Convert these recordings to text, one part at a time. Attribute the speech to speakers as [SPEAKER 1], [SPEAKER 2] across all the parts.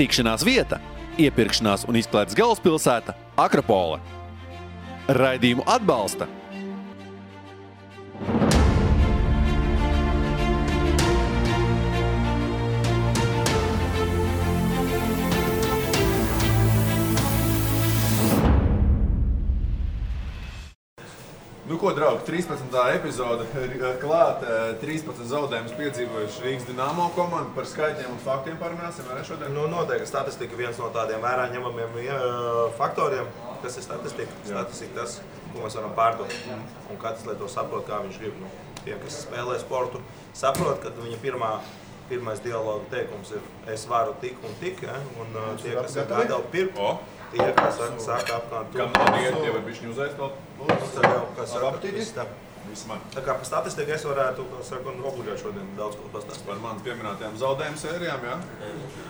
[SPEAKER 1] Tikšanās vieta, iepirkšanās un izklaides galvaspilsēta Akropole. Raidījumu atbalsta
[SPEAKER 2] Nu ko, draugi, 13. epizode klāt, 13 zaudējumus piedzīvojuši Rīgas Dinamo komanda. Par skaitļiem un faktiem parunāsim, vai ne šodien?
[SPEAKER 3] Nu, noteikti statistika viens no tādiem vērā ņemamiem faktoriem. Kas ir statistika? Statistika tas, ko mēs varam pārdot. Un katrs, lai to saprot, kā viņš grib. Nu, tie, kas spēlē sportu, saprot, ka viņa pirmais dialoga teikums ir es varu tik un tik, ja? Un tie, kas ir gatavi pirkt, tie, kas saka apkārt.
[SPEAKER 2] Kam nav dieti, tie var bišķiņu uzēst vēl?
[SPEAKER 3] Tā kā par statistiku es varētu obuļot šodien daudz ko pastāstīt.
[SPEAKER 2] Par manas pieminētajām zaudējumu sērijām, jā?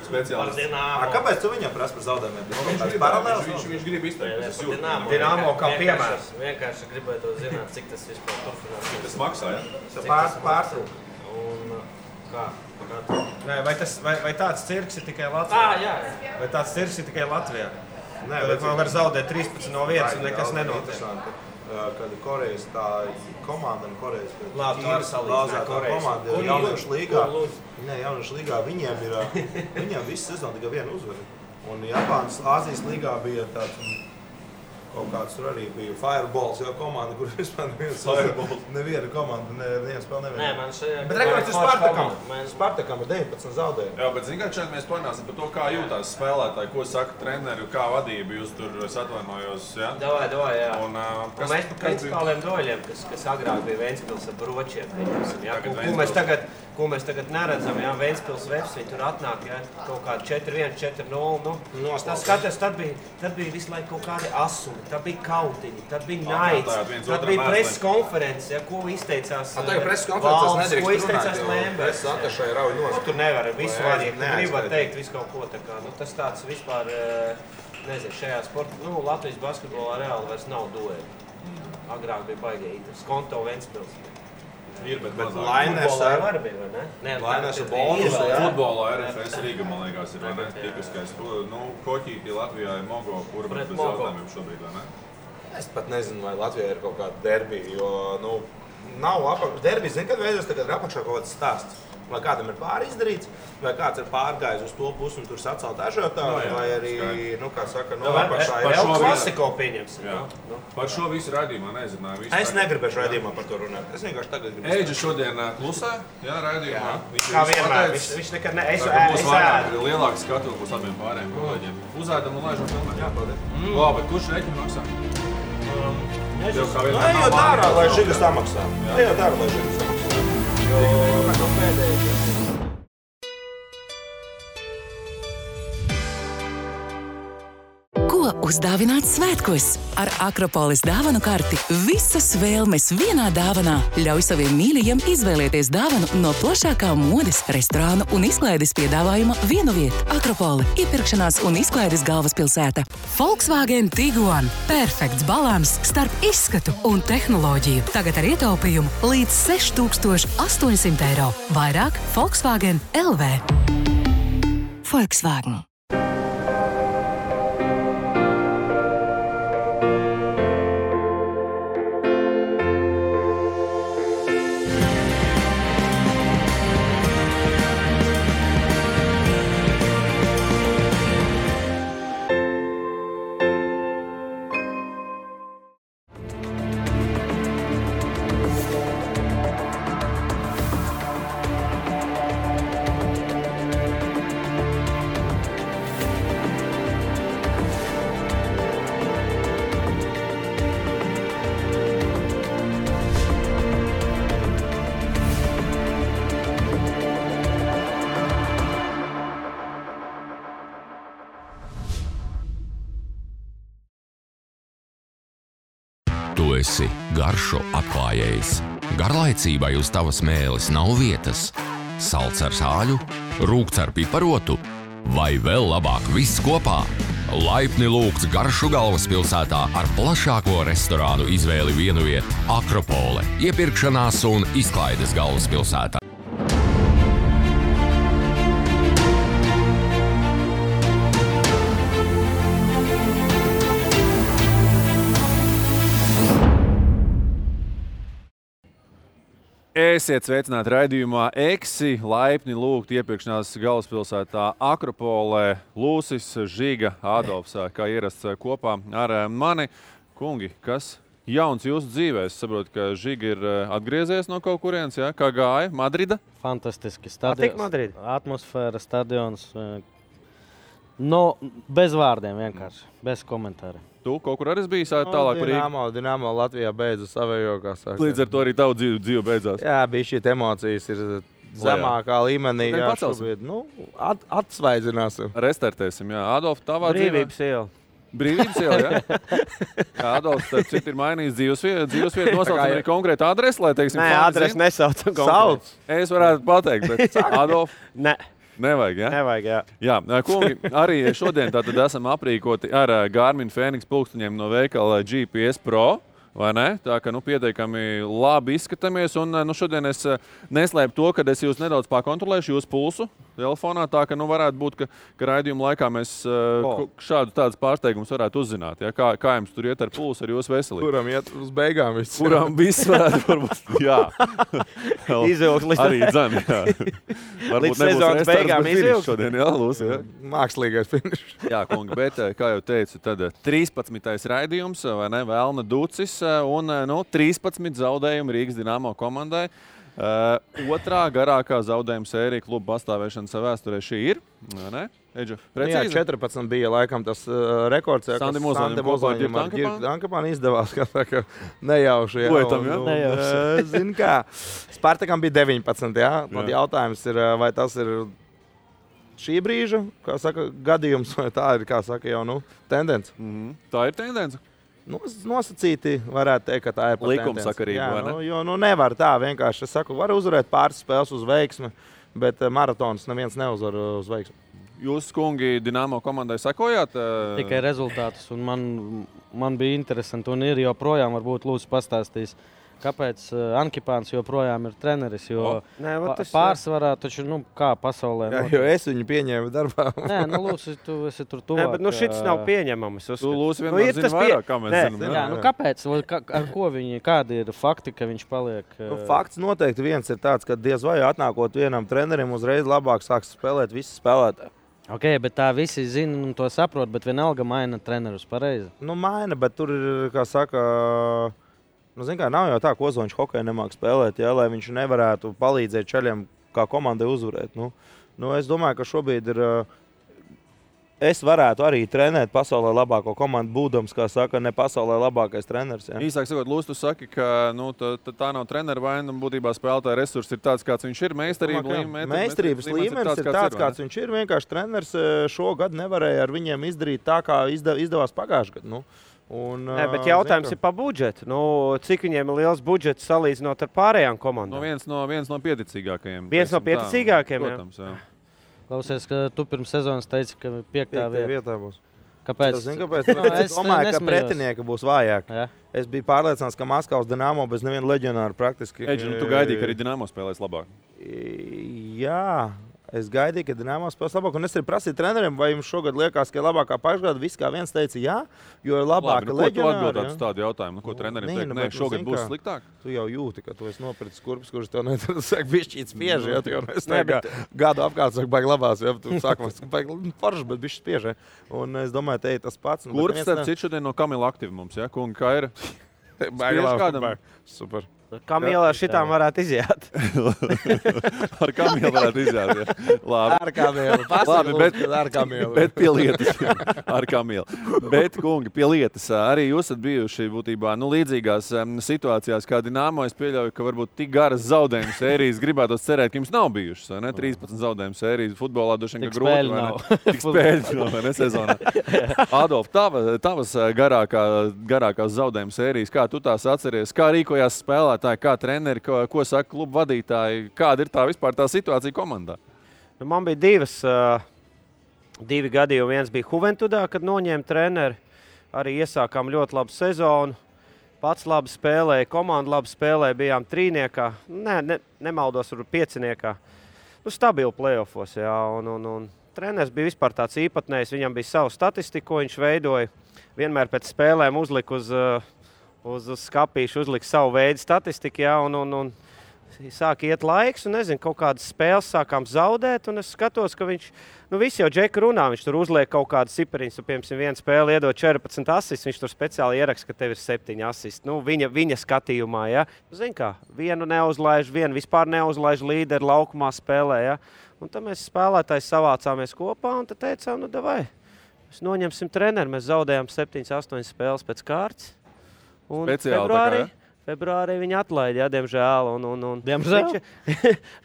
[SPEAKER 2] Speciālisti.
[SPEAKER 3] Kāpēc tu viņam prasa par zaudējumiem?
[SPEAKER 2] Viņš grib izteikt.
[SPEAKER 4] Dinamo kā piemērs. Vienkārši gribētu zināt, cik tas vispār turpinās.
[SPEAKER 2] Cik tas maksā, jā?
[SPEAKER 3] Pārtrūk.
[SPEAKER 4] Un kā?
[SPEAKER 5] Vai tāds cirks ir tikai Latvijā?
[SPEAKER 4] Jā.
[SPEAKER 5] Vai tāds cirks ir tikai Latvijā?
[SPEAKER 3] Nē,
[SPEAKER 5] bet man var zaudēt 13 no vietas un nekas nenotiek.
[SPEAKER 3] Kad Korejas tā komanda un Korejas
[SPEAKER 4] komanda
[SPEAKER 3] ir jauniešu līgā, viņiem visu sezonu tikai vienu uzvaru. Un Japānas Āzijas līgā bija tāds kaut kāds tur arī bija Fireballs, jau komanda, kur vispār neviena komanda, neviena spēle neviena.
[SPEAKER 4] Nē, man šajā...
[SPEAKER 3] Bet rekords ir Spartakam. Spartakam ir 19 zaudējumi.
[SPEAKER 2] Jā, bet zin kā šeit mēs parunāsim par to, kā jūtās spēlētāji, ko saka treneri, kā vadība, jūs tur atvainojos, jā?
[SPEAKER 4] Davai, jā.
[SPEAKER 2] Un
[SPEAKER 4] mēs par principāliem doļiem, kas agrāk bija Ventspils ar bročiem, ko mēs tagad neredzam, jā, Ventspils Vefs, viņi tur atnāk, jā, kaut kādi 4-1, 4-0, nu, tas skatās, tad bija visu laiku kaut kādi asumi, tad bija kautiņi, tad bija naids, tad bija preses konferences, jā, ko izteicās valsts, ko izteicās Lembers. Tur nevar visu vadīt, tu gribat teikt visu kaut ko, tā kā, nu, tas tāds vispār, nezinu, šajā sportā, nu, Latvijas basketbolā reāli vairs nav dueli. Agrāk bija baigīgi, Skonto Ventspils.
[SPEAKER 2] Ir, bet
[SPEAKER 3] Lainers
[SPEAKER 4] ar
[SPEAKER 3] Lainers ar bonus.
[SPEAKER 2] Futbolā RFS Rīga, man liekas, ir, vai ne? Tipiskais. Nu, Koķīti Latvijā ir Mogo, kur bet bez jautājumiem šobrīd, vai ne?
[SPEAKER 3] Es pat nezinu, vai Latvijā ir kaut kāda derbi, jo, nu, nav apakšā. Derbi, zin, kad veidos tagad ir apakšā kaut kāds stāsts. Vai kādam ir pāri izdarīts, vai kāds ir pārgājis uz to pusi un tur sacelt ažiotāju, vai arī, nu, kā saka, no apakšā ir
[SPEAKER 4] vēl klasiko pieņemsim.
[SPEAKER 2] Par šo visu raidījumā nezināju.
[SPEAKER 3] Es negribēšu raidījumā par to runāt. Es vienkārši tagad gribu.
[SPEAKER 2] Eidža šodien klusē, jā, raidījumā.
[SPEAKER 5] Kā vienmēr, viņš nekad ne... Es
[SPEAKER 2] ēdu. Lielāks skatu būs abiem pārējiem kolēģiem. Uzēdam un laižam filmēt. Jā, paldies. Labi, kurš reķinu maksā?
[SPEAKER 3] Ejot ārā, lai Žigas samaksā. Ejot ārā, lai Žigas samaksā.
[SPEAKER 6] Ko uzdāvināt svētkos? Ar Akropoles dāvanu karti visas vēlmes vienā dāvanā. Ļauj saviem mīļajiem izvēlēties dāvanu no plašākā modes, restorānu un izklaides piedāvājuma vienu vietu. Akropole – iepirkšanās un izklaides galvaspilsēta. Volkswagen Tiguan – perfekts balans starp izskatu un tehnoloģiju. Tagad ar ietaupījumu līdz 6800 eiro. Vairāk Volkswagen LV. Volkswagen.
[SPEAKER 7] Tu esi garšo atklājējs. Garlaicībai uz tavas mēles nav vietas. Salds ar sāļu, rūkts ar piparotu vai vēl labāk viss kopā. Laipni lūgts garšu galvaspilsētā ar plašāko restorānu izvēli vienu vietu Akropole, iepirkšanās un izklaides galvaspilsētā.
[SPEAKER 1] Esiet sveicināti raidījumā Eksi, laipni lūgt iepirkšanās galvaspilsētā Akropolē. Lūsis, Žiga, Adolfs, kā ierasts kopā ar mani. Kungi, kas jauns jūsu dzīvē? Es saprotu, ka Žiga ir atgriezies no kaut kurienes, ja? Kā gāja? Madrida?
[SPEAKER 8] Fantastiski.
[SPEAKER 4] Patīk Madrida?
[SPEAKER 8] Atmosfēra, stadions. Bez vārdiem vienkārši, bez komentāra.
[SPEAKER 1] Tu kaut kur arī biji tālāk par Rīgu?
[SPEAKER 9] Dinamo Latvijā beidza savējo, kā saka.
[SPEAKER 1] Līdz ar to arī tavu dzīve beidzās.
[SPEAKER 9] Jā, bija šī emocijas ir zemākā līmenī. Jā, šobrīd, atsvaidzināsim.
[SPEAKER 1] Restartēsim, jā. Adolf, tavā
[SPEAKER 4] Brīvības iela.
[SPEAKER 1] Brīvības iela, jā? Jā, Adolfs, starp citu, ir mainījis dzīvesvietu, nosaucam arī konkrētu adresi, lai, teiksim,
[SPEAKER 4] Nē, adresi nesaucam
[SPEAKER 9] konkrētu.
[SPEAKER 1] Es varētu pateikt, bet Adolf...
[SPEAKER 4] Ne.
[SPEAKER 1] Nevajag, ja?
[SPEAKER 4] Nevajag, jā.
[SPEAKER 1] Jā, kungi, arī šodien tātad esam aprīkoti ar Garmin Fenix pulksteņiem no veikala GPS Pro, vai ne? Tā ka, pietiekami labi izskatāmies, un šodien es neslēpu to, ka es jūs nedaudz pakontrolēšu jūsu pulsu telefonā, tā ka, varētu būt, ka raidījuma laikā mēs šādu tādus pārsteigumus varētu uzzināt, ja? Kā jums tur iet ar pulsu, ar jūsu veselību?
[SPEAKER 9] Kuram iet uz beigām viss?
[SPEAKER 1] Kuram viss varētu, varbūt, jā.
[SPEAKER 4] Izvilkt līdz...
[SPEAKER 1] Arī dzem, jā.
[SPEAKER 4] Līdz sezonas beigām izvilkt.
[SPEAKER 1] Šodien, jā, Lūsi, jā.
[SPEAKER 9] Mākslīgais finišs.
[SPEAKER 1] Jā, kungi, bet, kā jau teicu, tad 13. raidījums, vai ne, Velna Ducis, un 13 zaudējumi Rīgas Dinamo komandai. Otrā garākā zaudējuma sērija kluba pastāvēšanas vēsturē šī ir. Ne? Eģa,
[SPEAKER 9] jā, 14 bija laikam tas rekords.
[SPEAKER 1] Sandi Mozoņam
[SPEAKER 9] ar Girku Dankapānu izdevās, ka nejauši.
[SPEAKER 1] Lietam, jā?
[SPEAKER 9] Nejauši. Zini kā, Spartakam bija 19, jā? Tad jautājums ir, vai tas ir šī brīža, kā saka, gadījums, vai tā ir, kā saka, jau tendence?
[SPEAKER 1] Tā ir tendence.
[SPEAKER 9] Nosacīti varētu teikt, ka tā ir
[SPEAKER 1] likumsakarība, vai ne?
[SPEAKER 9] Jo nevar tā vienkārši. Es saku, var uzvarēt pāris spēles uz veiksmi, bet maratons neviens neuzvar uz veiksmi.
[SPEAKER 1] Jūs, kungi, Dinamo komandai sekojāt?
[SPEAKER 8] Tikai rezultātus, un man bija interesanti, un ir joprojām varbūt Lūsis pastāstīs, kāpēc Ankipāns joprojām ir treneris, jo pārsvarā taču, kā pasaulē.
[SPEAKER 9] Jā, jo es viņu pieņēmu darbā.
[SPEAKER 8] Nē, Lūsis, tu esi tur tuvāk.
[SPEAKER 4] Nē, bet šits nav pieņemams.
[SPEAKER 1] Tu, Lūsis, vienmēr zini vairāk, kā mēs zinām.
[SPEAKER 8] Jā, kāpēc? Ar ko kādi ir fakti, ka viņš paliek?
[SPEAKER 9] Fakts noteikti viens ir tāds, ka diez vai atnākot vienam trenerim uzreiz labāk sāks spēlēt visi spēlētāji.
[SPEAKER 8] Ok, bet tā visi zina un to saprot, bet vienalga maina trenerus pareizi.
[SPEAKER 9] Maina, bet tur ir, kā saka... nav jau tā, ka Ozoņš hokeju nemāk spēlēt, ja, lai viņš nevarētu palīdzēt čaļiem kā komandai uzvarēt. Es domāju, ka šobrīd ir... Es varētu arī trenēt pasaulē labāko komandu, būdams, kā saka, ne pasaulē labākais treneris. Ja.
[SPEAKER 1] Īsāk sakot, Lūs, tu saki, ka tā nav trenera vaina, un būtībā spēlētāja resursi ir tāds, kāds viņš ir.
[SPEAKER 9] Meistarības līmenis ir tāds, kāds viņš ir. Vienkārši treneris šogad nevarēja ar viņiem izdarīt tā, kā izdevās pagājušajā gadā.
[SPEAKER 4] Nē, bet jautājums ir par budžetu. Cik viņiem ir liels budžets salīdzinot ar pārējām komandām?
[SPEAKER 1] Viens no pieticīgākajiem.
[SPEAKER 4] Viens no pieticīgākajiem,
[SPEAKER 1] protams, jā.
[SPEAKER 8] Klausies, ka tu pirms sezonas teici, ka 5.
[SPEAKER 9] vietā būs.
[SPEAKER 8] Kāpēc?
[SPEAKER 9] Es domāju, ka pretinieki būs vājāki. Ja? Es biju pārliecināts, ka Maskavas Dinamo bez neviena leģionāra praktiski...
[SPEAKER 1] Eģi, tu gaidīji, ka arī Dinamo spēlēs labāk?
[SPEAKER 9] Jā. Es gaidīju, ka Dinamo spēlēs labāk, un es arī prasīju treneriem, vai jums šogad liekas, ka ir labākā pagājušajā gadā. Viss kā viens teica, jā, jo ir labāka leģionāra.
[SPEAKER 1] Ko tu atbildētu uz tādu jautājumu? Ko trenerim teikt? Nē, šogad būs sliktāk?
[SPEAKER 9] Tu jau jūti, ka tu esi nopircis kurpes, kurš tev saka, bišķīt spieži, ja tu jau gadu apkārt saka, baigi labās, ja tu sākumā baigi forši, bet bišķi spieži. Un es domāju, te ir tas pats.
[SPEAKER 1] Kurps, starp citu, šodien no Kamila aktīvi mums, ja? Kungi, kā ir?
[SPEAKER 9] Baigi labi. Super.
[SPEAKER 4] Kamilā šitām varētu iziet.
[SPEAKER 1] Ar Kamilu varētu iziet. Ja. Labi.
[SPEAKER 9] Ar Kamilu.
[SPEAKER 1] Labi, bet pie lietas. Ar Kamilu. Bet, kungi, pie lietas. Arī jūs esat bijuši būtībā līdzīgās situācijās kā Dinamo. Es pieļauju, ka varbūt tik garas zaudējumu sērijas gribētos cerēt, ka jums nav bijušas. Ne? 13 zaudējumu sērijas futbolā droši vien, ka grūti. Tik spēļi nav, vai ne sezonā. Adolf, tavas garākās zaudējumu sērijas, kā tu tās atceries, kā rīkojās spēlēt? Kā treneri, ko saka kluba vadītāji, kāda ir tā situācija komandā?
[SPEAKER 4] Man bija divi gadījumi. Viens bija Juventudā, kad noņēma treneri. Arī iesākām ļoti labu sezonu. Pats labi spēlēja, komanda labi spēlēja, bijām trīniekā. Nemaldos, varbūt pieciniekā. Stabili playoffos, jā. Un treneris bija vispār tāds īpatnējs. Viņam bija savu statistiku, ko viņš veidoja. Vienmēr pēc spēlēm uzlika uz skapīšu, uzlika savu veidu statistiku, jā, un sāk iet laiks, un nezinu, kaut kādas spēles sākām zaudēt, un es skatos, ka viņš, visi jau Džeka runā, viņš tur uzliek kaut kādas cipariņas, piemēram, viena spēle iedod 14 asists, viņš tur speciāli ieraksta, ka tev ir 7 asists. Viņa skatījumā, ja. Zini kā, vienu neuzlaiž, vienu vispār neuzlaiž līderi laukumā spēlē, ja. Un tad mēs spēlētāji savācāmies kopā, un tad teicām, davai, mēs noņemsim treneru, mēs zaudējām 7-8 spēles pēc kārtas. Un februārī viņi atlaida, diemžēl.
[SPEAKER 8] Diemžēl?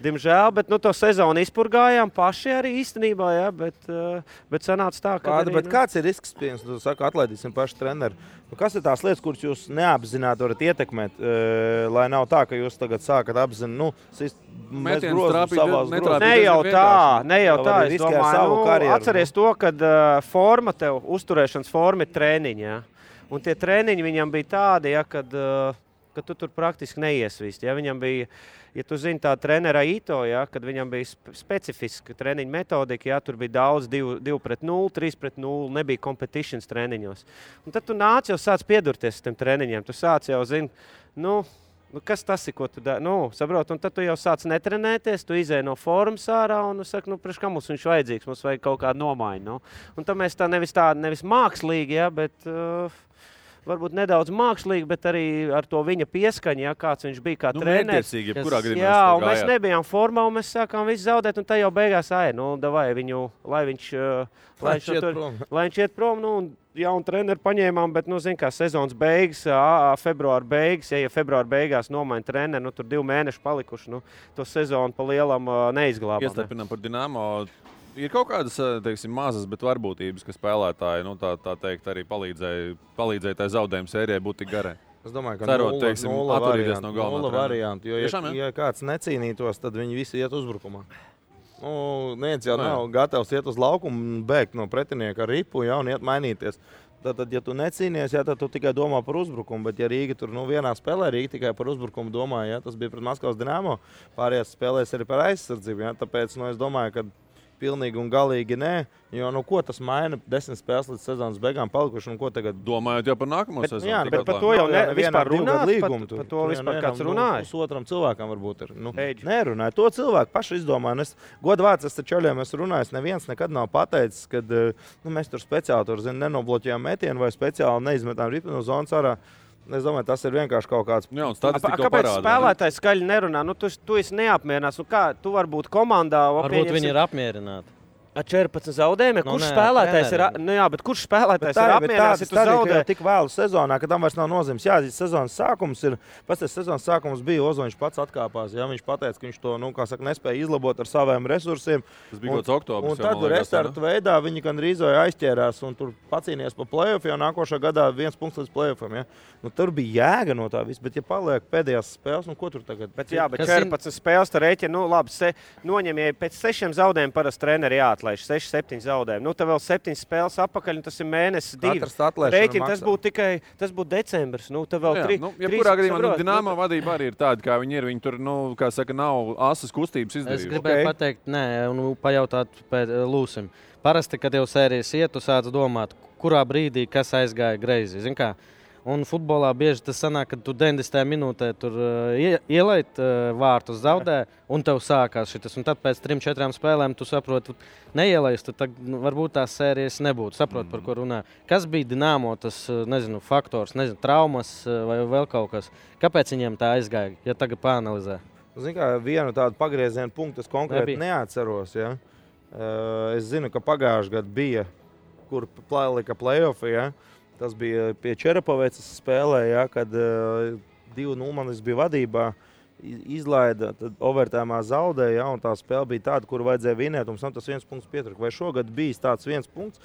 [SPEAKER 4] Diemžēl, bet to sezonu izpurgājām paši arī īstenībā, bet sanāca tā, ka...
[SPEAKER 9] Bet kāds ir risks, pieņems, tu saki, atlaidīsim paši treneri? Kas ir tās lietas, kuras jūs neapzināti varat ietekmēt, lai nav tā, ka jūs tagad sākat apzināt,
[SPEAKER 1] mēs grozam savās grozām?
[SPEAKER 4] Ne jau tā, es domāju, atceries to, kad uzturēšanas forma ir trēniņi, ja? Un tie trēniņi viņam bija tādi, ja, kad tu tur praktiski neiesvīst. Ja? Viņam bija, ja tu zini tā trenera Ito, ja, kad viņam bija specifiska treniņa metodika, ja, tur bija daudz 2-0, 3-0, nebija competitions treniņos. Un tad tu nāc jau sāc piedurties tiem treniņiem, tu sāc jau zini, kas tas ir, ko tu dari? Saprot, un tad tu jau sāc netrenēties, tu izēj no formas ārā un saki, priekš kā mums viņš vajadzīgs, mums vajag kaut kādu nomaiņu. Un tad mēs tā nevis mākslīgi, ja, bet varbūt nedaudz mākslīgi, bet arī ar to viņa pieskaņu, ja, kāds viņš bija kā treneris. Jā, un mēs nebijām formā, un mēs sākām visu zaudēt, un tā jau beigās davai viņu, lai viņš iet prom, un jaunu treneri paņēmām, bet, zin kā, sezonas beigas, februāra beigas, ja februāra beigās nomaina treneri, tur 2 mēneši palikuši, to sezonu pa lielam neizglābām.
[SPEAKER 1] Iestarpinām par Dinamo. Ir kaut kādas, teiksim, mazas, bet varbūtības, ka spēlētāji, tā teikt, arī palīdzēja tai zaudējuma sērijai būt tik garai.
[SPEAKER 9] Es domāju, ka nulle variantu, jo, ja kāds necīnītos, tad viņi visi iet uzbrukumā. Neviens jau nav gatavs iet uz laukumu un bēgt no pretinieka ar ripu, ja, un iet mainīties. Tad, ja tu necīnies, ja, tad tu tikai domā par uzbrukumu, bet ja Rīga tur vienā spēlē, Rīga tikai par uzbrukumu domā, ja, tas bija pret Maskavas Dinamo, pārējās spēlēs arī par aizsardzību, ja, tāpēc, es domāju, ka pilnīgi un galīgi nē, jo ko tas maina 10 spēles līdz sezonas beigām palikuši un ko tagad?
[SPEAKER 1] Domājot jau par nākamo sezonu.
[SPEAKER 4] Jā, bet par to jau vispār runāt, par to vispār kāds runāja.
[SPEAKER 9] Pusotram cilvēkam varbūt ir. Nerunāja, to cilvēku paši izdomāja. Godvārds, es taču aļiem esmu runājis, neviens nekad nav pateicis, kad mēs tur speciāli tur, nenobloķējām metienu vai speciāli neizmetām ripu no zonas ārā. Es domāju, tas ir vienkārši kaut kāds...
[SPEAKER 1] Jā,
[SPEAKER 4] kāpēc spēlētājs skaļi nerunā? Tu esi neapmierinās. Kā tu vari būt komandā?
[SPEAKER 8] Varbūt viņi ir apmierināti.
[SPEAKER 4] Ar 14 zaudējumiem, kurš spēlētājs ir, bet kurš spēlētājs ir apmierināts, ja tu zaudē?
[SPEAKER 9] Tik vēlu sezonā, ka tam vairs nav nozīmes. Jā, sezonas sākums ir, sezonas sākums bija Ozoņš pats atkāpās, ja viņš pateica, ka viņš to, nespēja izlabot ar saviem resursiem.
[SPEAKER 1] Tas bija kaut oktobris.
[SPEAKER 9] Un tad restartu veidā viņi gandrīz aizķērās un tur pacīnījās pa play-off, jo nākošā gadā 1 punkts līdz play-offam, ja. Tur bija jēga no tā viss, bet ja paliek pēdējās spēles, ko tur tagad?
[SPEAKER 4] Bet 14 spēles tā rēķina, labi, noņem, ja pēc 6 zaudējumiem parasti treneri jāatlaiž, 6-7 zaudējumi. Tev vēl 7 spēles apakaļ, un tas ir mēnesis 2. Rēķina, tas būtu decembris. Tev vēl 3.
[SPEAKER 1] Jebkurā gadījumā Dinamo vadība arī ir tāda, kā viņi ir. Viņi tur, kā saka, nav asas kustības izdarījuši.
[SPEAKER 8] Es gribēju pateikt, un pajautāt Lūsim. Parasti, kad jau sērijas iet, tu sāc domāt, kurā brīdī kas aizgāja greizi. Zin kā? Un futbolā bieži tas sanāk, ka tu 90. minūtē tur ielait vārtus, zaudē, un tev sākās šitas. Un tad pēc 3-4 spēlēm tu saproti, neielaist, tad varbūt tās sērijas nebūtu. Saproti, par ko runā. Kas bija Dinamo tas, faktors, traumas vai vēl kaut kas? Kāpēc viņiem tā aizgāja, ja tagad pāanalizē?
[SPEAKER 9] Zini kā, vienu tādu pagriezienu punktu es konkrēti neatceros. Ja? Es zinu, ka pagājušajā gadā bija, kur lika play-offi, ja? Tas bija pie Čerapavecas spēlē, ja, kad 2-0 manis bija vadībā, izlaida, tad overtājumā zaudēja, ja, un tā spēle bija tāda, kur vajadzēja vinēt, un tas 1 punkts pietrūka. Vai šogad bijis tāds 1 punkts?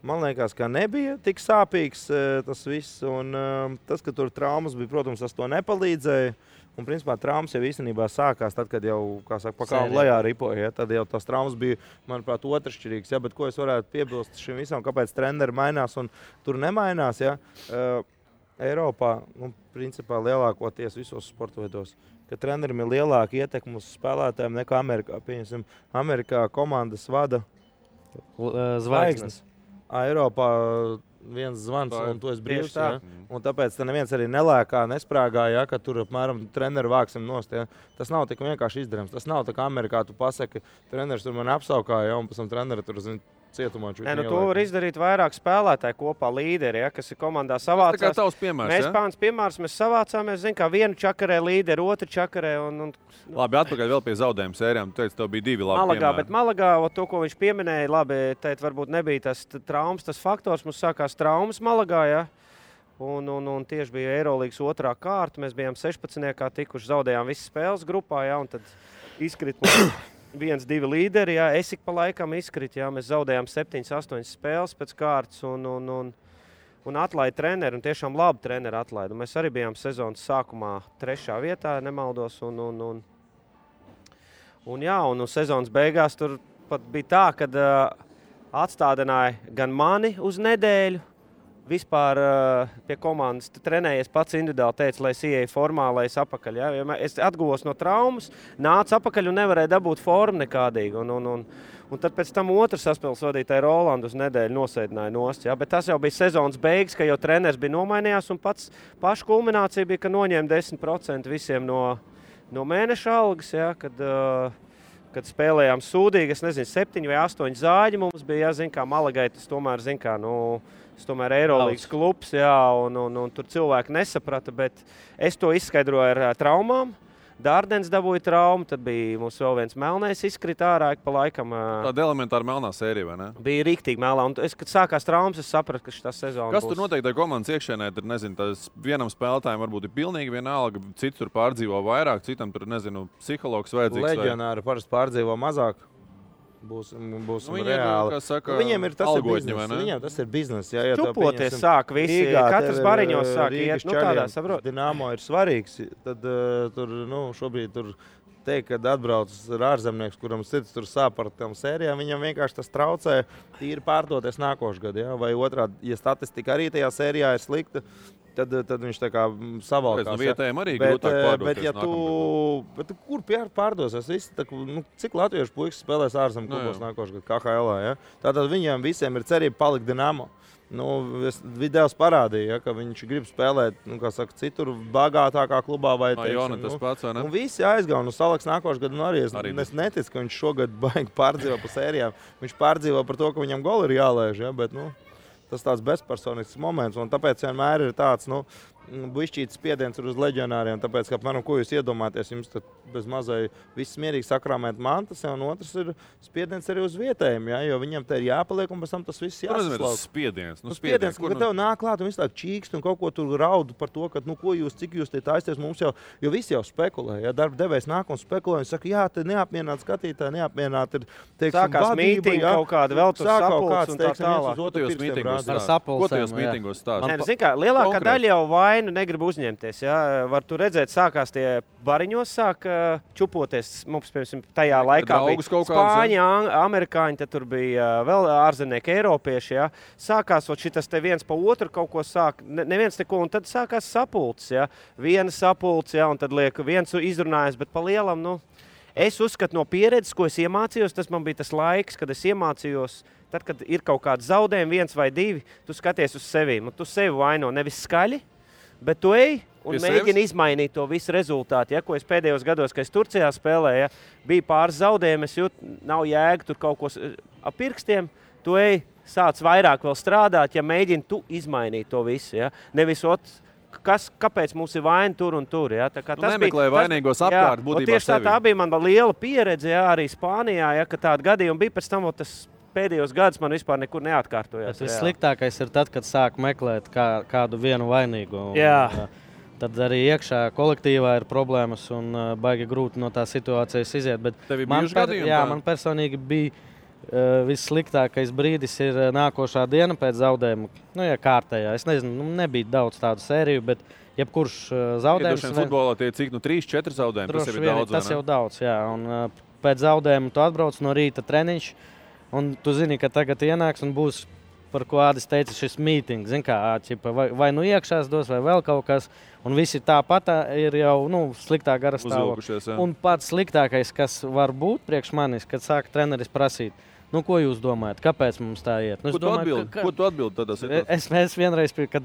[SPEAKER 9] Man liekas, ka nebija tik sāpīgs tas viss, un tas, ka tur traumas bija, protams, tas to nepalīdzēja. Un, principā, traumas jau īstenībā sākās tad, kad jau, kā saka, pa kalnu lejā ripoja. Ja? Tad jau tās traumas bija, manuprāt, otršķirīgas. Ja? Bet ko es varētu piebilst šim visam, kāpēc treneri mainās un tur nemainās? Ja? Eiropā, principā, lielākoties visos sporta veidos, ka treneriem ir lielāka ietekme uz spēlētājiem nekā Amerikā. Pieņemsim, Amerikā komandas vada
[SPEAKER 8] zvaigznes.
[SPEAKER 9] Eiropā viens zvans, un tu esi brīvs. Ja? Un tāpēc neviens arī nelēkā, nesprāgā, ja, ka tur apmēram treneru vāksim nost. Ja? Tas nav tik vienkārši izdarams. Tas nav tā kā Amerikā tu pasaki, treneris tur man apsaukāja, ja, un pēc tam treneri tur cietumā.
[SPEAKER 4] To var izdarīt vairāk spēlētāji kopā, līderi, ja, kas ir komandā savācās.
[SPEAKER 1] Tas tā kā tavs piemērs,
[SPEAKER 4] mēs pāns piemērs, mēs savācāmies, kā vienu čakarē līderi, otru čakarē.
[SPEAKER 1] Labi, atpakaļ vēl pie zaudējumu sērijām. Tu teici, tev bija 2 labi
[SPEAKER 4] Malagā,
[SPEAKER 1] piemēri.
[SPEAKER 4] Bet Malagā, to, ko viņš pieminēja, labi, teikt, varbūt nebija tas traumas, tas faktors. Mums sākās traumas Malagā, ja. Un tieši bija Eirolīgas 2. kārta. Mēs bijām 16. tikuši, zaudējām visas spēles grupā, ja, un tad izkrit 1-2 līderi, jā, es ik pa laikam izkrita, jā, mēs zaudējām 7-8 spēles pēc kārtas un atlaida treneri, un tiešām labi treneri atlaida. Mēs arī bijām sezonas sākumā 3. vietā, nemaldos, un sezonas beigās tur pat bija tā, kad atstādināja gan mani uz nedēļu, vispār pie komandas trenējies pats individuāli, teica, lai es ieeju formā, lai es apakaļ. Ja? Es atguvos no traumas, nācu apakaļ un nevarēju dabūt formu nekādīgi. Un tad pēc tam otrs saspēles vadītāja Rolandu uz nedēļu nosēdināja nost. Ja? Bet tas jau bija sezonas beigas, ka jau treneris bija nomainījās un paša kulminācija bija, ka noņēma 10% visiem no mēneša algas, ja? Kad spēlējām sūdīgi, es nezinu, 7 vai 8 zāļi mums bija, ja, kā Malagai, tas tomēr, tas tomēr Eirolīgas klubs, jā, un tur cilvēki nesaprata, bet es to izskaidroju ar traumām. Dārdens dabūja traumu, tad bija mums vēl viens melnais izkrita ārā, pa laikam.
[SPEAKER 1] Tāda elementāra melnā sērija, vai ne?
[SPEAKER 4] Bija riktīgi melnā, un kad sākās traumas, es sapratu, ka šitā sezona
[SPEAKER 1] būs. Kas tur noteikti ar komandas iekšēnē? Tur, nezinu, tas vienam spēlētājiem varbūt ir pilnīgi vienalga, cits tur pārdzīvo vairāk, citam tur, nezinu, psihologs vajadzīgs.
[SPEAKER 9] Leģionāri parasti pārdzīvo mazāk. Būsim reāli. Viņiem ir tas biznes. Viņiem tas ir biznes. Ja
[SPEAKER 4] čupoties sāk visi. Katrs bariņos sāk iet. Tādā saprot.
[SPEAKER 9] Dinamo ir svarīgs. Tad tur, šobrīd tur teikt, kad atbrauc ārzemnieks, kuram sirds tur sāp par tām sērijām, viņam vienkārši tas traucē tīri pārdoties nākošu gadu. Ja? Vai otrādi, ja statistika arī tajā sērijā ir slikta, tad viņš tā kā savalkās.
[SPEAKER 1] No vietējiem arī grūtāk pārdoties
[SPEAKER 9] bet kur pārdosies? Cik latviešu puikas spēlēs ārzem klubos nākošu gadu KHL? Ja? Tātad viņiem visiem ir cerība palikt Dinamo. Videos parādīja, ka viņš grib spēlēt citur bagātākā klubā. Visi aizgāja. Salaks nākošu gadu arī. Es neticu, ka viņš šogad baigi pārdzīvo pa sērijām. Viņš pārdzīvo par to, ka viņam goli ir jālēž. Ja? Bet, tas tāds bezpersonisks moments. Un tāpēc vienmēr ir tāds bišķīts spiediens uz leģionāriem. Tāpēc, ka, ko jūs iedomāties, jums bez mazai viss mierīgi sakrāmēt mantas, un otrs ir spiediens arī uz vietējiem, ja? Jo viņam te ir jāpaliek, un pēc tam tas viss jāsaslauk.
[SPEAKER 1] Spiediens,
[SPEAKER 9] ka tev nāk klāt un visu tā čīkst un kaut ko tur raudu par to, ka, cik jūs te taisties, mums jau, jo visi jau spekulē, ja darba devējs nāk un spekulē, un saka, jā, te neapmierināt skatītāji, neapmierināt ir, teiksim,
[SPEAKER 4] sākās mītingi, ja? Kaut kāda vēl tur sapulcs un tā tālāk.
[SPEAKER 1] Ko tajos mītingos stāst?
[SPEAKER 4] Lielākā daļa jau vainu negrib uzņemties. Ja? Var tu redzēt, sākās tie bariņos, sāk čupoties. Mums, piemēram, tajā laikā bija Spāņi, amerikāņi, tad tur bija vēl ārzemnieki, eiropieši. Ja? Sākās šitas te viens pa otru kaut ko sāk, neviens neko, un tad sākās sapulces. Ja? Viena sapulce, ja? Un tad liek viens izrunājas, bet pa lielam, es uzskatu no pieredzes, ko es iemācījos, tas man bija tas laiks, kad es iemācījos. Tad, kad ir kaut kāds zaudējumi, 1 vai 2, tu skaties uz sevīm, un tu sevi vaino nevis skaļi, bet tu ej un mēģini izmainīt to visu rezultātu. Ja, ko es pēdējos gados, kad es Turcijā spēlēju, bija pāris zaudējumi, es jūtu, nav jēga tur kaut ko ap pirkstiem, tu ej, sāc vairāk vēl strādāt, ja mēģini tu izmainīt to visu. Ja. Nevis kāpēc mums ir vaina tur un tur. Ja.
[SPEAKER 1] Nemeklē vainīgos apkārt būtībā
[SPEAKER 4] tieši tā bija man liela pieredze, ja, arī Spānijā, ja, ka tāda gadījuma bija pēc tam, tas pēdējos gadus man vispār nekur neatkārtojās.
[SPEAKER 8] Tas sliktākais ir tad, kad sāk meklēt kādu vienu vainīgo. Tad arī iekšā kolektīvā ir problēmas un baigi grūti no tā situācijas iziet. Bet man personīgi bija vissliktākais brīdis ir nākošā diena pēc zaudējuma. Kārtējā. Es nezinu, nebija daudz tādu sēriju, bet jebkurš zaudējums.
[SPEAKER 1] Futbolā tie cik 3-4 zaudējumi, tas jau ir daudz.
[SPEAKER 8] Tas jau daudz, jā. Un pēc zaudējuma tu atbrauc no rīta treniņš, un tu zini, ka tagad ienāks un būs, par ko Ādis teica, šis mītings. Zin kā, vai nu iekšās dos, vai vēl kaut kas. Un visi tāpat ir jau sliktā gara stāvokļa. Un pats sliktākais, kas var būt priekš manis, kad sāk treneris prasīt, Nu, ko jūs domājat? Kāpēc mums tā iet? Nu,
[SPEAKER 1] Ko tu atbildi tādā situācijā?
[SPEAKER 8] Es vienreiz, kad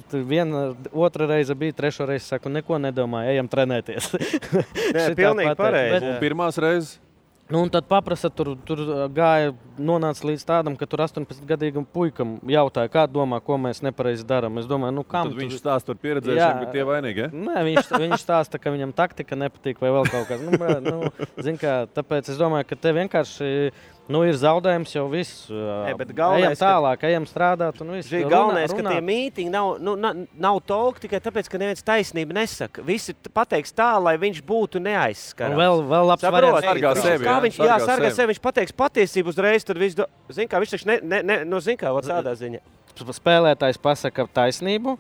[SPEAKER 8] otra reize bija, trešo reizi saku, neko nedomāju, ejam trenēties.
[SPEAKER 4] Nē, pilnīgi pareizi.
[SPEAKER 1] Un pirmās reizes?
[SPEAKER 8] Nu, un tad paprasa, tur gāja, nonāca līdz tādam, ka tur 18-gadīgam puikam jautāja, kā domā, ko mēs nepareizi darām. Es domāju, nu kam?
[SPEAKER 1] Tad viņš stāsta par pieredzējušiem, ka tie vainīgi, ja?
[SPEAKER 8] Nē, viņš stāsta, ka viņam taktika nepatīk vai vēl kaut kas. Zin kā, tāpēc es domāju, ka te vienkārši ir zaudējums jau viss. Ejam tālāk, ejam strādāt un viss.
[SPEAKER 4] Galvenais, ka tie mītiņi nav talk tikai tāpēc, ka neviens taisnību nesaka. Visi pateiks tā, lai viņš būtu neaizskarams.
[SPEAKER 8] Vēl labs variants.
[SPEAKER 1] Sargā sevi.
[SPEAKER 4] Sargā sevi, viņš pateiks patiesību uzreiz, tad viss, zin kā, viņš taču zin kā, tādā ziņa.
[SPEAKER 8] Spēlētājs pasaka taisnību.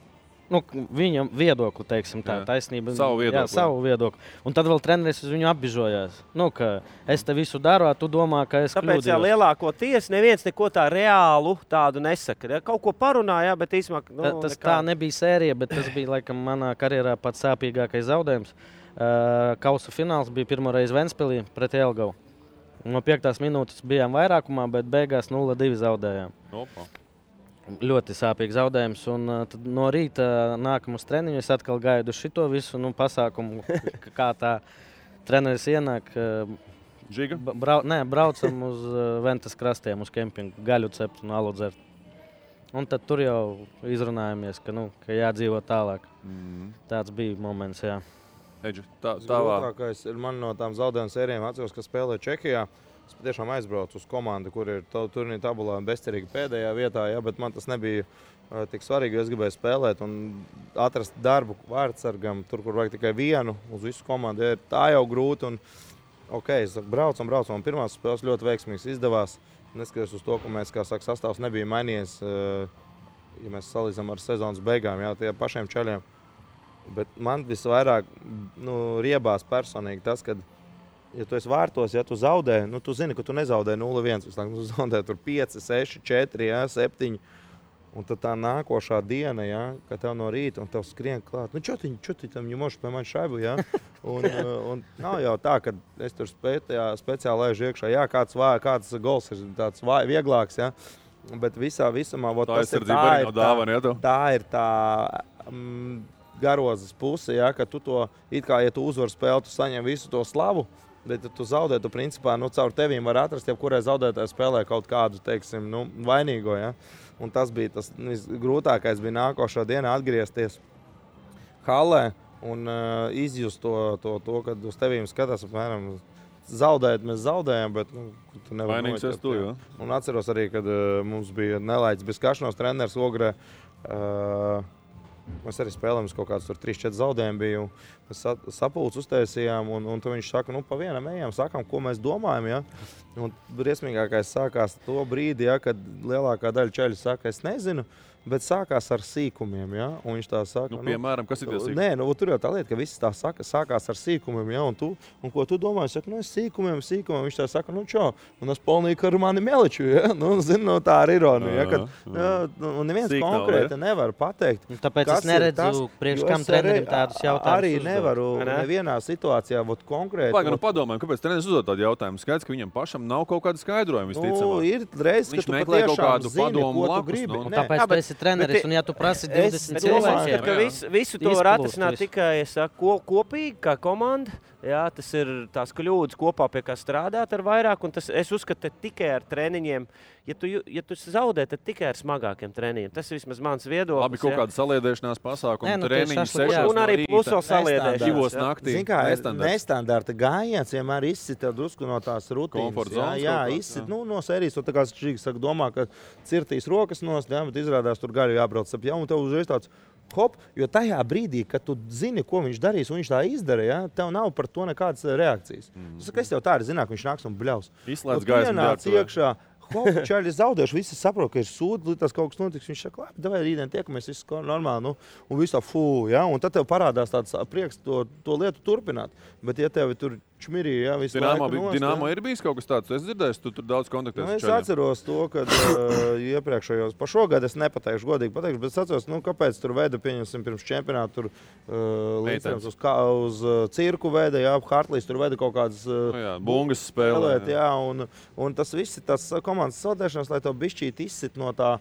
[SPEAKER 8] Viņam viedokli, teiksim tā, taisnība.
[SPEAKER 1] Savu viedokli.
[SPEAKER 8] Jā, savu viedokli. Un tad vēl treneris uz viņu apbižojās. Ka es te visu daru, tu domā, ka es kļūdījos.
[SPEAKER 4] Tāpēc lielākoties neviens neko tā reālu tādu nesaka. Kaut ko parunāja, bet īsumā...
[SPEAKER 8] Tas tā nebija sērija, bet tas bija, laikam, manā karjerā pats sāpīgākais zaudējums. Kausa fināls bija pirmo reizi Ventspilī pret Jelgavu. No 5. minūtes bijām vairākumā, bet beigās 0-2 zaudējām.
[SPEAKER 1] Opa.
[SPEAKER 8] Ļoti sāpīgs zaudējums. Un tad no rīta nākam uz treniņu. Es atkal gaidu šito visu pasākumu, kā tā treneris ienāk.
[SPEAKER 1] Žiga?
[SPEAKER 8] Braucam uz Ventas krastiem, uz kempingu, gaļu cept un alu dzert. Un tad tur jau izrunājamies, ka jādzīvo tālāk. Tāds bija moments, jā.
[SPEAKER 1] Eģi,
[SPEAKER 9] Grūtākais ir man no tām zaudējuma sērijām atceros, ka spēlē Čehijā. Es patiešām aizbraucu uz komandu, kur ir turnīra tabulā bezcerīgi pēdējā vietā, bet man tas nebija tik svarīgi, jo es gribēju spēlēt un atrast darbu vārdsargam, tur, kur vajag tikai vienu uz visu komandu. Ja tā jau grūti un es braucam, un pirmās spēles ļoti veiksmīgas izdevās. Neskatoties uz to, ka mēs, kā saka, sastāvs nebija mainījies, ja mēs salīdzinām ar sezonas beigām, tie pašiem čaļiem. Bet man visvairāk riebās personīgi tas, kad ja tu esi vārtos, ja tu zaudē, tu zini, ka tu nezaudē 0-1, tu zaudē tur 5, 6, 4, 7. Un tad tā nākošā diena, kad tev no rīta un tev skrien klāt. Čotiņ tam ņemoši pie mani šaibu, Un nav jau tā, ka es tur speciāli laižu iekšā. Jā, kāds gols ir tāds vieglāks, Bet visumā tā ir tā garozes puse, ka tu to, it kā, ja tu uzvar spēli, tu saņem visu to slavu. Bet tu zaudē, tu principā caur tevīm var atrast, jebkurai zaudētāji spēlē kaut kādu, teiksim, vainīgo. Un tas bija tas grūtākais, bija nākošā dienā atgriezties halē un izjust to, kad uz tevīm skatās, apmēram, zaudēt mēs zaudējam, bet tu nevar
[SPEAKER 1] vainīgs esi tu, jo.
[SPEAKER 9] Un atceros arī, kad mums bija nelaiķis bez kašanos treneris Ogrē. Mēs arī spēlējām kaut kādus 3-4 zaudējumu biju. Mēs sapulci uztaisījām, un tad viņš saka, pa vienam ejam, sakām, ko mēs domājam. Un briesmīgākais sākās to brīdi, kad lielākā daļa čaļu saka, es nezinu, bet sākās ar sīkumiem. Un viņš tā saka,
[SPEAKER 1] piemēram, kas ir tie sīkumi?
[SPEAKER 9] Nē, tur jau tā lieta, ka viss tā saka, sākās ar sīkumiem. Un ko tu domā? Es saku, es sīkumiem. Viņš tā saka, čau, un es polnīju ar mani meliču. Tā ir ironija. Un neviens konkrēti nevar pateikt.
[SPEAKER 8] Tāpēc es neredzu priekš kam trenerim tādus jautājumus.
[SPEAKER 9] Arī nevaru nevienā situācijā konkrēti.
[SPEAKER 1] Padomājam, kāpēc treneris uzdod tādu jautājumu? Skaidrs, ka viņam pašam nav kaut kāda skaidrojuma, visticamāk.
[SPEAKER 9] Ir reiz, ka tu patiešām zini, ko tu gribi.
[SPEAKER 8] Tāpēc esi treneris, un ja tu prasi 20 cilvēkiem,
[SPEAKER 4] ka visu to var atrisināt tikai kopīgi, kā komanda. Tas ir tās kļūdas kopā, pie kā strādāt ar vairāk, un es uzskatu tikai ar treniņiem. Ja tu zaudē, tad tikai ar smagākiem treniņiem. Tas ir vismaz mans viedoklis.
[SPEAKER 1] Labi, kaut kāda saliedēšanās pasākuma, treniņi 6
[SPEAKER 4] un arī plus vēl saliedēšanās.
[SPEAKER 1] 2 naktī.
[SPEAKER 9] Zin kā, nestandarta gājiens vienmēr izsita drusku no tās rutīnas. Jā, izsit, no sērijas, tā kā Žigs saka, domā, ka cirtīs rokas nost, bet izrādās tur gaļu jābrauc ap jau, un tev uzreiz tāds hop, jo tajā brīdī, kad tu zini, ko viņš darīs, un viņš tā izdara, tev nav par to nekādas reakcijas. Tu saka, es jau tā arī zināju, ka viņš nāks un bļaus.
[SPEAKER 1] Izslēdz gaismu
[SPEAKER 9] iekšā. Čaļi zaudējuši, visi saprot, ka ir sūdi, tas kaut kas notiks. Viņš saka, labi, davai rītdien tiekamies, viss normāli, un viss tā un tad tev parādās tāds prieks to lietu turpināt. Bet ja tev tur čmirī, jā, visu
[SPEAKER 1] Dinamo ir bijis kaut kas tāds, es dzirdēju, tu tur daudz kontaktēs.
[SPEAKER 9] Es atceros to, kad iepriekšējos, pa šogad es nepateikšu, godīgi pateikšu, bet es atceros, kāpēc tur veda, pieņemsim, pirms čempionātu tur līdzējums uz cirku veda, jā, Hartlīs tur veda kaut kādas
[SPEAKER 1] bungas spēlēt,
[SPEAKER 9] jā, un tas viss ir tas komandas saldēšanas, lai to bišķīt izsit no tā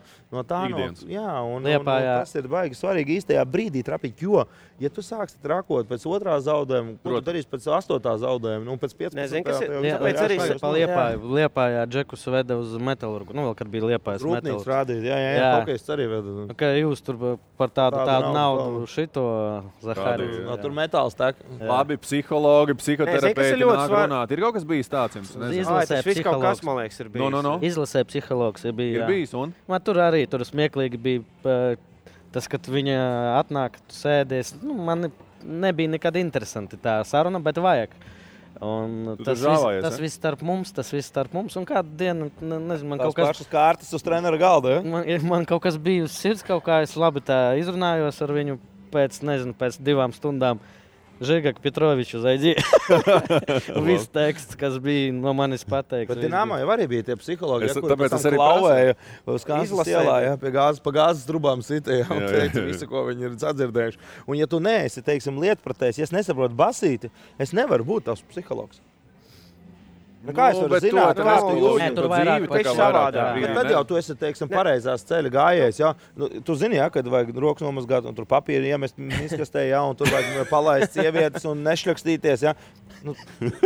[SPEAKER 1] ikdienas.
[SPEAKER 9] Jā, un tas ir baigi svarīgi īstajā brīdī trapīt, jo, ja tu sāksi trakot pēc 2. zaudējuma, ko tu darīsi pēc 8. zaudējuma, pēc 15.
[SPEAKER 8] Tāpēc arī Liepājā Džekus veda uz Metalurgu. Vēl, kad bija Liepājas
[SPEAKER 9] Metalurgs. Rūpnīgs rādīt, jā, Hokejs arī veda.
[SPEAKER 8] Jūs tur par tādu naudu šito Zahāriju.
[SPEAKER 9] Tur metāls tek.
[SPEAKER 1] Labi, psihologi, psihoterapeiti nāk runāt. Ir kaut kas bijis tāds jums?
[SPEAKER 8] Izlasē psihologs.
[SPEAKER 4] Man liekas, ir bijis.
[SPEAKER 8] Izlasē psihologs ir bijis.
[SPEAKER 1] Ir bijis, un?
[SPEAKER 8] Tur arī smieklīgi bija tas, kad viņa atnāk, tu sēdies. Man nebija nekad interesanti tā saruna, bet vajag. Un tas viss starp mums, un kādu dienu, nezinu, man
[SPEAKER 9] kaut kas... Pašas kārtas uz trenera galda, ja?
[SPEAKER 8] Man kaut kas bija uz sirds, kaut kā es labi tā izrunājos ar viņu pēc 2 stundām. Žigak Petroviču zaidī. Viss teksts, kas bija no manis pateikts.
[SPEAKER 9] Bet Dinamo jau arī bija tie psihologi, tāpēc es arī klauvēju uz Kansas ielā, pa gāzes trubām sitēja un teica visu, ko viņi ir sadzirdējuši. Un ja tu neesi, teiksim, lietpratējs, ja es nesaprotu basīti, es nevaru būt tavs psihologs. Kā es varu zināt, kā tu jūti?
[SPEAKER 8] Tur vairāk
[SPEAKER 9] paši savādāk. Bet tad jau tu esi, teiksim, pareizās ceļa gājējs, jā. Tu zini, jā, kad vajag rokas nomazgāt un tur papīru iemest miskastē, jā, un tur vajag palaist sievietes un nešļakstīties, jā.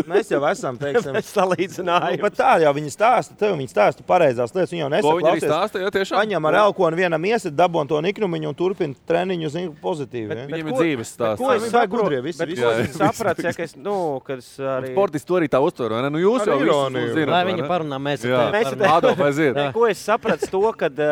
[SPEAKER 9] Mēs jau esam, teiksim,
[SPEAKER 4] salīdzinājums.
[SPEAKER 9] Bet tā jau viņi stāsta, viņi stāsta pareizās lietas, viņi jau nesaka,
[SPEAKER 1] viņi arī stāsta, jā, tiešām.
[SPEAKER 9] Paņem ar elkonu vienam iesit, dabon to niknumiņu un turpina treniņu, zinu, pozitīvi.
[SPEAKER 1] Viņiem ir dzīves stāsts.
[SPEAKER 4] Ko es saprotu? Bet ko es sapratu, ja, ka es, kad es arī...
[SPEAKER 1] Sportisti to arī tā uztver, vai ne? Jūs jau visu zināt.
[SPEAKER 8] Lai viņi parunā, mēs
[SPEAKER 4] Ko es sapratu to, kad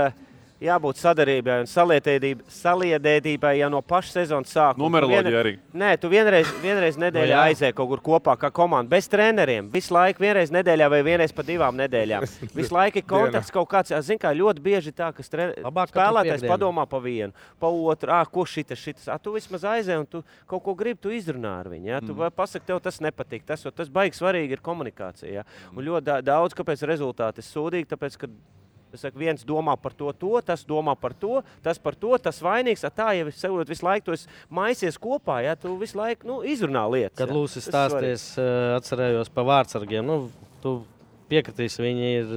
[SPEAKER 4] jābūt sadarbībai un saliedētībai jau no paša sezonas sākuma.
[SPEAKER 1] Numeroloģija arī.
[SPEAKER 4] Nē, tu vienreiz nedēļā aizēji kaut kur kopā kā komanda, bez treneriem. Visu laiku vienreiz nedēļā vai vienreiz pa 2 nedēļām. Visu laiku ir kontakts kaut kāds. Zin kā, ļoti bieži tā, ka spēlētājs padomā pa vienu, pa otru. Ko šitas? Tu vismaz aizēji un tu kaut ko gribi, tu izrunā ar viņu. Ja? Tu pasaki, tev tas nepatīk. Tas baigi svarīgi ir komunikācija. Ja? Un ļoti daudz, kāpēc rezultāti ir sūdīgi, tāpēc, ka es saku, viens domā par to, tas domā par to, tas vainīgs. Tā jau es visu laiku to maisies kopā, ja tu visu laiku izrunā lietas.
[SPEAKER 8] Kad Lūsis stāsties, atcerējos pa vārdsargiem, tu piekritīsi, viņi ir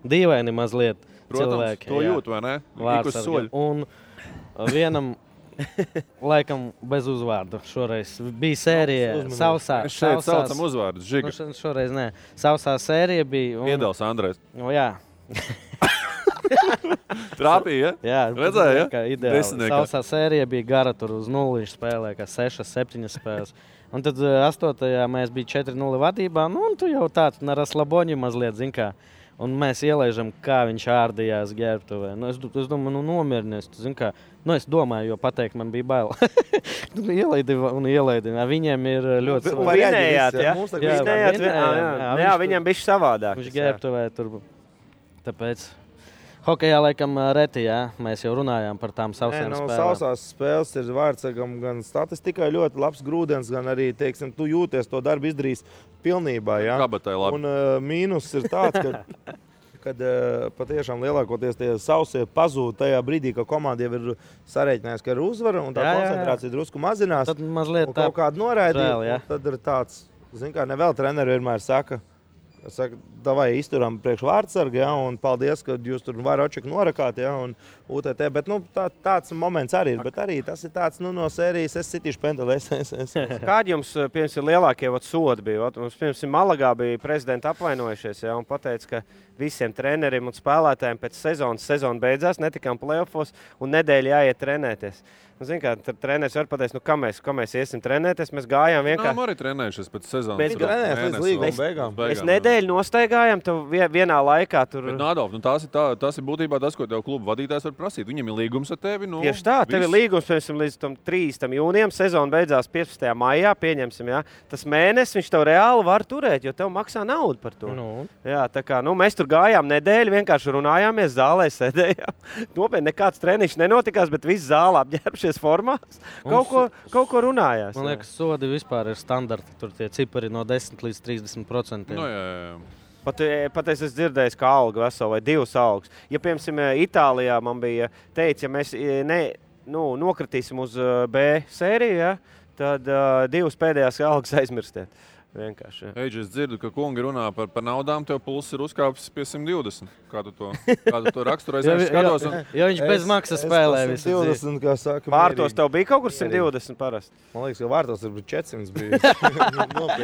[SPEAKER 8] dīvaini mazliet.
[SPEAKER 1] Protams,
[SPEAKER 8] cilvēki.
[SPEAKER 1] To jūt, vai ne?
[SPEAKER 8] Vārdsargi. Un vienam laikam bez uzvārdu šoreiz bija sērija sausā.
[SPEAKER 1] Mēs šeit saucam uzvārdus, Žiga.
[SPEAKER 8] Šoreiz nē. Sausā sērija bija.
[SPEAKER 1] Piedals Andrejs.
[SPEAKER 8] Jā.
[SPEAKER 1] Trāpīja, ja?
[SPEAKER 8] Jā,
[SPEAKER 1] redzēja,
[SPEAKER 8] ja? Ideāli. Sausā sērija bija gara, tur uz 0 spēlē, kā 6-7 spēles. Un tad 8. mēs bija 4-0 vadībā, un tu jau tāds na raslaboņi mazliet, zin kā. Un mēs ielaižam, kā viņš ārdījās ģērbtuvē. Es domāju, nomierinies, tu zin kā. Es domāju, jo pateikt man bija bail. Ielaidi. Viņiem ir ļoti
[SPEAKER 4] savādāk. Jā, viņiem bija savādāk.
[SPEAKER 8] Viņš ģērbtuvē tur. Tāpēc hokejā laikam reti, jā. Mēs jau runājām par tām sausām spēlēm.
[SPEAKER 9] Sausās spēles ir vārdsargam gan statistikai ļoti labs grūdens, gan arī, teiksim, tu jūties to darbu izdarījis pilnībā, jā.
[SPEAKER 1] Kabatai labi.
[SPEAKER 9] Un mīnus ir tāds, kad patiešām lielākoties tie sausie pazūd tajā brīdī, ka komanda jau ir sarēķinājis, ka ir uzvara un tā koncentrācija drusku mazinās.
[SPEAKER 8] Tad mazliet
[SPEAKER 9] un kaut kādu noraidīja, tad ir tāds, zin kā, nevēl treneri vienmēr saka, davai izturam priekš vārdsargi, ja, un paldies, ka jūs tur varočeku norakāt, ja, un UTT, bet tāds moments arī ir, bet arī tas ir tāds no sērijas, es sitīšu pendelēs.
[SPEAKER 4] Kādi jums, piemēram, lielākie sodi bija? Mums, piemēram, Malagā bija prezidenti apvainojušies, ja, un pateica, ka visiem treneriem un spēlētājiem pēc sezona beidzās, netikām play-offos, un nedēļa jāiet trenēties. Zin kā, treneris var pateikt, kā mēs iesim trenēties, mēs gājām vienkārši.
[SPEAKER 1] Nā, arī trenējušies pēc sezonas.
[SPEAKER 9] Mēs trenējamies līdz līguma beigām.
[SPEAKER 4] Mēs nedēļu nostaigājām, tev vienā laikā tur.
[SPEAKER 1] Bet Nādolf, tas ir būtībā tas, ko tev klubu vadītājs var prasīt. Viņam ir līgums ar tevi.
[SPEAKER 4] Tieši tā, tev ir līgums, piemēram, līdz 3. jūnijam, sezona beidzās 15. maijā, pieņemsim, jā. Tas mēnesis viņš tev reāli var turēt, jo tev maksā naudu par to. Jā, tā kā, mēs tur tur gājām nedēļu, vienkārši runājāmies, zālē sēdējām. Nopietni nekāds treniņš nenotikās, bet visi zāle apģērbušies formās. Kaut ko runājās.
[SPEAKER 8] Man liekas, sodi vispār ir standarti. Tur tie cipari no 10 līdz 30%.
[SPEAKER 1] No, jā.
[SPEAKER 4] Pat es esmu dzirdējis, ka alga vesela vai 2 algas. Ja, piemēram, Itālijā man bija teicis, ja mēs nokritīsim uz B sēriju, ja, tad 2 pēdējās algas aizmirstiet. Vienkārši.
[SPEAKER 1] Eidži, es dzirdu, ka kungi runā par naudām, tev pulss ir uzkāpis pie 120. Kā tu to raksturojies?
[SPEAKER 8] Jo viņš bez maksas spēlē visu
[SPEAKER 9] 120, kā saka.
[SPEAKER 4] Vārtos tev bija kaut kur 120 parasti?
[SPEAKER 9] Man liekas, ka vārtos ir 400 bija.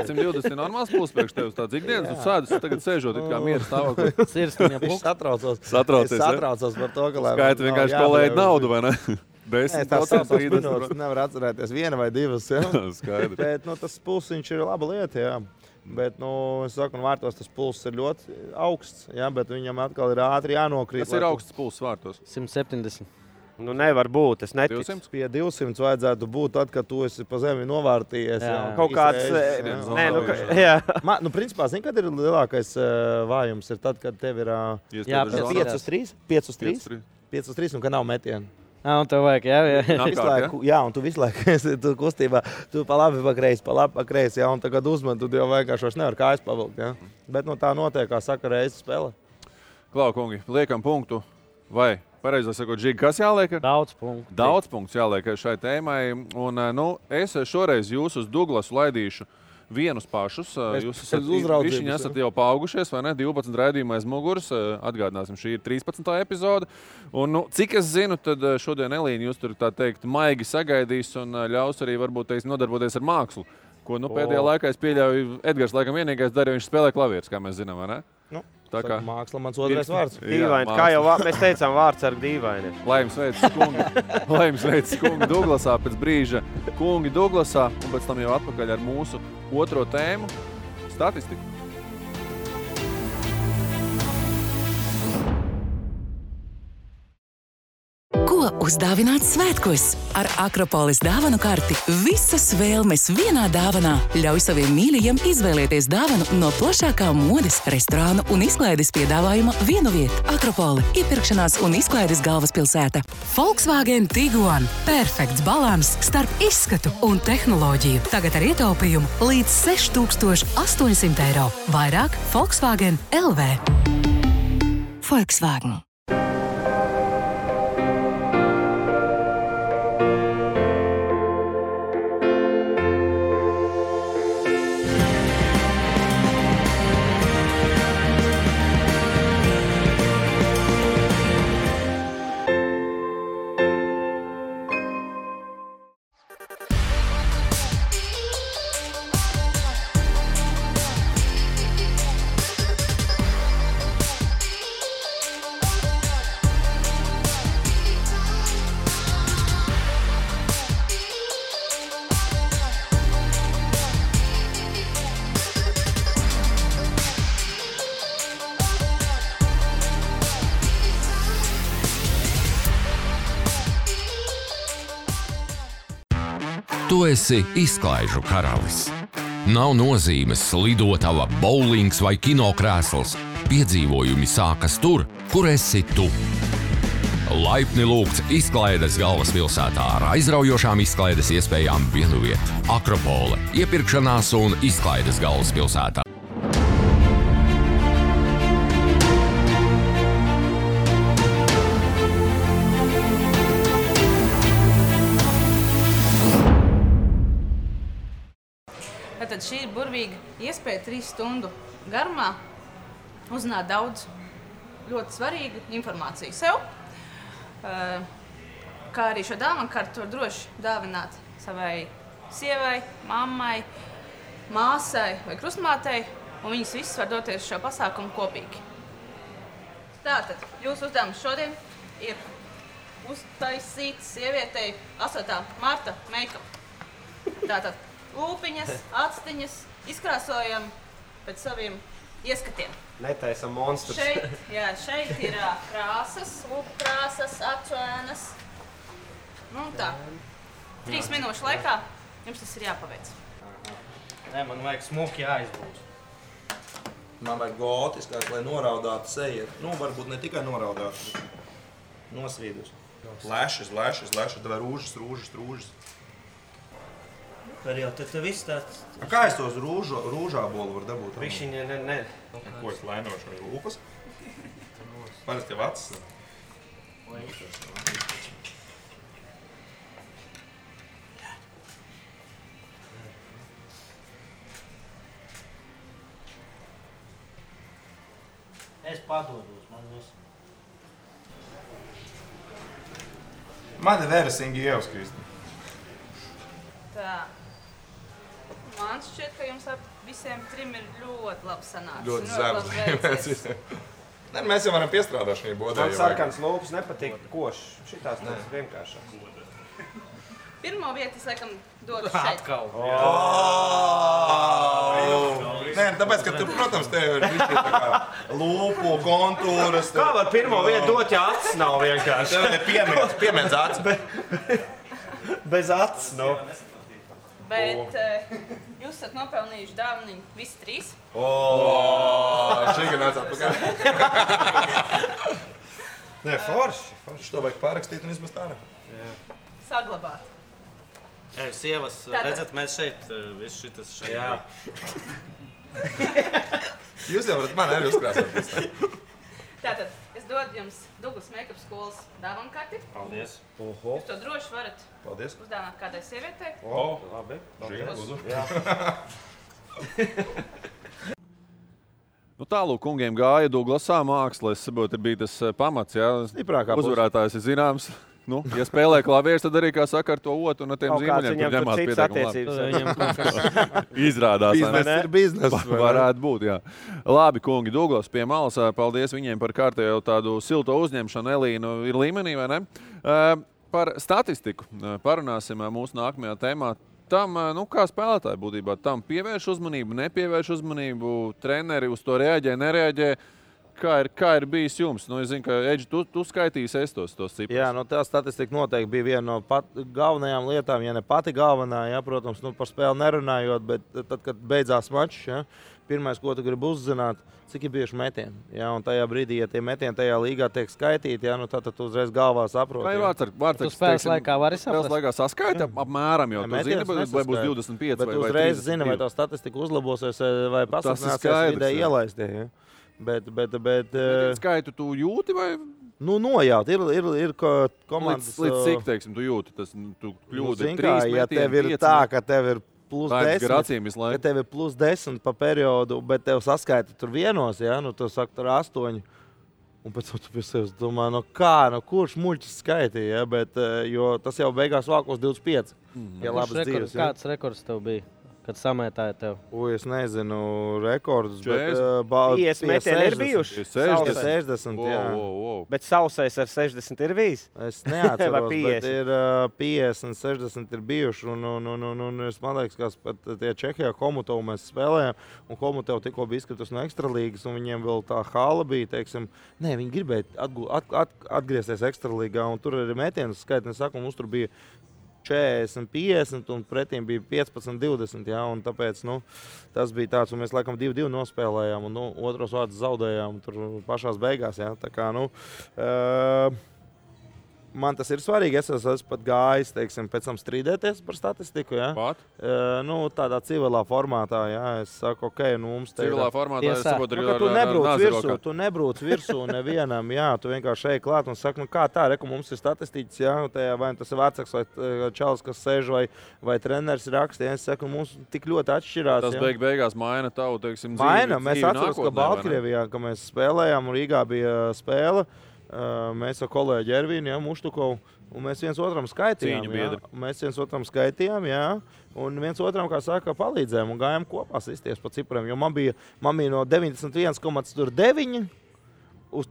[SPEAKER 1] 120 ir normāls pulss priekš tevis tāds ikdienas. Tu sēdus, tagad sēžot it kā mieru stāvoklī.
[SPEAKER 9] Viņš satraucos par to, ka...
[SPEAKER 1] Skaita vienkārši kolēģi naudu, vai ne?
[SPEAKER 9] Nevar atcerēties 1 vai 2. Ja? Bet tas pulsiņš ir laba lieta. Ja? Bet, es saku, vārtos tas pulss ir ļoti augsts, ja? Bet viņam atkal ir ātri jānokrīt.
[SPEAKER 1] Kas ir augsts pulss vārtos?
[SPEAKER 8] 170.
[SPEAKER 4] Nevar būt, es neticu.
[SPEAKER 1] 200?
[SPEAKER 9] Pie 200 vajadzētu būt tad, kad tu esi pa zemi novārtījies.
[SPEAKER 4] Kaut kāds...
[SPEAKER 9] Principā, zini, kad ir lielākais vājums? Ir tad, kad tev ir 5 uz 3? 5 uz 3? 5 uz 3 un ka nav metienu.
[SPEAKER 8] Un tev vajag,
[SPEAKER 9] jā, un tu visu laiku esi kustībā, tu pa labi, pa kreisi, ja, un tagad uzman, tu jau vienkārši vairs nevar kājas pavilkt, ja. Bet tā notiek, kā saka, reizes spēle.
[SPEAKER 1] Klau, kungi, liekam punktu, vai, pareizāk sakot, Žigi, kas jāliek?
[SPEAKER 8] Daudz punktu.
[SPEAKER 1] Daudz punktu jāliek šai tēmai, un, es šoreiz jūs uz Douglasu laidīšu vienus pašus. Jūs esat jau paaugušies, vai ne? 12 raidījumā aiz muguras. Atgādināsim, šī ir 13. epizode. Un, cik es zinu, tad šodien Elīna jūs tur, tā teikt, maigi sagaidīs un ļaus arī varbūt nodarboties ar mākslu. Ko pēdējā laikā es pieļauju, Edgars laikam vienīgais darīja, viņš spēlē klavierus, kā mēs zinām, vai ne?
[SPEAKER 9] Tā kā māksla mans otrais vārds.
[SPEAKER 4] Dīvaini, kā jau mēs teicām, vārds ar dīvaini.
[SPEAKER 1] Laims veids kungi Douglasā pēc brīža. Kungi Douglasā un pēc tam jau atpakaļ ar mūsu otro tēmu – statistiku.
[SPEAKER 6] Ko uzdāvināt svētkos? Ar Akropolis dāvanu karti visas vēlmes vienā dāvanā. Ļauj saviem mīļajiem izvēlēties dāvanu no plašākā modes, restorānu un izklaides piedāvājuma vienu vietu. Akropoli – iepirkšanās un izklaides galvaspilsēta. Volkswagen Tiguan – perfekts balans starp izskatu un tehnoloģiju. Tagad ar ietaupījumu līdz 6,800 eiro. Vairāk Volkswagen LV. Volkswagen.
[SPEAKER 7] Tu esi izklaižu karalis. Nav nozīmes lidotava, bowlings vai kinokrēsls. Piedzīvojumi sākas tur, kur esi tu. Laipni lūgts izklaides galvaspilsētā ar aizraujošām izklaides iespējām vienu vietu. Akropole – iepirkšanās un izklaides galvaspilsētā.
[SPEAKER 10] Tad šī ir burvīga iespēja 3 stundu garumā uzzināt daudz ļoti svarīgu informāciju sev. Kā arī šo dāvanu kartu var droši dāvināt savai sievai, mammai, māsai vai krustmātei, un viņas visas var doties šo pasākumu kopīgi. Tātad, jūsu uzdevums šodien ir uztaisīt sievietei 8. marta make-up. Tātad, lūpiņas, actiņas, izkrāsojam pēc saviem ieskatiem.
[SPEAKER 4] Netaisam monstrus.
[SPEAKER 10] Šeit ir krāsas, lūpu krāsas, acu ēnas. Tā. 3 minūšu laikā jums tas ir jāpaveic.
[SPEAKER 4] Nē, man vajag smuki jāizbūs.
[SPEAKER 3] Man vajag gotiskāk, lai noraudātu seju. Nu, varbūt ne tikai noraudātu, bet nosvīdus. Lešas, tev rūžas.
[SPEAKER 4] Var jau, tad viss tāds...
[SPEAKER 3] Kā es tos rūžā bolu var dabūt?
[SPEAKER 4] Višķiņa, ne.
[SPEAKER 3] Ko es lainošu? Lūpas? Parasti tev acis.
[SPEAKER 4] Es padodos, man visu.
[SPEAKER 2] Man ir Vērasingi ievas, Kristi.
[SPEAKER 10] Tā. Man šķiet, ka jums visiem trim ir ļoti labi sanācis.
[SPEAKER 2] Ļoti zemes. Ne, mēs jau varam piestrādāt šī bodē.
[SPEAKER 5] Man sarkans lūpas nepatīk košs. Šitās tas vienkāršās.
[SPEAKER 10] Pirmo vietu es laikam dodu šeit.
[SPEAKER 4] Atkal.
[SPEAKER 2] Nē, tāpēc, ka tu, protams, tev ir višķi tā kā lūpu, kontūras.
[SPEAKER 5] Kā var pirmo vietu dot, ja acis nav vienkārši?
[SPEAKER 2] Tev ir piemiedz acis.
[SPEAKER 5] Bez acis, nu.
[SPEAKER 10] Bet jūs esat nopelnījuši dāvaniņu visi trīs.
[SPEAKER 2] Šī gan nāc atpakaļ.
[SPEAKER 5] Nē, forši.
[SPEAKER 2] To vajag pārakstīt un izmest ārā.
[SPEAKER 10] Saglabāt.
[SPEAKER 8] Sievas, redzat, mēs šeit, viss šitas šeit.
[SPEAKER 5] Jā.
[SPEAKER 2] Jūs jau varat mani arī uzkrāsot.
[SPEAKER 10] Tātad, es dodu jums Douglas Make-up skolas dāvanu karti.
[SPEAKER 8] Paldies.
[SPEAKER 10] Jūs to droši varat
[SPEAKER 2] Paldies.
[SPEAKER 10] uzdāvināt kādai sievietei.
[SPEAKER 5] Labi.
[SPEAKER 1] Nu, tālūk, kungiem gāja Douglasā māksla, es saprotu, bija tas pamats, jā. Uzvarētājs ir zināms. Nu, ja spēlē klavieres, tad arī, kā saka, ar to otru un ar tiem zīmoļiem, kur ņemās pietiekami labi. Izrādās.
[SPEAKER 9] Biznes ir biznes.
[SPEAKER 1] Varētu būt, jā. Labi, kungi, Douglas pie malas, paldies viņiem par kārtējo tādu silto uzņemšanu. Elīna ir līmenī, vai ne? Par statistiku parunāsim mūsu nākamajā tēmā. Tam, nu, kā spēlētāji būtībā, tam pievērš uzmanību, nepievērš uzmanību, treneri uz to reaģē, nereaģē. Kā ir bijis jums? Nu, es zinu, ka Edži, tu skaitīsi tos ciprus.
[SPEAKER 9] Jā, nu, tā statistika noteikti bija viena no galvenajām lietām, ja ne pati galvenā, jā, protams, nu, par spēli nerunājot, bet tad, kad beidzās mačs, jā, pirmais, ko tu gribi uzzināt, cik ir bijuši metieni. Jā, un tajā brīdī, ja tie metieni tajā līgā tiek skaitīti, jā, nu, tad tu uzreiz galvā saproti.
[SPEAKER 1] Kā ir vārds,
[SPEAKER 8] tu spēles laikā vari saprast?
[SPEAKER 1] Spēles laikā saskaita apmēram, jo tu zini, vai būs 25
[SPEAKER 9] bet
[SPEAKER 1] vai 30.
[SPEAKER 9] Bet uzreiz zini, vai tā statistika uzlabosies, vai pasaknāsies vidē ielaistie. Jā. Bet
[SPEAKER 1] skaitu tu jūti vai?
[SPEAKER 9] Nu, nojaut. Ir komandas...
[SPEAKER 1] Līdz cik, teiksim, tu jūti? Tu kļūdi 3 metieni,
[SPEAKER 9] ja tev ir 5, tā, ka tev ir plus
[SPEAKER 1] 10,
[SPEAKER 9] ka tev ir plus 10 pa periodu, bet tev saskaita tur vienos, ja? Nu, tu saka, tur 8. Un pēc tam tu pie sevis domā, kurš muļķis skaitīja, ja? Bet, jo tas jau beigās vākos 25. Ja labas dzīves.
[SPEAKER 8] Kāds rekords tev bija? Kad samētāja tev?
[SPEAKER 9] Es nezinu rekordus, bet
[SPEAKER 5] 50 metieni ir bijuši.
[SPEAKER 9] 60, jā.
[SPEAKER 5] Bet sausais ar 60 ir bijis?
[SPEAKER 9] Es neatceros, bet ir 50, 60 ir bijuši. Un es man liekas, ka tie Čehijā Komutovu mēs spēlējām, un Komutovu tikko bija izskritus no ekstralīgas, un viņiem vēl tā hala bija, teiksim, viņi gribēja atgriezties ekstralīgā, un tur arī metienu skaitni, saku, mums tur bija 40, 50 un pretīm bija 15, 20, jā, un tāpēc, tas bija tāds, un mēs laikam 2-2 nospēlējām, un, otros vārdus zaudējām tur pašās beigās, jā, tā kā, man tas ir svarīgi, es esmu pat gājis, teiksim, pēc tam strīdēties par statistiku, jā. Tādā civilā formātā, jā, es saku, mums te
[SPEAKER 1] civilā formātā, es saprotu,
[SPEAKER 9] tu nebrūc virsū nevienam, jā, tu vienkārši ej klāt un saki, kā tā, reku, mums ir statistiķis, jā, vai tas ir vecāks vai čalis, kas sēž, vai treneris raksta, jā, es saku, mums tik ļoti atšķirās.
[SPEAKER 1] Tas beigās maina tavu, teiksim, dzīvi.
[SPEAKER 9] Maina, mēs atceros, ka Baltkrievijā, ka mēs spēlējām, un Rīgā bija spēle, mēs ar kolēģi Ervīnu, Muštukovu, un mēs viens otram skaitījām, jā, un viens otram, kā saka, palīdzējām un gājām kopā sisties pa cipriem, jo man bija no 91,9 uz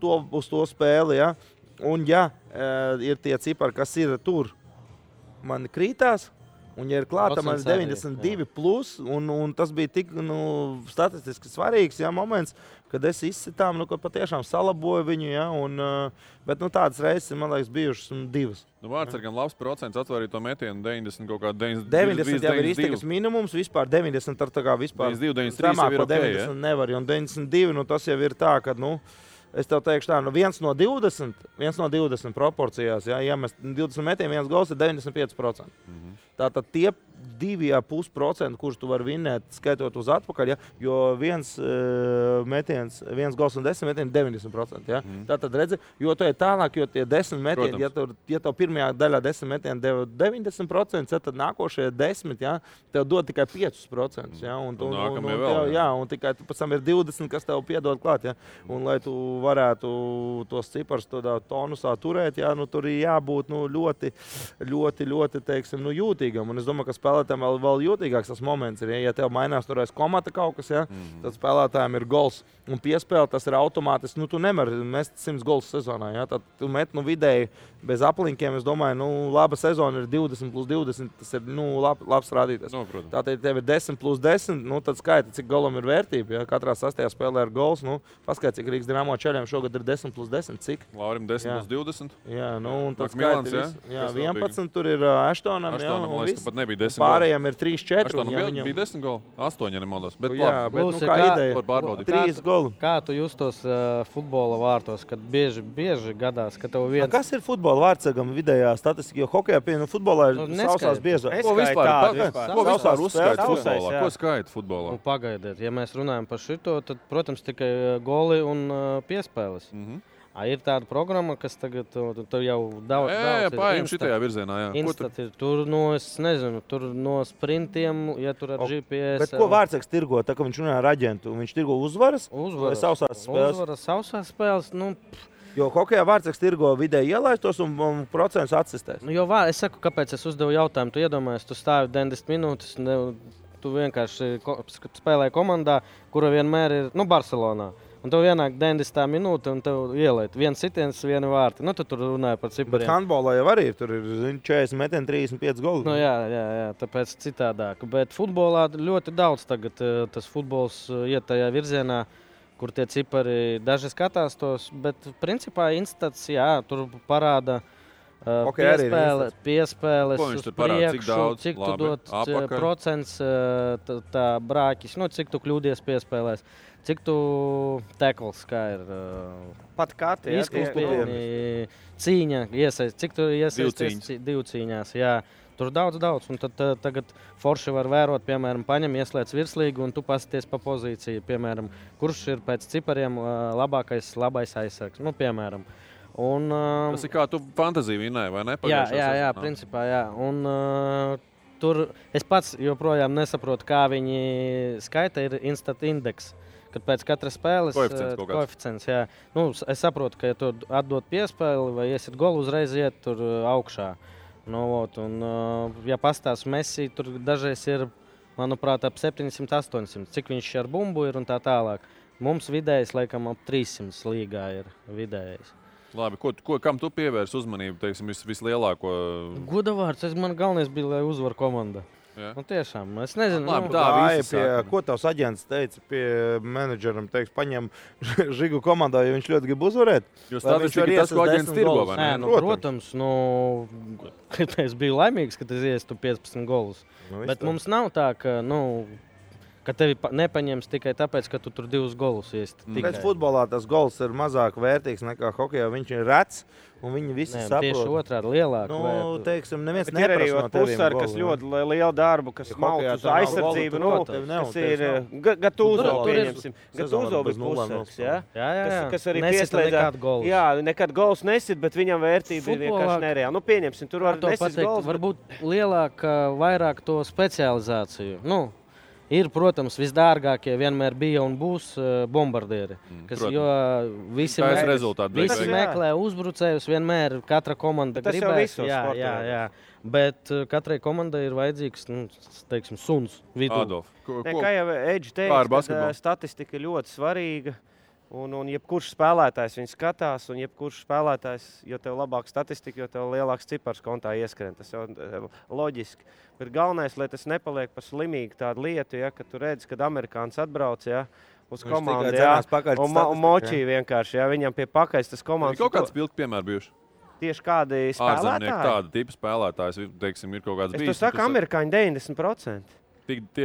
[SPEAKER 9] to spēli, jā, un ja ir tie cipari, kas ir tur, man krītās, Un, ja ir klāta 92 plus, un tas bija tik statistiski svarīgs moments, kad es izsitām, ka patiešām salaboju viņu, bet tādas reizes, man liekas, bijušas 2.
[SPEAKER 1] Vārtsargam labs procents atvarīja to metienu 90 kaut kā
[SPEAKER 9] 90 jau ir iztikas minimums, vispār 90 ar tā kā vispār
[SPEAKER 1] 93 jau ir ok,
[SPEAKER 9] 90 nevar, un 92, tas jau ir tā, ka, es tev teikšu tā, 1 no 20 proporcijās, ja mēs 20 metienu, 1 gols ir 95%. Tātad tie 2,5%, kurus tu vari vinnēt, skaitot uz atpakaļ, jo viens metiens, 1 gols un 10 metieni 90%. Ja? Tātad redzi, jo tu ir tālāk, jo tie 10 metieni, ja tev pirmajā daļā 10 metieni deva 90%, tad nākošie 10, ja, tev dod tikai 5%. Ja? Un tikai pēc tam ir 20, kas tev piedod klāt. Ja? Un, lai tu varētu tos ciparus tādā tonusā turēt, ja? Tur ir jābūt ļoti teiksim, jūtīgam. Un es domāju, ka spēlētājiem vēl jūtīgāks tas moments ir, ja tev mainās turēs komata kaut kas, ja? Tad spēlētājiem ir gols un piespēle, tas ir automātiski. Tu nevari mest 100 gols sezonā, ja? Tad tu met vidēji bez aplinkiem, es domāju, laba sezona ir 20 plus 20, tas ir labs rādītājs. Tātad, ja tev ir 10 plus 10, tad skaita, cik golam ir vērtība. Ja? Katrā sastajā spēlē ir gols, paskaidr, cik Rīgas Dinamo Čeļiem šogad ir 10 plus 10, cik?
[SPEAKER 1] Laurim 10 plus 20.
[SPEAKER 9] Jā, un tad skaita, 11 tur ir Aštonam,
[SPEAKER 1] nebija 10
[SPEAKER 9] pārējiem ir 3-4.
[SPEAKER 1] Aštonam bija 10 goli, 8, ja nemaldos. Bet
[SPEAKER 9] bet kā ideja? 3 goli.
[SPEAKER 8] Kā tu justos futbola vārtos, kad bieži gadās, ka tev viens...
[SPEAKER 9] Kas ir futbola vārtsargam vidējā statistika? Jo hokejā futbolā ir sausās biežāk.
[SPEAKER 1] Ko vispār uzskaita futbolā? Ko skaita futbolā?
[SPEAKER 8] Pagaidiet, ja mēs runājam par šito, tad, protams, tikai goli un piespēles. Ir tāda programma, kas tagad tur jau daudz
[SPEAKER 1] pārējiem šitajā virzienā,
[SPEAKER 8] tur no sprintiem, ja tur ar GPS.
[SPEAKER 9] Bet ko vārtsargs tirgo, tā kā viņš runā ar aģentu? Viņš tirgo uzvaras vai sausās spēles?
[SPEAKER 8] Uzvaras, sausās spēles,
[SPEAKER 9] Jo hokejā vārtsargs tirgo vidēji ielaistos un procents atsistēs.
[SPEAKER 8] Es saku, kāpēc es uzdevu jautājumu. Tu iedomājies, tu stāvi 90 minūtes, tu vienkārši spēlēji komandā, kura vienmēr ir Barcelonā. Un tev ienāk 90 minūte un tev ielēt. Viens sitiens, viena vārti. Tu tur runāji par cipariem.
[SPEAKER 9] Bet handbolā jau arī tur ir 40 metieni, 35 goli.
[SPEAKER 8] Jā, tāpēc citādāk. Bet futbolā ļoti daudz tagad tas futbols iet tajā virzienā, kur tie cipari daži skatās tos. Bet principā instats, tur parāda piespēles uz priekšu, cik tu dod procents tā brāķis, cik tu kļūdies piespēlēs. Cik tu tekls, kā ir
[SPEAKER 4] pat kati,
[SPEAKER 8] izkūspieni, cīņa, cik tu iesaisties divu cīņās, tur daudz, un tad tagad forši var vērot, piemēram, paņem, ieslēdz virslīgu un tu pasties pa pozīciju, piemēram, kurš ir pēc cipariem labais aizsargs, piemēram.
[SPEAKER 1] Tas ir kā tu fantaziju vinnēji, vai ne?
[SPEAKER 8] Jā, principā, jā. Un tur es pats joprojām nesaprotu, kā viņi skaita, ir instant indeks. Kad pēc katras spēles koeficients, jā. Es saprotu, ka ja tu atdod piespēli vai iesit golu, uzreiz iet tur augšā. Ja pastāst Messi, tur dažreiz ir, manuprāt, ap 700-800. Cik viņš ar bumbu ir un tā tālāk. Mums vidējais, laikam, ap 300 līgā ir vidējais.
[SPEAKER 1] Labi, kam tu pievērs uzmanību, teiksim, vislielāko?
[SPEAKER 8] Godavārds, man galvenais bija, lai uzvar komanda. Tiešām, es nezinu.
[SPEAKER 9] Ko tavs aģents teica pie menedžeram? Paņem Žigu komandā, jo viņš ļoti grib uzvarēt.
[SPEAKER 1] Jo statistika tas, ko aģents tirgo, vai ne?
[SPEAKER 8] Protams, es biju laimīgs, ka es iestu 15 golus. Bet mums nav tā, ka tevi nepaņems tikai tāpēc, ka tu tur 2 golus iesti.
[SPEAKER 9] Pēc futbolā tas gols ir mazāk vērtīgs nekā hokejā. Viņš ir rets un viņi visi saprot.
[SPEAKER 8] Tieši otrādi lielāk.
[SPEAKER 9] Teiksim, neviens neprasa no teviem
[SPEAKER 4] pusar, kas ļoti lielu darbu, kas mauc uz aizsardzību, kas ir Gatūzo, pieņemsim. Gatūzo bez pusarks, kas arī pieslēdzās. Jā, nekad gols nesit, bet viņam vērtība ir vienkārši nereāla. Pieņemsim, tur var nesit gols.
[SPEAKER 8] Varbūt lielāk, vairāk to specializāciju. Ir, protams, visdārgākie vienmēr bija un būs bombardieri. Jo visi meklē uzbrucējus, vienmēr katra komanda gribēs. Jā. Bet katrai komandai ir vajadzīgs, teiksim, suns vidū.
[SPEAKER 4] Kā jau Edži teica, statistika ir ļoti svarīga.
[SPEAKER 11] Un jebkurš spēlētājs viņu skatās, un jebkurš spēlētājs, jo tev labāka statistika, jo tev lielāks cipars kontā ieskrien. Tas jau loģiski. Bet galvenais, lai tas nepaliek par slimīgu tādu lietu, ja, kad tu redzi, kad amerikāns atbrauc, ja, uz komandu, ja, un močī vienkārši, ja, viņam pie pakaļs tas komandas.
[SPEAKER 1] Kaut kāds pilki piemēri bijuši?
[SPEAKER 11] Tieši kādi spēlētāji?
[SPEAKER 1] Tāda tipa spēlētājs, teiksim, ir kaut kāds bijis.
[SPEAKER 11] Es to saku, amerikāņi 90%.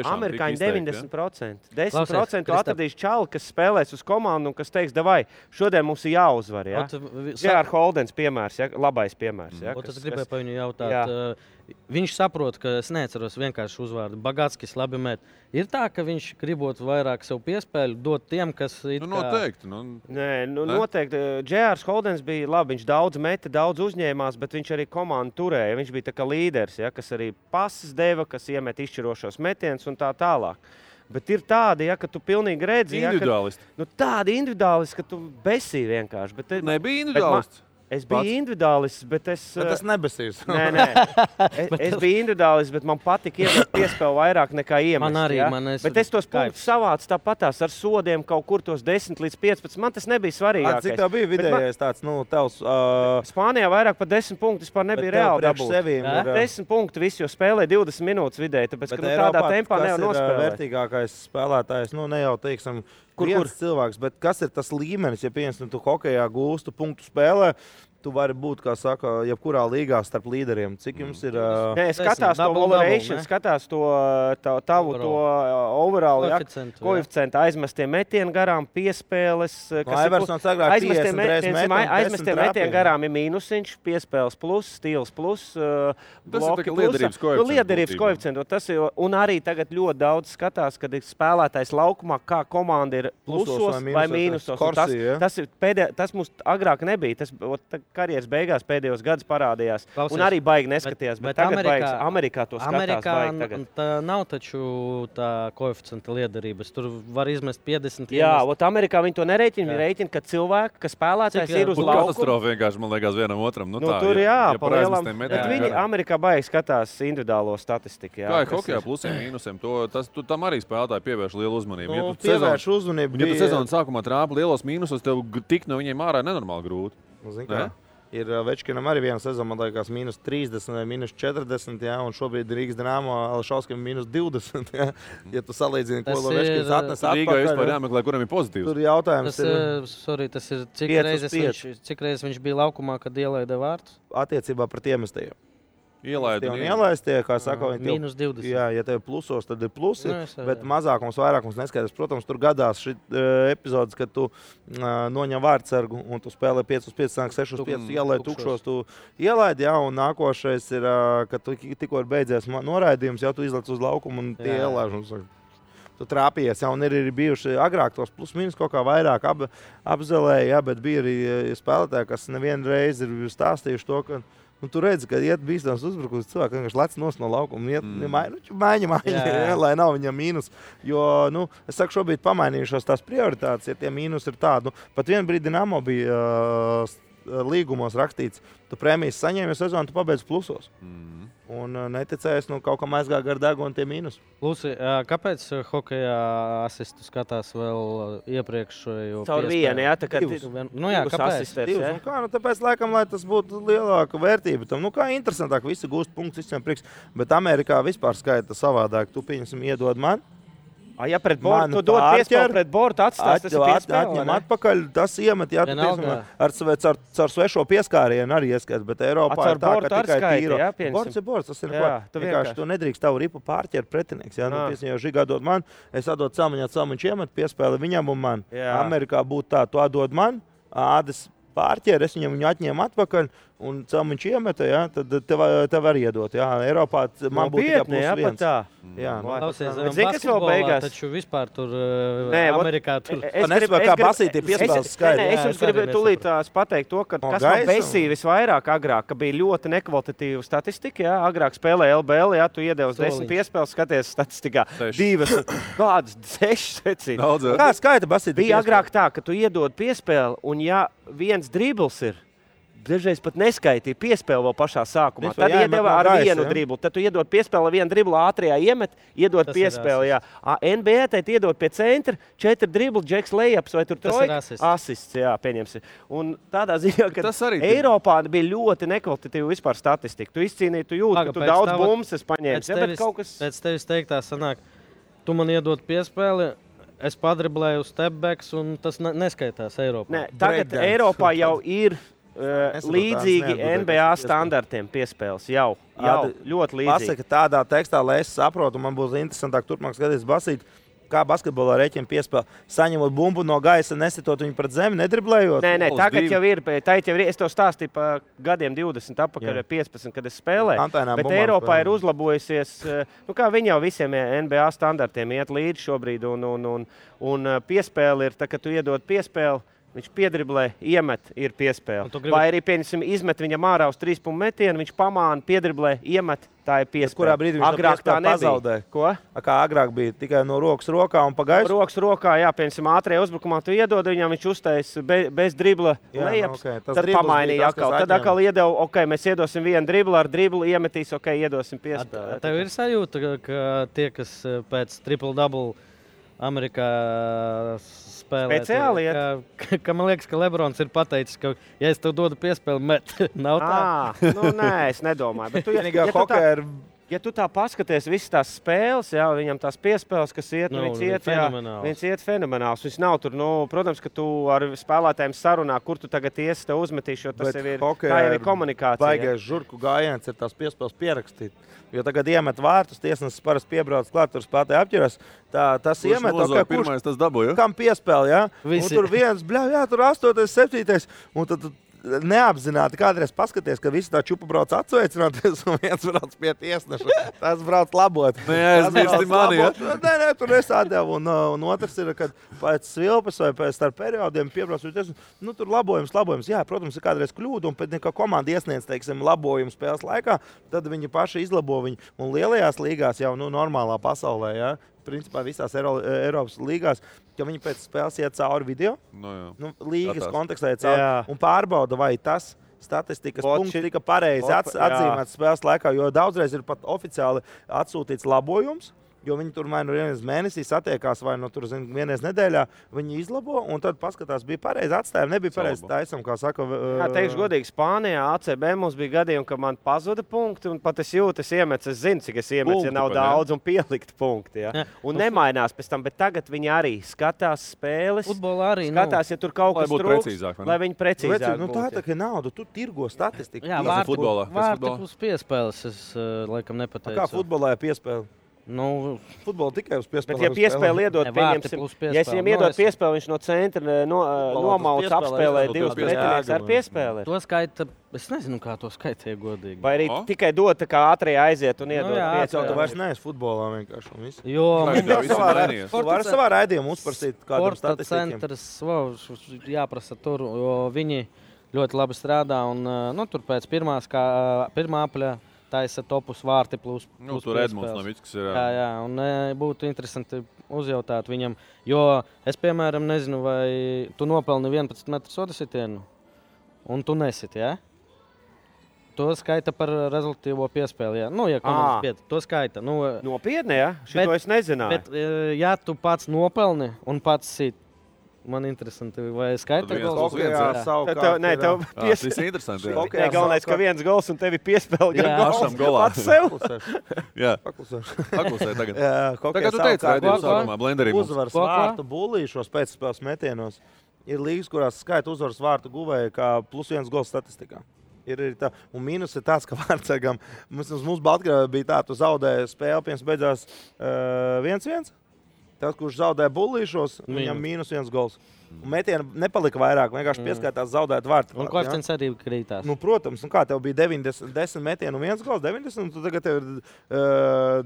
[SPEAKER 11] Amerikāņi 90%. 10% atradīs čali, kas spēlēs uz komandu un kas teiks, davai, šodien mums ir jāuzvar. Ja? J.R. Holdens piemērs, ja? Labais piemērs. Ja?
[SPEAKER 8] Es gribēju pa viņu jautāt. Viņš saprot, ka es neatceros vienkārši uzvārdu. Bagātskis labi met. Ir tā, ka viņš gribot vairāk sev piespēļu dot tiem, kas ir
[SPEAKER 1] noteikti.
[SPEAKER 11] Noteikti. J.R. Holdens bija labi. Viņš daudz meta, daudz uzņēmās, bet viņš arī komandu turēja. Viņš bija tā kā līderis, ja, kas arī pases deva, kas iemet izšķirošos metienus un tā tālāk. Bet ir tādi, ja, ka tu pilnīgi redzi.
[SPEAKER 1] Individuālisti.
[SPEAKER 11] Ja, tādi individuālisti, ka tu besī vienkārši. Bet,
[SPEAKER 1] nebija individuālists.
[SPEAKER 11] Es biju individuālists, bet es...
[SPEAKER 9] Bet tas nebesīs.
[SPEAKER 11] Nē. Es biju individuālists, bet man patika iemest piespēli vairāk nekā iemest.
[SPEAKER 8] Man arī.
[SPEAKER 11] Ja? Bet es tos punktus savācu tāpatās ar sodiem kaut kur tos 10 līdz 15. Man tas nebija svarīgākais.
[SPEAKER 9] Cik tev bija vidējais tāds, tevs...
[SPEAKER 11] Spānijā vairāk par 10 punktu vispār nebija reāli dabūt. 10 punktu visi, jo spēlē 20 minūtes vidēji, tāpēc, ka tādā tempā nevar nospēlēt.
[SPEAKER 9] Vērtīgākais spēlētājs, ne jau, teiksim, viens cilvēks, bet kas ir tas līmenis, ja piemēram, tu hokejā gūstu punktu spēlē, tu vari būt, kā saka, jebkurā līgā starp līderiem. Cik jums ir...
[SPEAKER 11] Nē, skatās to valuation, skatās to tavu overall, koeficientu, aizmestie metieni garām, piespēles. Aizmestie metieni garām ir mīnusiņš, piespēles plus, stils plus, bloki plus. Liederības koeficientu. Un arī tagad ļoti daudz skatās, kad ir spēlētājs laukumā, kā komanda ir plusos vai mīnusos. Tas mums agrāk nebija. Tas karjeras beigās pēdējos gadus parādījās. Un arī baigi neskatījās. Bet tagad Amerikā to skatās baigi tagad.
[SPEAKER 8] Tā nav taču tā koeficienta liederības. Tur var izmest 50.
[SPEAKER 11] Jā, Amerikā viņi to nereiķina. Viņi reiķina, ka cilvēki, ka spēlētājs ir uz laukuma.
[SPEAKER 1] Katastrofa vienkārši, man liekas, vienam otram.
[SPEAKER 11] Tur pa lielam. Bet viņi Amerikā baigi skatās individuālo statistiku.
[SPEAKER 1] Kā ir hokejā plusiem, mīnusiem? Tam arī spēlētāji pievērš lielu uzmanību.
[SPEAKER 9] Pievērš uzmanību.
[SPEAKER 1] Ja tu sezonas sākumā trāpi lielos mīnusos, tev tik no viņiem ārā nenormāli grūti.
[SPEAKER 9] Ir Večkinam arī viena sezona, man liekas, -30 vai -40, ja, un šobrīd Rīgas Dinamo Alšauskim -20. Ja, ja tu salīdzini, ko Večkins atnes atpakaļ.
[SPEAKER 1] Rīgā vispār jāmeklē, kuram ir pozitīvs.
[SPEAKER 9] Tur jautājums
[SPEAKER 8] tas ir cik reizes viņš bija laukumā, kad ielaida vārtus?
[SPEAKER 9] Attiecībā pret iemestajiem.
[SPEAKER 1] Ielaistie,
[SPEAKER 9] kā saka,
[SPEAKER 8] viņi
[SPEAKER 9] -20. Jā, ja tev plusos, tad ir plusi, bet mazākums, vairākums neskaidrs. Protams, tur gadās šī epizodes, kad tu noņem vārdsargu un tu spēlē 5-5, 6-5, ielaid tukšos, tu ielaid, jā, un nākošais ir, kad tu tikko ir beidzies noraidījums, jau tu izlec uz laukumu un tie ielaiž. Tu trāpījies, ja, un ir bijuši agrāk tos plus-minus kaut kā vairāk apzelēja, ja, bet bija arī spēlētāji, kas nevienu reizi ir stāstījuši to, ka tu redzi, ka iet bīstams uzbrukums, cilvēki vienkārši lec nost no laukuma, iet maiņa, lai nav viņam mīnus. Jo, es saku, šobrīd pamainījušos tās prioritātes, ja tie mīnus ir tādi. Pat vienu brīdi Dinamo bija līgumos rakstīts, tu prēmijas saņēmi, jo sezonu tu pabeidz plusos. Un neticējies, kaut kam aizgāja gar degunu tie mīnus.
[SPEAKER 8] Luci, kāpēc hokejā asistu skatās vēl iepriekšējo piespēli?
[SPEAKER 11] Caur vienu, jā, tā kā
[SPEAKER 8] kāpēc?
[SPEAKER 9] Tāpēc, laikam, lai tas būtu lielāka vērtība tam. Kā interesantāk, visi gūst punktus, visiem prieks, bet Amerikā vispār skaita savādāk. Tu, pieņemsim, iedod man.
[SPEAKER 11] Ja pret bortu, tu dod piespēli pret bortu, atstās, tas ir piespēli,
[SPEAKER 9] atņem atpakaļ, tas iemet, jā, tu, piemēram, caur svešo pieskārienu arī ieskats, bet Eiropā ir tā, ka tikai tīro. Borts ir borts, tas ir vienkārši, tu nedrīkst tavu ripu pārķert pretinieks, jā, piemēram, jau Žigā dod man, es atdod Celmiņā, Celmiņš iemet piespēli viņam un man. Amerikā būtu tā, tu atdod man, Ādes pārķer, es viņu atņēmu atpakaļ, un Celmiņš iemeta, jā, tad tev var iedot. Jā, Eiropā man būtu tikai +1. Jā,
[SPEAKER 8] zini, kas vēl beigās? Taču vispār tur Amerikā tur...
[SPEAKER 9] Es gribu, kā basīti piespēles skaidri.
[SPEAKER 11] Es jums gribu tūlīt pateikt to, ka kas man besīja visvairāk agrāk, ka bija ļoti nekvalitatīva statistika, jā, agrāk spēlē LBL, jā, tu iedevis 10 piespēles, skaties statistikā, 2, kādas 6 secīgi.
[SPEAKER 9] Kā skaita basīti?
[SPEAKER 11] Bija agrāk tā, ka tu iedod piespēli, un ja viens dribls ir, dažreiz pat neskaitīja piespēli vēl pašā sākumā. Tad iedeva ar vienu driblu. Tad tu iedod piespēli, vienu driblu ātrijā iemet, iedod piespēli. NBA teit iedod pie centra, 4 driblu, Džeks Lejaps vai tur trojka. Asists, jā, pieņemsim. Un tādā ziņā, ka Eiropā bija ļoti nekvalitatīva vispār statistika. Tu izcīnīji, tu jūti, ka tu daudz bumses paņēmis.
[SPEAKER 8] Pēc tevis teiktā sanāk, tu man iedod piespēli, es padriblēju stepbacks, un tas neskaitās Eiropā.
[SPEAKER 11] Nē, tagad Eiropā jau ir līdzīgi NBA standartiem piespēles. Jau ļoti līdzīgi.
[SPEAKER 9] Pasaka tādā tekstā, lai es saprotu, man būs interesantāk turpmāk skatīties basīt, kā basketbolā reķina piespēle. Saņemot bumbu no gaisa, nesitot viņu pret zemi, nedriblējot?
[SPEAKER 11] Nē, tagad jau ir. Es to stāstīju pa gadiem 20 atpakaļ, 15, kad es spēlēju. Bet Eiropā ir uzlabojusies, kā viņi jau visiem NBA standartiem iet līdzi šobrīd. Un piespēle ir, tā, ka tu iedod piespēli, viņš piedriblē, iemet, ir piespēle. Vai arī, pieņemsim, izmet viņam ārā uz 3 punktu metienu, viņš pamāna, piedriblē, iemet, tā ir piespēle.
[SPEAKER 9] Kurā brīdī viņš agrāk tā nezaudē?
[SPEAKER 11] Ko?
[SPEAKER 9] Kā agrāk bija, tikai no rokas rokā un pa gaisu?
[SPEAKER 11] Rokas rokā, jā, pieņemsim, ātrajā uzbrukumā tu iedod viņam, viņš uztais bez dribla lejaps, tad pamainīja atkal. Tad atkal iedeva, mēs iedosim vienu driblu, ar driblu iemetīs, iedosim piespēli.
[SPEAKER 8] Tev ir sajūta, ka tie, kas pēc triple-double Amerikā spēlē.
[SPEAKER 11] Speciāli
[SPEAKER 8] ka man liekas, ka Lebrons ir pateicis, ka, ja es tev dodu piespēli, met. Nav tā?
[SPEAKER 11] Nē, es nedomāju. Bet ja tu tā paskaties visas tās spēles, viņam tās piespēles, kas iet, viņš iet fenomenāls. Viņš nav tur, protams, ka tu ar spēlētājiem sarunā, kur tu tagad iesi, tev uzmetīši, jo tas jau ir komunikācija.
[SPEAKER 9] Baigais žurku gājiens ir tās piespēles pierakstīt. Jo tagad iemet vārtus, tiesnesis parasti piebrauc klāt, tur spēlētāji apķeras. Tas iemet,
[SPEAKER 1] pirmais tas dabūja?
[SPEAKER 9] Kam piespēli, Un tur viens, tur 8, 7. Un tad neapzināti kādreiz paskaties, ka visi tā čupa brauc atsveicināties un viens brauc pie tiesneša. Tas brauc labot.
[SPEAKER 1] Neaizmirsti mani,
[SPEAKER 9] Nē, tur nesādēv. Un otrs ir, kad pēc svilpes vai pēc starp periodiem piebrauc pie tiesneša. Tur labojums. Jā, protams, ir kādreiz kļūda, un pēc kā komanda iesniedz, labojumu spēles laikā, tad viņi paši izlabo viņu. Un lielajās līgās jau normālā pasaulē, principā visās Eiropas līgās, ka viņi pēc spēles iet cauri video, līgas kontekstā iet cauri un pārbauda, vai tas statistikas punkts tika pareizi atzīmēts spēles laikā, jo daudzreiz ir pat oficiāli atsūtīts labojums, jo viņi tur vai vienreiz mēnesī satiekās, vai vienreiz nedēļā, viņi izlabo, un tad paskatās, bija pareizi atstājumi, nebija pareizi taisam, kā saka.
[SPEAKER 11] Teikšu godīgi, Spānijā, ACB mums bija gadījumi, ka man pazuda punkti, un pat es jūtu, es zinu, cik es iemetu, ja nav daudz, un pielikt punkti. Un nemainās pēc tam, bet tagad viņi arī skatās spēles, skatās, ja tur kaut kas trūks, lai viņi precīzāk būtu.
[SPEAKER 9] Tā ir nauda, tu tirgo statistiku.
[SPEAKER 8] Jā, vārti plus piespēles, es laikam nepateicu.
[SPEAKER 9] Kā futbolā ir piespēle? Futbolu tikai uz piespēli.
[SPEAKER 11] Bet, ja piespēli iedod, pieņemsim, ja es viņam iedod piespēli, viņš no centra nomauc apspēlē 2 pretinieks ar piespēli.
[SPEAKER 8] To skaita, es nezinu, kā to skaitīja godīgi.
[SPEAKER 11] Vai arī tikai dod, kā ātrijā aiziet un iedod piespēli.
[SPEAKER 9] Tu vairs neesi futbolā vienkārši un viss.
[SPEAKER 8] Jo,
[SPEAKER 9] tu vari savā raidījumā uzprasīt kādam statistikiem.
[SPEAKER 8] Sporta centrs, jāprasa tur, jo viņi ļoti labi strādā un tur pēc pirmā apļa taisa topus vārti plus
[SPEAKER 1] tur Edmunds Novickis ir.
[SPEAKER 8] Jā, un būtu interesanti uzjautāt viņam, jo es, piemēram, nezinu, vai tu nopelni 11 metru soda sitienu, un tu nesit, To skaita par rezultatīvo piespēli, ja komandas pieta, to skaita.
[SPEAKER 11] Nopietni, Šito es nezināju.
[SPEAKER 8] Bet, ja tu pats nopelni un pats sit, man interesanti, vai skaita gols?
[SPEAKER 11] Nē, tev
[SPEAKER 1] interesanti.
[SPEAKER 11] Galvenais, ka viens gols un tevi piespēl
[SPEAKER 1] pašam golā.
[SPEAKER 11] Pats sev.
[SPEAKER 1] Jā, paklusē tagad.
[SPEAKER 9] Tagad
[SPEAKER 1] tu teici, ka sākumā blenderī mums.
[SPEAKER 9] Uzvaras vārtu bullīšos pēcspēles metienos. Ir līgas, kurās skaita uzvaras vārtu guvēja kā +1 gols statistikā. Ir tā, un mīnus ir tāds, ka vārdsargam, mums Baltkrievijā bija tā, tu zaudēji spēli, pirms beidzās 1-1. Tas, kurš zaudēja bullīšos, viņam -1 gols. Un metieni nepalika vairāk, vienkārši pieskaitās zaudēt vārtu.
[SPEAKER 8] Un koeficients arī krītās.
[SPEAKER 9] Protams, un kā tev bija 10 metienu un 1 gols, 90, un tu tagad tev ir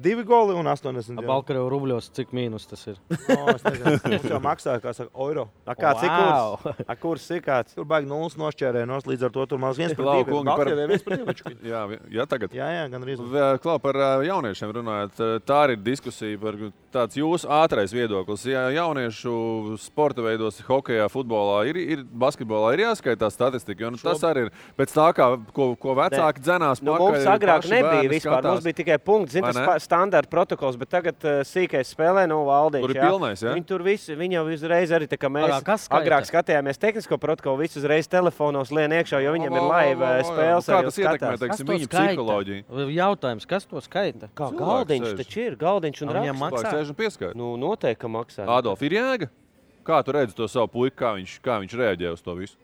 [SPEAKER 9] 2 goli un 80.
[SPEAKER 8] Baltkrievu rubļos, cik mīnus tas ir?
[SPEAKER 9] Es nezinu, mums jau maksāja, kā saka, eiro.
[SPEAKER 11] Kāds ir kurs? Kurs ir kāds?
[SPEAKER 9] Tur baigi 0 nošķērēja, līdz ar to tur maz 1-2. Baltkrievijā 1-2.
[SPEAKER 1] Jā, tagad.
[SPEAKER 9] Jā, gan arī.
[SPEAKER 1] Klau, par jauniešiem runājot, tā ir diskusija par tāds jūsu ātrais viedoklis. Ja jauniešu sporta veidos hokejā, futbolā, ir basketbolā ir jāskaitās statistika. Jo, tas arī ir pēc tā, ko vecāki dzenās.
[SPEAKER 11] Mums agrāk nebija vispār. Mums bija tikai punkts, tas standarta protokols, bet tagad sīkais spēlē Valdiņš.
[SPEAKER 1] Tur ir pilnais, ja?
[SPEAKER 11] Viņi tur visi, viņi jau uzreiz arī, tā kā mēs agrāk skatījāmies tehnisko protokolu, visi uzreiz telefonos lien iekšā, jo viņam ir laiva spēles.
[SPEAKER 1] Kā tas ietekmē, teiksim, viņu psiholoģiju?
[SPEAKER 8] Jautājums, kas to skaita?
[SPEAKER 11] Kā Galdiņš taču ir, Galdiņš un
[SPEAKER 8] raksts.
[SPEAKER 1] Maksā?
[SPEAKER 11] Nu, noteikti, ka maksā.
[SPEAKER 1] Adolf, ir jēga? Kā tu redzi to savu puiku, kā viņš reaģē uz to visu?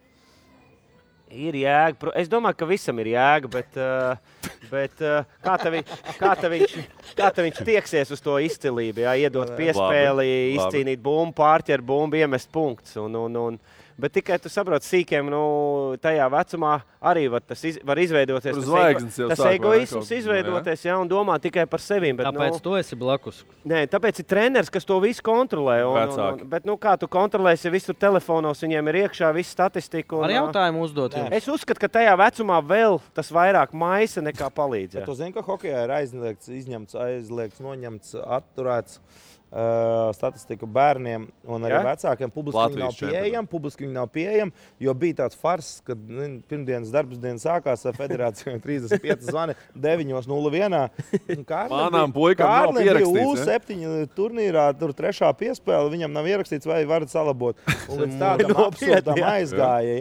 [SPEAKER 11] Ir jēga. Es domāju, ka visam ir jēga, bet kā viņš tieksies uz to izcilību, iedot piespēli, izcīnīt bumbu, pārķert bumbu, iemest punkts. Bet tikai tu saproti, sīkiem tajā vecumā arī tas var izveidoties. Tas egoisms izveidoties, un domā tikai par sevi.
[SPEAKER 8] Tāpēc tu esi blakus.
[SPEAKER 11] Nē, tāpēc ir treneris, kas to visu kontrolē. Bet kā tu kontrolēsi, ja visur telefonos viņiem ir iekšā viss statistika?
[SPEAKER 8] Ar jautājumu uzdot.
[SPEAKER 11] Es uzskatu, ka tajā vecumā vēl tas vairāk maisa nekā palīdz.
[SPEAKER 9] Tu zini, ka hokejā ir aizliegts, noņemts, atturēts. Statistiku bērniem un arī vecākiem publiski nav pieejama, jo bija tāds fars, kad pirmdienas darbsdienas sākās ar federācijām 35 zvani 9:01.
[SPEAKER 1] Manām puikām nav pierakstīts.
[SPEAKER 9] U7 turnīrā, tur 3. piespēle, viņam nav ierakstīts, vai varat salabot. Un līdz tādam absurdam aizgāja.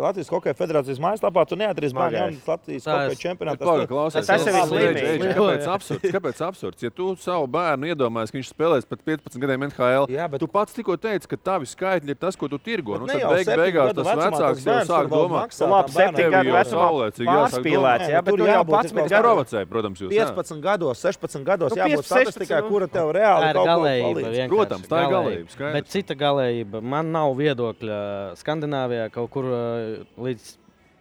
[SPEAKER 9] Latvijas Hokeja federācijas mājaslapā tu neatrīs bērni Latvijas Hokeja čempionātā.
[SPEAKER 11] Tas ir
[SPEAKER 1] slimīgi. Kāpēc absurds? Ja tu savu bērnu iedomājies, ka viņš spēlēs pat 15 gadiem NHL. Tu pats tikko teici, ka tavi skaitļi ir tas, ko tu tirgo. Tad beigās tas vecāks jau sāk domāt.
[SPEAKER 11] Labi, 7 gadu vecumā pārspīlēts. Bet tu jau 11 gadu
[SPEAKER 1] provocēji, protams, jūs.
[SPEAKER 9] 15 gados, 16 gados jābūt statistikai, kura tev reāli kaut ko palīdz.
[SPEAKER 1] Protams, tā ir galējība.
[SPEAKER 8] Bet cita galējība. Man nav viedokļa Skandināvijā kaut kur līdz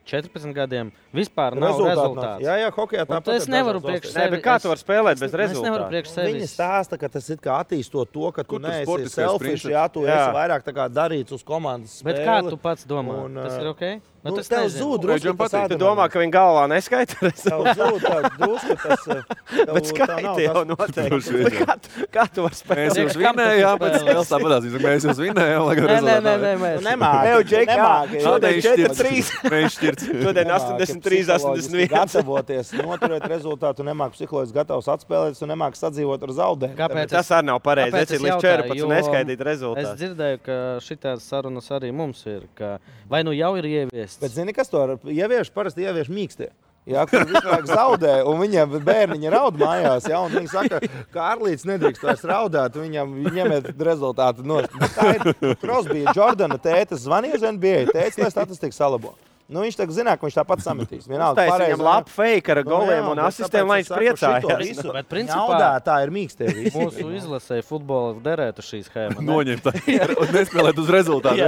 [SPEAKER 8] 14 gadiem vispār nav rezultāts.
[SPEAKER 9] Jā, hokejā tāpat.
[SPEAKER 8] Es nevaru priekš sevi.
[SPEAKER 11] Kā tu vari spēlēt bez rezultātu?
[SPEAKER 8] Es nevaru priekš sevi.
[SPEAKER 9] Viņi stāsta, ka tas ir kā attīstot to, ka tu neesi selfish, tu esi vairāk tā kā darīts uz komandas spēli.
[SPEAKER 8] Bet kā tu pats domā? Tas ir ok?
[SPEAKER 9] Tas tev zūd drusku.
[SPEAKER 11] Tu domā, ka viņi galvā neskaita?
[SPEAKER 9] Tev zūd drusku tas.
[SPEAKER 11] Bet skaita jau noteikti. Kā tu vari spēlēt?
[SPEAKER 1] Mēs jūs vinējām, pēc spēles tāpatās. Mēs jūs vinējām, lai gan rezultātā.
[SPEAKER 11] Nemāki. Šodien 4-3.
[SPEAKER 1] Mēs šķirts.
[SPEAKER 11] Šodien 83-81.
[SPEAKER 9] Gatavoties, noturēt rezultātu, nemāki psiholoģiski gatavs atspēlēt, un nemāki sadzīvot ar zaudējumu.
[SPEAKER 11] Kāpēc? Tas arī nav pareizi. Es ir līdz 14 neskaidīt rezultātu.
[SPEAKER 8] Es dzirdēju, ka šitās sarunas arī mums ir, ka vai nu jau ir ieviests.
[SPEAKER 9] Bet zini, kas to ievieš? Parasti ievieš mīkstie. Jā, kur visu laiku zaudē, un viņiem bērniņi raud mājās, un viņi saka, ka Arlīts nedrīkst vairs raudāt, viņam ņemiet rezultātu nost. Tā ir Crosby, Jordana tētas zvanīja uz NBA, tētas, lai statistiku salabo. Viņš tagad zina, ka viņš tāpat sametīs.
[SPEAKER 11] Uztais viņam labu fake ar goliem un asistēm, lai viņš priecājās.
[SPEAKER 8] Bet principā
[SPEAKER 9] tā ir mīkstie visi.
[SPEAKER 8] Mūsu izlasē futbola derētu šī schēma.
[SPEAKER 1] Noņemt un nespēlēt uz rezultātu.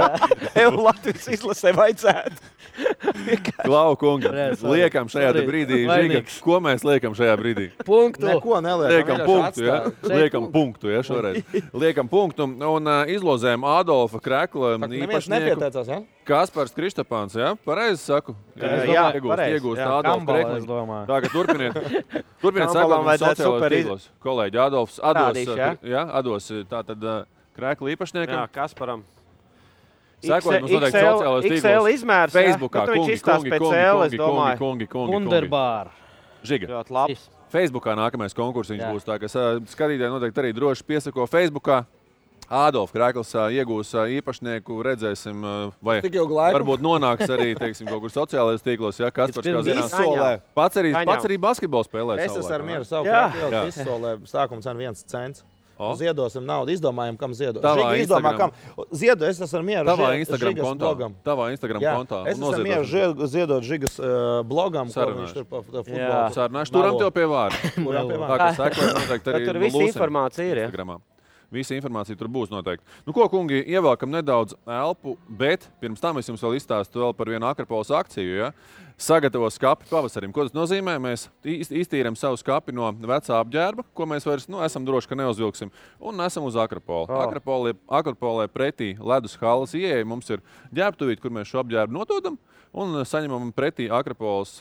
[SPEAKER 11] Latvijas izlasē vajadzētu.
[SPEAKER 1] Klau, kungi, liekam šajā brīdī, Žiga, ko mēs liekam šajā brīdī?
[SPEAKER 8] Punktu.
[SPEAKER 9] Neko neliekam.
[SPEAKER 1] Liekam punktu, šoreiz. Liekam punktu un izlozējam Adolfa Krekla īpašnieku. Kaspars Kristapāns, pareizi saku? Iegūst Adolfa Krekli. Tagad turpiniet sakot mums sociālajos tīklos. Kolēģi Adolfs, Ados, tātad Krekla īpašniekam.
[SPEAKER 11] Jā, Kasparam.
[SPEAKER 1] Sekot mums noteikti sociālajos tīklos.
[SPEAKER 11] XL izmērs,
[SPEAKER 1] Facebookā, kungi.
[SPEAKER 8] Underbār.
[SPEAKER 1] Žiga. Facebookā nākamais konkursiņš būs tā, ka skatītāji noteikti arī droši piesako Facebookā. Adolf Krekls iegūs īpašnieku, redzēsim, vai varbūt nonāks arī, teiksim, kaut kur sociālajos tīklos, Kaspars, kā zinās. Pats arī basketbolu spēlē.
[SPEAKER 9] Es esmu ar mieru savu krāpjēlu, izsolē, sākums ar 1 cents. Ziedosim naudu, izdomājam, kam ziedot. Izdomā, kam. Ziedo, es esmu ar mieru
[SPEAKER 1] Tavā Instagram kontā.
[SPEAKER 9] Es esmu ar mieru ziedot Žigas blogam, ko viņš tur pa futbolu.
[SPEAKER 1] Sarunāšu, turam tev pie vārda. Tā kā sekot noteikti arī
[SPEAKER 11] tur visa informācija ir,
[SPEAKER 1] Visa informācija tur būs noteikti. Ko, kungi, ievelkam nedaudz elpu, bet pirms tam es jums vēl izstāstu par vienu Akropolis akciju. sagatavo skapi pavasarim. Ko tas nozīmē? Mēs iztīram savu skapi no vecā apģērba, ko mēs vairs esam droši, ka neuzvilksim, un nesam uz Akropoli. Akropolē pretī ledus halas ieeja mums ir ģērbtuvīt, kur mēs šo apģērbu nododam, un saņemam pretī Akropoles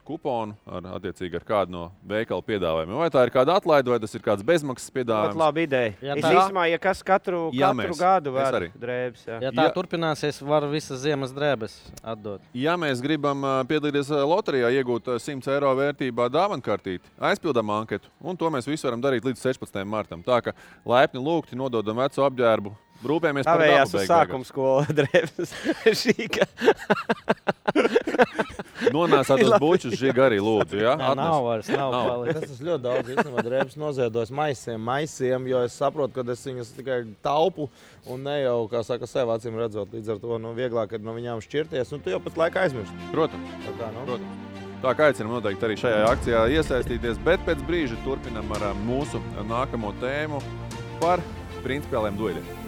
[SPEAKER 1] kuponu attiecīgi ar kādu no veikala piedāvājumiem. Vai tā ir kāda atlaide, vai tas ir kāds bezmaksas piedāvājums?
[SPEAKER 11] Laba ideja. Īstumā, ja kas katru gadu var drēbes.
[SPEAKER 8] Ja tā turpināsies, var visas ziemas drēbes atdot.
[SPEAKER 1] Ja mēs gribam piedalīties loterijā, iegūt 100 eiro vērtībā dāvankartīti, aizpildām anketu, un to mēs visu varam darīt līdz 16. martam. Tā ka laipni lūgti nododam veco apģērbu. Rūpējamies par dabu beigās.
[SPEAKER 11] Sākuma skola drēbes. Šīga.
[SPEAKER 1] Nonāsāt uz bučus žiga arī lūdzu, ja?
[SPEAKER 8] Nav vairs, nav palikt.
[SPEAKER 9] Tas ļoti daudz, īstenībā, drēbes noziedos maisiem, jo es saprotu, ka es viņas tikai taupu un ne jau, kā saka, sev acīm redzot. Līdz ar to vieglāk ir no viņām šķirties, un tu jau pēc laika aizmirsti.
[SPEAKER 1] Protams. Tā kā aicinam noteikti arī šajā akcijā iesaistīties, bet pēc brīža turpinam ar mūsu nākamo tēmu par principiāliem dueļiem.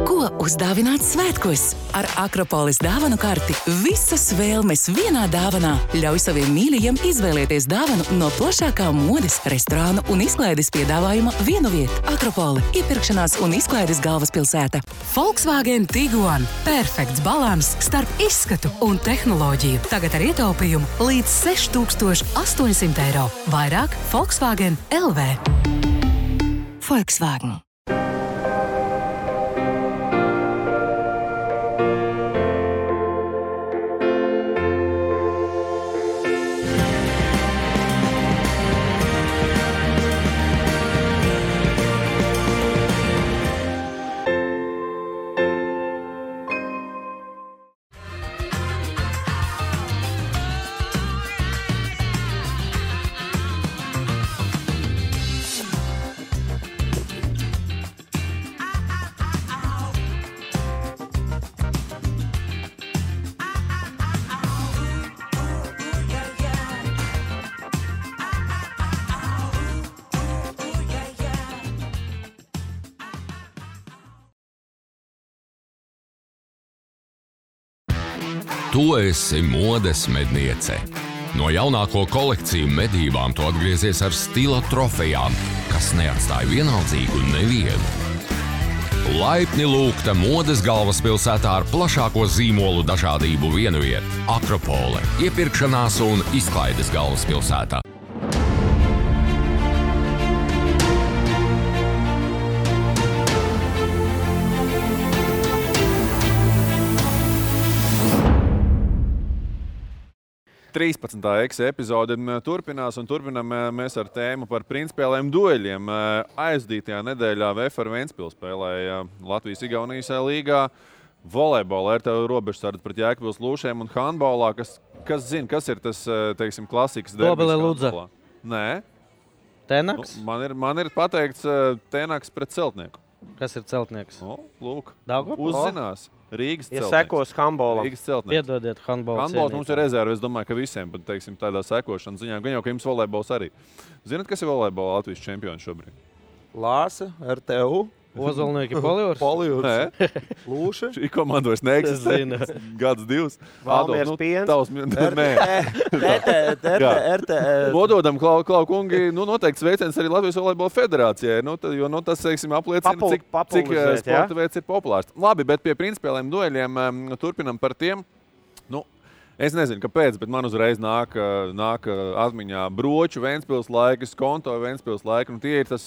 [SPEAKER 6] Ko uzdāvināt svētkos? Ar Akropolis dāvanu karti visas vēlmes vienā dāvanā. Ļauj saviem mīļajiem izvēlēties dāvanu no plašākā modes, restorānu un izklaides piedāvājuma vienu vietu. Akropoli – iepirkšanās un izklaides galvaspilsēta. Volkswagen Tiguan – perfekts balans starp izskatu un tehnoloģiju. Tagad ar ietaupījumu līdz 6800 eiro. Vairāk Volkswagen LV. Volkswagen.
[SPEAKER 7] Tu esi modes medniece. No jaunāko kolekciju medībām tu atgriezies ar stila trofejām, kas neatstāja vienaldzīgu nevienu. Laipni lūgta modes galvaspilsētā ar plašāko zīmolu dažādību vienu vietu. Akropole – iepirkšanās un izklaides galvaspilsētā.
[SPEAKER 1] Epizode turpinās un turpinām mēs ar tēmu par principiāliem dueļiem. Aizdītajā nedēļā VFR Ventspils spēlēja Latvijas-Igaunijas līgā volejbolā ar tev robežsardzi pret Jēkabpils Lūšiem un handbolā. Kas zina, kas ir tas, teiksim, klasikas derbis?
[SPEAKER 8] Dobele Ludza.
[SPEAKER 1] Nē.
[SPEAKER 8] Tenaks?
[SPEAKER 1] Man ir pateikts Tenaks pret Celtnieku.
[SPEAKER 8] Kas ir Celtnieks?
[SPEAKER 1] Lūk,
[SPEAKER 8] Daugavpils?
[SPEAKER 1] Uzzinās. Rīgas Celtnieks.
[SPEAKER 11] Ja sekos handbolam.
[SPEAKER 1] Rīgas Celtnieks.
[SPEAKER 8] Piedodiet handbola
[SPEAKER 1] Handbols mums ir rezerve, es domāju, ka visiem, bet, teiksim, tādā sekošanas ziņā, gan jau, ka jums volejbols arī. Zināt, kas ir volejbola Latvijas čempioni šobrīd?
[SPEAKER 9] Lāse, RTU.
[SPEAKER 8] Ozolnieki Polijūrs?
[SPEAKER 1] Nē.
[SPEAKER 9] Lūša.
[SPEAKER 1] Šī komanda vairs neeksistē. Gads, divs.
[SPEAKER 11] Valmiers piens.
[SPEAKER 1] Vododam, Klau kungi, noteikti sveiciens arī Latvijas volejbola federācijai, jo tas, teiksim, apliecina, cik sporta veids ir populārs. Labi, bet pie principiāliem dueļiem turpinam par tiem. Es nezinu, kāpēc, bet man uzreiz nāk atmiņā Broču Ventspils laika, Skonto Ventspils laika. Tie ir tas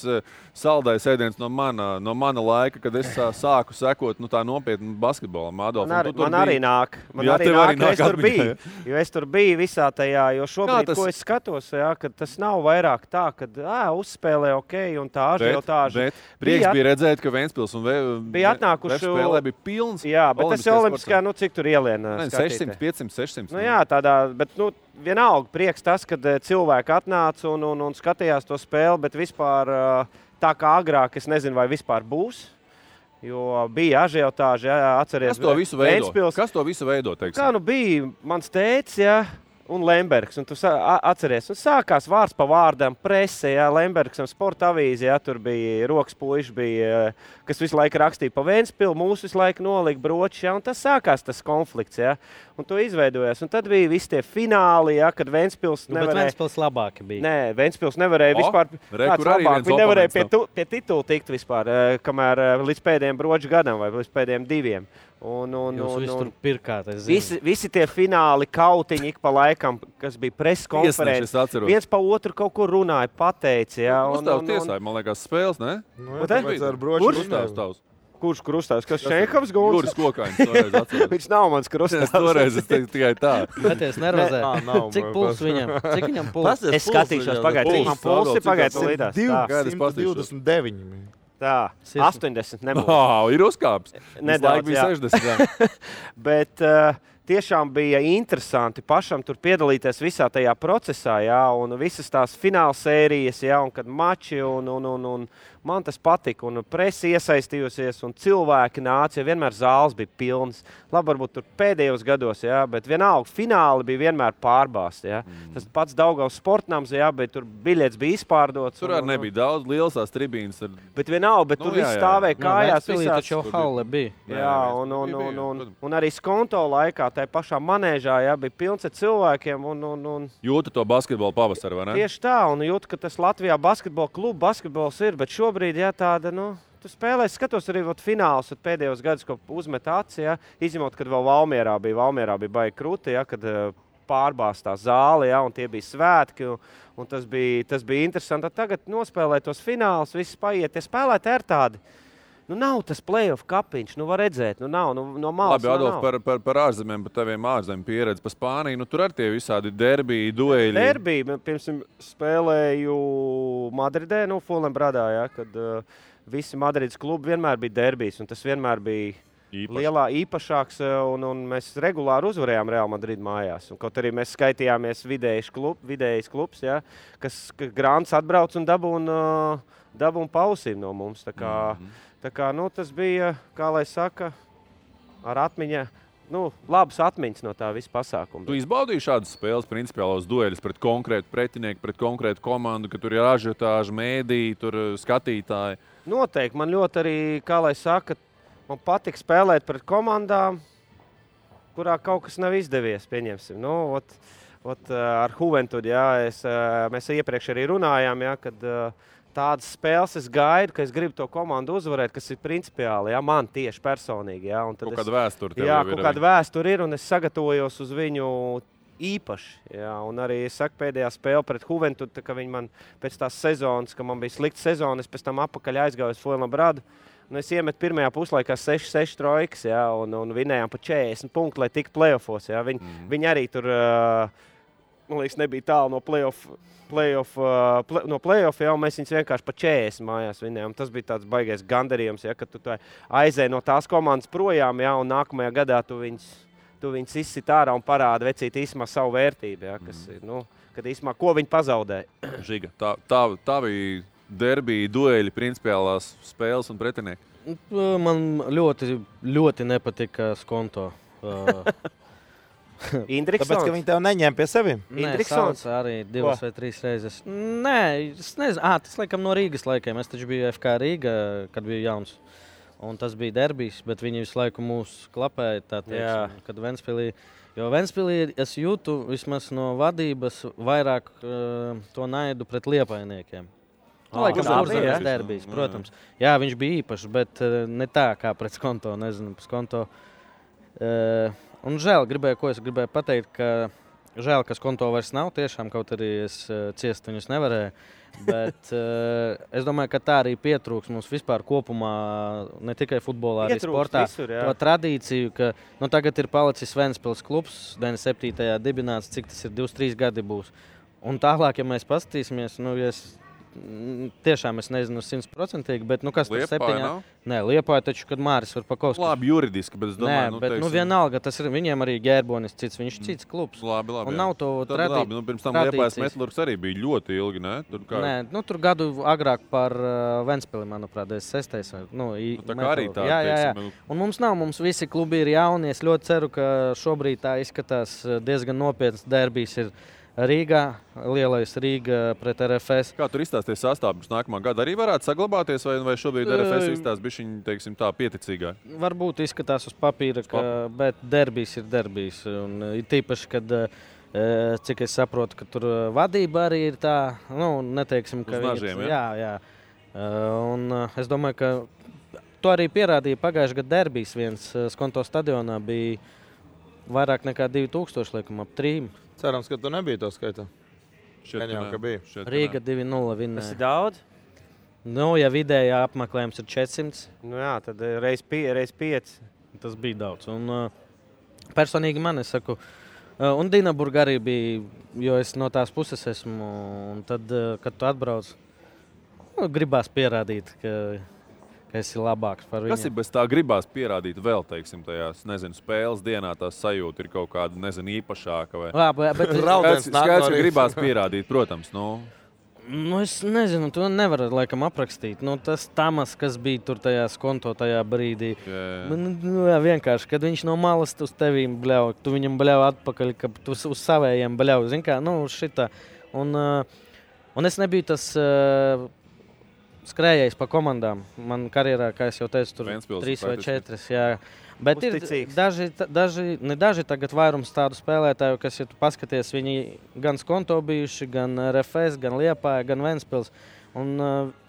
[SPEAKER 1] saldais ēdiens no mana laika, kad es sāku sekot tā nopietni basketbolam.
[SPEAKER 11] Man arī nāk, es tur biju. Jo es tur biju visā tajā, jo šobrīd, ko es skatos, kad tas nav vairāk tā, kad uzspēlē ok un tā ažiotāža.
[SPEAKER 1] Bet prieks bija redzēt, ka Ventspils un
[SPEAKER 11] bija atnākuši
[SPEAKER 1] spēlē bija pilns.
[SPEAKER 11] Jā, bet tas jau olimpiskā, cik tur ieliena skatītē.
[SPEAKER 1] 600, 500, 600.
[SPEAKER 11] Jā, tādā, bet vienalga prieks tas, kad cilvēki atnāca un skatījās to spēli, bet vispār tā kā agrāk, es nezinu, vai vispār būs, jo bija ažiotāži, atceries.
[SPEAKER 1] Kas to visu veido? Teiksim?
[SPEAKER 11] Kā bija mans tētis, un Lembergs. Un tu atceries, un sākās vārds pa vārdam, presē, jā, Lembergsam sporta avīze, jā, tur bija rokas puiši, bija, kas visu laiku rakstīja pa Ventspilu, mūsu visu laiku nolika bročus, jā, un tas sākās tas konflikts, jā, un to izveidojās. Un tad bija visi tie fināli, jā, kad Ventspils nevarēja...
[SPEAKER 8] Bet Ventspils labāki bija.
[SPEAKER 11] Nē, Ventspils nevarēja vispār... Kāds labāk, viņi nevarēja pie titula tikt vispār, kamēr līdz pēdējiem broču gadam vai līdz pēdējiem 2.
[SPEAKER 8] Jūs tur pirkāt, es
[SPEAKER 11] zinu. Visi tie fināli kautiņi ik pa laikam, kas bija preskonferences. Viens pa otru kaut kur runāja, pateica. Jā,
[SPEAKER 1] Uzstāvs tiesāja, man liekas, spēles, ne?
[SPEAKER 11] Kurš krustāvs? Kas Šenkovs gulds?
[SPEAKER 1] Juris Kokainis toreiz atceros.
[SPEAKER 11] Viņš nav mans krustāvs.
[SPEAKER 1] Toreiz es teicu tikai tā.
[SPEAKER 8] Meties nervozē. Cik puls viņam? Cik viņam puls?
[SPEAKER 11] Es skatīšos pagaid. Cik man pulsi pagaid līdās?
[SPEAKER 9] 229.
[SPEAKER 11] Tā, 80 nebūs.
[SPEAKER 1] Ir uzkāps.
[SPEAKER 11] Nedaudz,
[SPEAKER 1] bija 60.
[SPEAKER 11] Bet tiešām bija interesanti pašam tur piedalīties visā tajā procesā, jā, un visas tās fināla sērijas, jā, un kad mači, un man tas patika, un presi iesaistījusies, un cilvēki nāca, jo vienmēr zāles bija pilnas. Labi, varbūt tur pēdējos gados, jā, bet vienalga fināli bija vienmēr pārbāsti, jā. Tas pats Daugavas sportnams, jā, bet tur biļets bija izpārdots.
[SPEAKER 1] Tur arī nebija daudz, liels tās tribīnas.
[SPEAKER 11] Bet vienalga, bet tur viss stāvēja kājās visās.
[SPEAKER 8] Taču halle bija.
[SPEAKER 11] Jā, un arī skonto laikā, tai pašā manēžā, jā, bija pilns ar cilvēkiem, un...
[SPEAKER 1] Jūtu to basketbolu pavasaru, vai ne?
[SPEAKER 11] Tieši tā, un jūtu, ka tas Latvijā basketbols ir, bet šobrīd, jā, tāda, tu spēlēs, skatos arī fināls, pēdējos gadus, ko uzmet aci, jā, izņemot, kad vēl Valmierā bija baigi krūti, jā, kad pārbāstā zāle, jā, un tie bija svētki, un tas bija interesanti. Tagad nospēlēt tos finālus, viss paiet, tie spēlētāji ir tādi. Nav tas play-off kapiņš, var redzēt, nav, no malas.
[SPEAKER 1] Labi, Adolf, par ārzemēm, par taviem ārzemēm pieredzi, par Spāniju, tur ar tie visādi derbiji, dueļi.
[SPEAKER 11] Derbiji, piemēram, spēlēju Madridē, Fulenbradā, jā, kad visi Madrides klubi vienmēr bija derbijs, un tas vienmēr bija īpašāks, un mēs regulāri uzvarējām Real Madrid mājās. Un kaut arī mēs skaitījāmies vidējais klubs, jā, kas Grants atbrauc un dabūn pausīm no mums, Tā kā tas bija, kā lai saka, ar atmiņa, labas atmiņas no tā visa pasākuma.
[SPEAKER 1] Tu izbaudīji šādas spēles, principiālos dueļus pret konkrētu pretinieku, pret konkrētu komandu, ka tur ir ažiotāži, mēdīji, tur skatītāji?
[SPEAKER 11] Noteikti. Man ļoti arī, kā lai saka, man patīk spēlēt pret komandām, kurā kaut kas nav izdevies, pieņemsim. Ar Juventud, jā, mēs iepriekš arī runājām, jā, kad... Tādas spēles es gaidu, ka es gribu to komandu uzvarēt, kas ir principiāli, jā, man tieši personīgi. Jā, un tad
[SPEAKER 1] kaut kāda vēsture tev
[SPEAKER 11] ir. Jā, kaut kāda vēsture ir, un es sagatavojos uz viņu īpaši. Jā, un arī es saku pēdējā spēle pret Juventud, ka viņi man pēc tās sezonas, ka man bija slikta sezona, es pēc tam apakaļ aizgāju uz Fuenlabradu, un es iemetu pirmajā puslaikā 6 trojkas, jā, un vinējām pa 40 punktu, lai tiktu play-offos. Jā. Viņi arī tur, man liekas, nebija tālu no play-off, jau mēs viņus vienkārši pa 40 mājās vinējām. Tas bija tāds baigais gandarījums, ja, kad tu aizēji no tās komandas projām, ja, un nākamajā gadā tu viņus izsit ārā un parāda vecīt īsumā savu vērtību, ja, kas ir, kad īsumā, ko viņi pazaudēja.
[SPEAKER 1] Žiga, tā bija derbija, dueļi, principiālās spēles un pretinieki?
[SPEAKER 8] Man ļoti, ļoti nepatika Skonto.
[SPEAKER 11] Indriksons?
[SPEAKER 9] Tāpēc, ka viņi tev neņēma pie sevi?
[SPEAKER 8] Indriksons arī 2 vai 3 reizes. Nē, es nezinu. Tas laikam no Rīgas laikiem. Es taču biju FK Rīga, kad biju jauns. Un tas bija derbijs, bet viņi visu laiku mūs klapēja, tā teiksim, kad Ventspilī. Jo Ventspilī es jūtu vismaz no vadības vairāk to naidu pret liepainiekiem. Laikam Urzemēs derbijs, protams. Jā, viņš bija īpašs, bet ne tā kā pret Skonto, nezinu, Skonto. Un žēl, ko es gribēju pateikt, ka žēl, ka Skonto vairs nav tiešām, kaut arī es ciest viņus nevarēju. Bet es domāju, ka tā arī pietrūks mums vispār kopumā, ne tikai futbolā, arī sportā.
[SPEAKER 11] Visur,
[SPEAKER 8] to tradīciju, ka tagad ir palicis Ventspils klubs, 97. dibināts, cik tas ir 23 gadi būs. Un tālāk, ja mēs paskatīsimies, tiešām es nezinu 100%, bet kas tur
[SPEAKER 1] Liepāja nav?
[SPEAKER 8] Nē, Liepāja taču, kad Māris var Pakovskis.
[SPEAKER 1] Labi, juridiski, bet es domāju,
[SPEAKER 8] bet vienalga, tas ir viņiem arī Ģērbonis cits, viņš cits klubs.
[SPEAKER 1] Labi,
[SPEAKER 8] un nav to
[SPEAKER 1] labi, pirms tam Liepājas Metlurgs arī bija ļoti ilgi, ne?
[SPEAKER 8] Nē, tur gadu agrāk par Ventspili, manuprāt, 6.
[SPEAKER 1] Tā kā arī tā,
[SPEAKER 8] jā. Un mums visi klubi ir jauni, es ļoti ceru, ka šobrīd tā izskatās diezgan nopietns derbijs ir Rīgā, lielais Rīga pret RFS.
[SPEAKER 1] Kā tur izstāsties sastāvs nākamā gada? Arī varētu saglabāties, vai šobrīd RFS izstāsts bišķiņ, teiksim tā, pieticīgāk?
[SPEAKER 8] Varbūt izskatās uz papīra, bet derbijs ir derbijs. Un tīpaši, kad, cik es saprotu, ka tur vadība arī ir tā, neteiksim, ka
[SPEAKER 1] uz nažiem,
[SPEAKER 8] jā. Un es domāju, ka to arī pierādīja pagājušajā gada derbijs. Viens Skonto stadionā bija vairāk nekā 2000, liekam, ap 3.
[SPEAKER 9] Cerams, ka tu nebija to skaitā.
[SPEAKER 8] Rīga 2-0 vinnēja.
[SPEAKER 11] Tas ir daudz?
[SPEAKER 8] Ja vidējā apmeklējums ir 400.
[SPEAKER 11] Jā, tad reiz 5.
[SPEAKER 8] Tas bija daudz. Un personīgi man, es saku, un Dinaburga arī bija, jo es no tās puses esmu. Un tad, kad tu atbrauc, gribās pierādīt, ka esi labāks par viņu.
[SPEAKER 1] Kas ir bez tā gribās pierādīt vēl, teiksim, tajās, spēles dienā tās sajūta ir kaut kāda, īpašāka vai?
[SPEAKER 8] Bet
[SPEAKER 1] skaidrs, ka gribās pierādīt, protams,
[SPEAKER 8] es nezinu, to nevar laikam aprakstīt. Tas Tamas, kas bija tur tajā Skonto tajā brīdī. Jā, vienkārši, kad viņš no malas uz tevīm bļauj, tu viņam bļauj atpakaļ, ka tu uz savējiem bļauj. Zin kā, šitā. Un es nebiju tas skrējējis pa komandām. Man karjerā, kā es jau teicu, tur 3 vai 4. Jā. Bet
[SPEAKER 11] uzticīgs.
[SPEAKER 8] Ir daži tagad vairums tādu spēlētāju, kas, ja tu paskaties, viņi gan Skonto bijuši, gan RFS, gan Liepāja, gan Ventspils. Un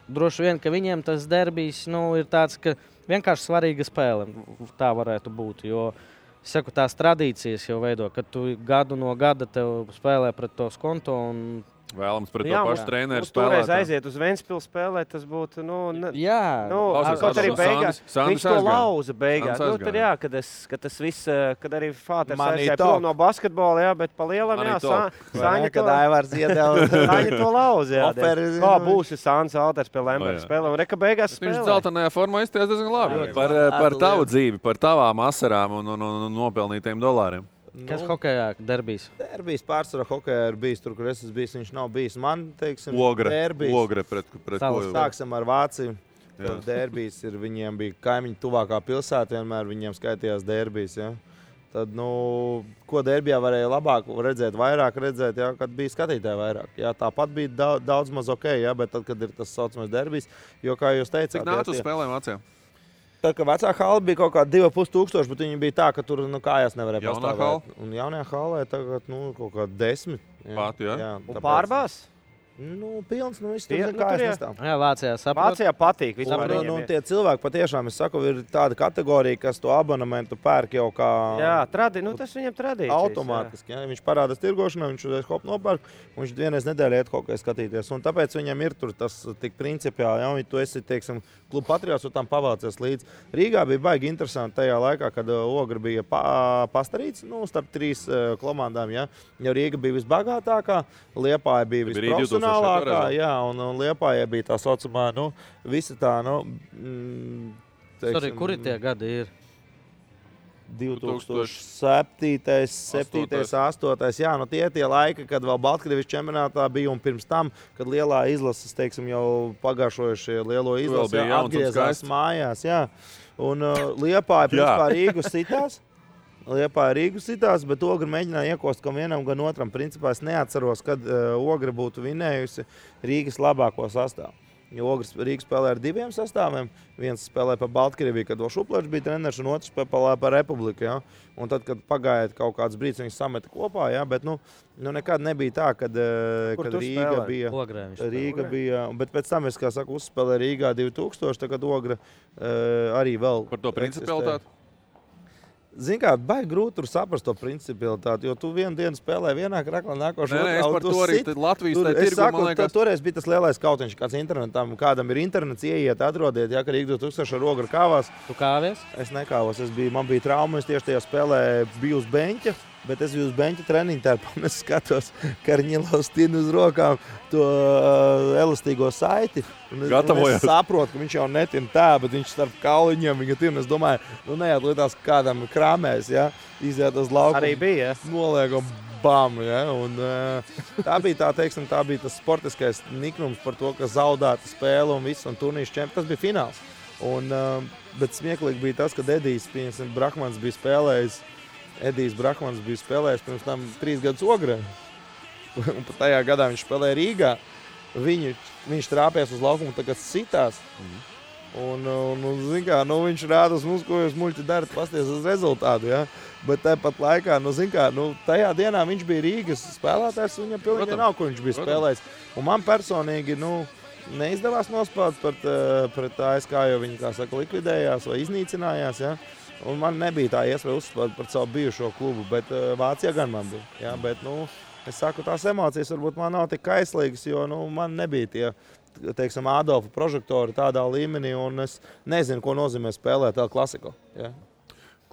[SPEAKER 8] droši vien, ka viņiem tas derbijs ir tāds, ka vienkārši svarīga spēle. Tā varētu būt, jo es saku, tās tradīcijas jau veido, kad tu gadu no gada tev spēlē pret to Skonto un
[SPEAKER 1] vēlams pret to pašu treneru spēlēt.
[SPEAKER 11] Toreiz aiziet uz Ventspilu spēlēt, tas būtu,
[SPEAKER 1] kaut
[SPEAKER 11] arī beigās. Viņš to lauza beigās. Tad jā, kad tas viss, kad arī Fāters aizgāja prom no basketbola, bet pa lielam, Saņa
[SPEAKER 9] kad Aivars iedeva.
[SPEAKER 11] Saņa to lauza, Kā būs Sāns Alters pie Lemberga spēlē, un reka beigās spēlē.
[SPEAKER 1] Viņš dzeltenajā formā izties diezgan labi. Par tavu dzīvi, par tavām asarām un nopelnītajiem dolāriem.
[SPEAKER 8] Kas hokejā derbijs?
[SPEAKER 9] Derbijs pārsvarā hokejā ir bijis tur, kur es esmu bijis, viņš nav bijis. Man, teiksim,
[SPEAKER 1] Ogre pret ko?
[SPEAKER 9] Sāksim ar Vāciju. Derbijs ir, viņiem bija kaimiņu tuvākā pilsēta, vienmēr viņiem skaitījās derbijs. Ja? Tad, ko derbijā varēja labāk redzēt, vairāk redzēt, ja? Kad bija skatītāji vairāk. Ja? Tāpat bija daudz maz ok, ja? Bet tad, kad ir tas saucamais derbijs, jo, kā jūs teicāt...
[SPEAKER 1] Cik nāc uz spēlēm Vācijā?
[SPEAKER 9] Tad, kad vecā hala bija kaut kāda 2500, bet viņi bija tā, ka tur kājās nevarēja pastāvēt. Un jaunajā halē tagad kaut kāda 10.
[SPEAKER 1] Pat, jā.
[SPEAKER 11] Un pārbās?
[SPEAKER 9] Pilns, viss tur kājas nestāv.
[SPEAKER 8] Jā, Vācijā saprot.
[SPEAKER 11] Vācijā patīk.
[SPEAKER 9] Tie cilvēki patiešām, es saku, ir tāda kategorija, kas to abonementu pērk jau kā...
[SPEAKER 11] Jā, tas viņam tradīcijas.
[SPEAKER 9] Automātiski, viņš parādās tirgošanā, viņš uzreiz hop nopērk, un viņš vienreiz nedēļā iet kaut kā skatīties. Un tāpēc viņam ir tur tas tik principiāli, ja tu esi, teiksim, kluba patriots, un tam pavācies līdz. Rīgā bija baigi interesanti tajā laikā, kad Ogra bija pastarīts, starp 3 komandām, ja. Jo Rīga bija visbagātākā, Liepāja bija visprofesionālākā, jā, un Liepājai bija tā saucamā, visa tā,
[SPEAKER 8] Sorry, kuri tie gadi ir?
[SPEAKER 9] 2007, 8. Jā, tie laiki, kad vēl Baltkrievis čempionātā bija, un pirms tam, kad lielā izlases, teiksim, jau pagājušojušie lielo izlasi atgriezās mājās, jā. Un Liepāja principā Rīgu sitās, bet Ogra mēģināja iekost gan vienam, gan otram. Principā es neatceros, kad Ogra būtu vinējusi Rīgas labāko sastāvu. Jo Rīga spēlē ar 2 sastāviem. Viens spēlē pa Baltkrieviju, kad Šuplēčs bija treneris, un otrs spēlē pa Republiku. Ja? Un tad, kad pagāja kaut kāds brīdis, viņus sameta kopā, ja? Bet nekad nebija tā, kad Rīga bija. Bet pēc tam es, kā saku, uzspēlēju Rīgā 2000, tagad Ogra arī vēl.
[SPEAKER 1] Par to principialitāti?
[SPEAKER 9] Zini kā, baigi grūti tur saprast to principialitāti, jo tu vienu dienu spēlē vienā kraklā, nākošo
[SPEAKER 1] otrā. Es par to arī Latvijas tirgu, man liekas.
[SPEAKER 9] Toreiz bija tas lielais kautiņš, kāds internetam, kādam ir internets, ieiet, atrodiet, ja, ka Rīga 2000 ar Ogru kāvās.
[SPEAKER 8] Tu kāvies?
[SPEAKER 9] Es nekāvos, man bija trauma, es tieši tajā spēlē biju uz beņķa. Bet es biju uz beņķa treniņu tērpā, un es skatos, ka Karņilovs tin uz rokām to elastīgo saiti. Es saprotu, ka viņš jau netin tā, bet viņš starp kauliņiem viņa tin. Es domāju, nejāt lietās kādam krāmēs, ja? Iziet uz laukumu.
[SPEAKER 11] Arī bija, ja?
[SPEAKER 9] Noliekam, bam, ja? Un tā bija tas sportiskais niknums par to, ka zaudēta spēle un viss, un turnīrs čempions. Tas bija fināls. Bet smieklīgi bija tas, kad Edijs Brahmans bija spēlējis. Edijs Brahmans bija spēlējis pirms tam 3 gadus Ogrē. Un pat tajā gadā viņš spēlēja Rīgā. Viņš trāpējās uz laukumu, tagad sitās. Un zin kā, viņš rāda uz mums, ko jūs muļķi darat, pasties uz rezultātu. Ja? Bet tāpat laikā, tajā dienā viņš bija Rīgas spēlētājs, un viņam pilnīgi nav, kur viņš bija spēlējis. Un man personīgi, neizdevās nospēlēt pret ASK, jo viņi, kā saka, likvidējās vai iznīcinājās. Ja? Un man nebija tā iespēja uzspēlēt par savu bijušo klubu, bet Vācijā gan man bija. Ja? Bet, es saku, tās emocijas varbūt man nav tik kaislīgas, jo man nebija tie, teiksim, Adolfa prožektori tādā līmenī, un es nezinu, ko nozīmē spēlēt El Clasico. Ja?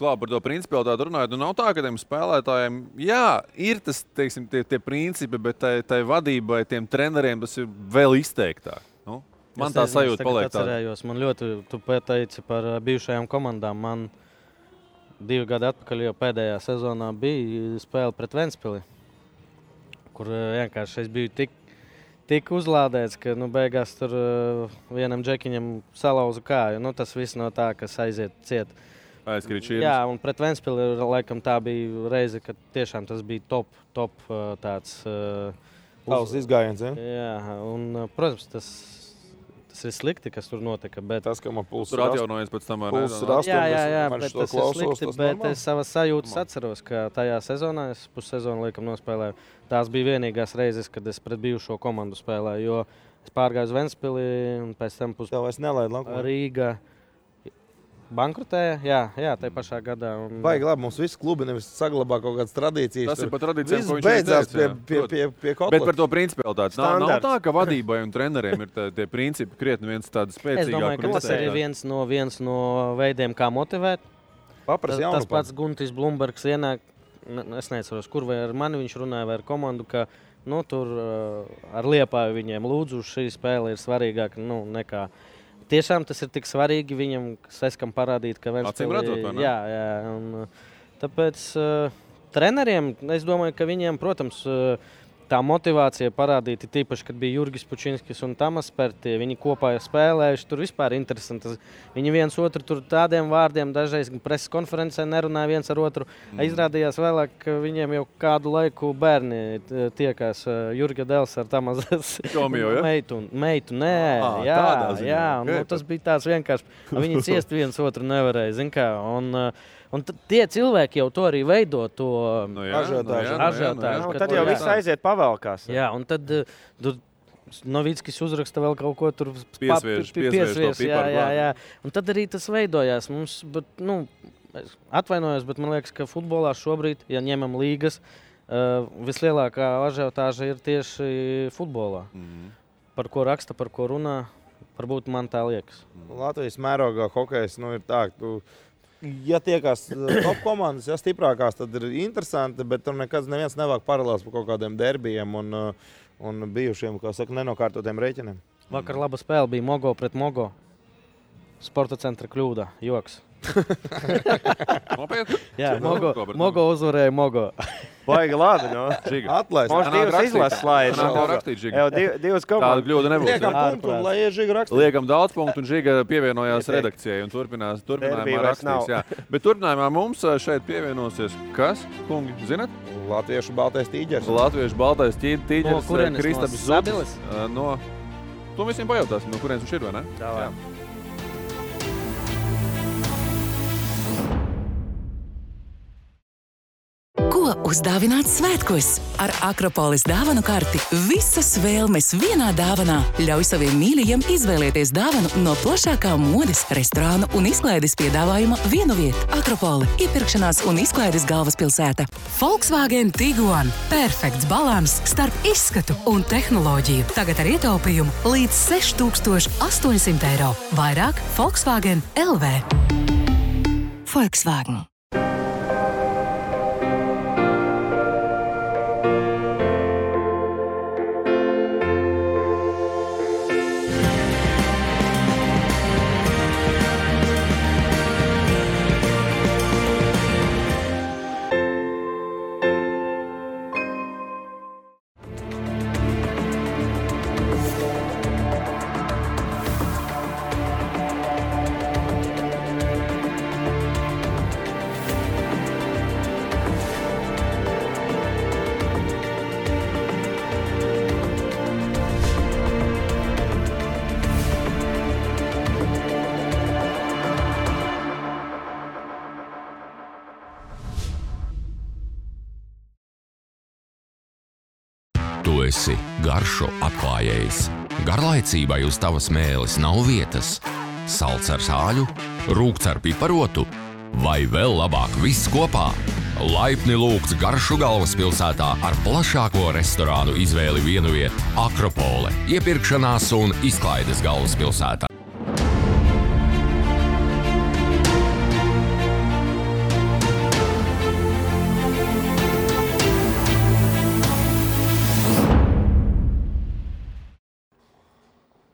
[SPEAKER 1] Klā, par to principialitāti runājot, nav tā, ka tiem spēlētājiem, jā, ir tas, teiksim, tie principi, bet tai vadībai, tiem treneriem tas ir vēl izteiktāk. Man tā sajūta paliek tāda.
[SPEAKER 8] Man ļoti, tu pateici par bijušajām komandām. Man 2 gadi atpakaļ jau pēdējā sezonā bija spēle pret Ventspili, kur vienkārši es biju tik uzlādēts, ka beigās tur vienam džekiņam salauza kāju. Tas viss no tā, kas aiziet ciet.
[SPEAKER 1] Aizkrīt šķirnes.
[SPEAKER 8] Jā, un pret Ventspili laikam tā bija reize, kad tiešām tas bija top tāds
[SPEAKER 9] izgājiens, ja?
[SPEAKER 8] Jā, un, protams, tas ir slikti, kas tur notika, bet
[SPEAKER 9] tas, ka man pulss
[SPEAKER 1] tur atjaunojies pēc tam
[SPEAKER 8] jā, bet tas ir slikti, bet es savas sajūtas atceros, ka tajā sezonā, es pussezonu laikam nospēlēju, tās bija vienīgās reizes, kad es pret bijušo komandu spēlēju, jo es pārgāju uz Ventspili un pēc tam Rīga bankrotēja, jā, tajā pašā gadā.
[SPEAKER 9] Baigi labi, mums visi klubi nevis saglabā kaut kādas tradīcijas.
[SPEAKER 1] Tas ir par tradīcijām, ko viņš
[SPEAKER 9] beidzās pie kotla.
[SPEAKER 1] Bet par to principialitāti. Nav tā, ka vadībai un treneriem ir tie principi krietni viens tāds spēcīgāk.
[SPEAKER 8] Es domāju, ka tas ir viens no veidiem, kā motivēt. Tas pats Guntis Blumbergs ienāk, es neatceros, kur vai ar mani viņš runāja vai ar komandu, ka tur ar Liepāju viņiem lūdzu šī spēle ir svarīgāka nekā. Tiešām tas ir tik svarīgi viņam, Seskam parādīt, ka
[SPEAKER 1] Acīm redzot, vai ne?
[SPEAKER 8] Jā, un tāpēc treneriem, es domāju, ka viņiem, protams, tā motivācija parādīta tīpaši, kad bija Jurgis Pučinskis un Tamas Pertie, viņi kopā spēlējuši, tur vispār interesanti. Viņi viens otru tur tādiem vārdiem dažreiz preses konferencē nerunāja viens ar otru. Izrādījās vēlāk, ka viņiem jau kādu laiku bērni tiekās Jurga Dels ar Tamas meitu. Nē, jā, un tas bija tāds vienkārši, viņi ciest viens otru nevarēja, zin kā, un tie cilvēki jau to arī veido, to ažiotāžu.
[SPEAKER 11] Tad jau viss aiziet pavēlkās.
[SPEAKER 8] Jā, un tad Novickis uzraksta vēl kaut ko tur
[SPEAKER 1] piesviež.
[SPEAKER 8] Jā. Un tad arī tas veidojās. Mums, atvainojos, bet man liekas, ka futbolā šobrīd, ja ņemam līgas, vislielākā ažiotāža ir tieši futbolā. Par ko raksta, par ko runā, varbūt man tā liekas.
[SPEAKER 9] Latvijas mērogā hokejs ir tā, ja tiekās top komandas, ja stiprākās, tad ir interesanti, bet tur neviens nevāk paralēls par kaut kādiem derbijiem un bijušiem, kā saka, nenokārtotiem rēķiniem.
[SPEAKER 8] Vakar laba spēle bija Mogo pret Mogo. Sporta centra kļūda, joks. Jā, Mogo uzvarēja Mogo.
[SPEAKER 11] Baigi lādi,
[SPEAKER 9] Atlaist.
[SPEAKER 11] Mums divas izlases slājas. Divas komandas.
[SPEAKER 1] Tāda kļūda nebūs.
[SPEAKER 9] Liekam punktu, lai Žiga rakstīt.
[SPEAKER 1] Liekam daudz punktu, un Žiga pievienojās redakcijai un turpinājumā rakstīs. Jā. Bet turpinājumā mums šeit pievienosies kas, kungi, zinat?
[SPEAKER 9] Latviešu baltais tīģers.
[SPEAKER 1] Latviešu baltais tīģers.
[SPEAKER 8] No kurienes?
[SPEAKER 1] Kristaps Zudis. To visiem pajautāsim, no kurienes viņš ir, vai ne?
[SPEAKER 11] Jā.
[SPEAKER 6] Ko uzdāvināt svētkos? Ar Akropolis dāvanu karti visas vēlmes vienā dāvanā. Ļauj saviem mīļajiem izvēlēties dāvanu no plašākā modes, restorānu un izklaides piedāvājuma vienu vietu. Akropoli – iepirkšanās un izklaides galvaspilsēta. Volkswagen Tiguan – perfekts balans starp izskatu un tehnoloģiju. Tagad ar ietaupījumu līdz 6,800 eiro. Vairāk Volkswagen LV. Volkswagen.
[SPEAKER 7] esi garšu atklājējs. Garlaicībai uz tavas mēles nav vietas. Salds ar sāļu, rūkts ar piparotu vai vēl labāk viss kopā. Laipni lūgts Garšu galvaspilsētā ar plašāko restorānu izvēli vienviet Akropole, iepirkšanās un izklaides galvaspilsētā.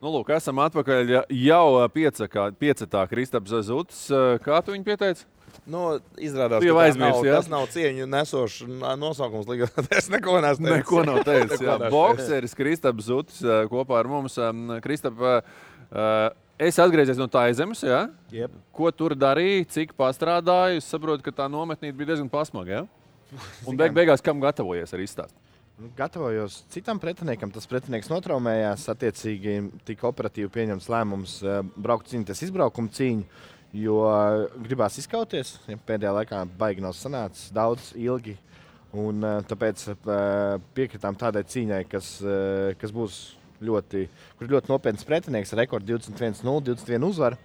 [SPEAKER 1] Nu, lūk, esam atpakaļ jau piecetā Kristaps Zutis. Kā tu viņu pieteici?
[SPEAKER 9] Nu, izrādās, ka tas nav cieņu nesošs nosaukums. Es neko neesmu teicis.
[SPEAKER 1] Neko nav teicis. Bokseris Kristaps Zutis kopā ar mums. Kristap, es atgriezies no Taizemes, jā?
[SPEAKER 9] Yep.
[SPEAKER 1] Ko tur darīji, cik pastrādāji? Es saprotu, ka tā nometnīte bija diezgan pasmaga, jā? Un beigās kam gatavojies ar izstāstu?
[SPEAKER 12] Gatavojos citam pretiniekam. Tas pretinieks notraumējās. Attiecīgi tika operatīvi pieņemts lēmums braukt cīnīties izbraukuma cīņu, jo gribās izkauties. Pēdējā laikā baigi nav sanācis daudz, ilgi. Un tāpēc piekritām tādai cīņai, kas būs ļoti nopietns pretinieks ar rekordu 21-0, 21 uzvaru.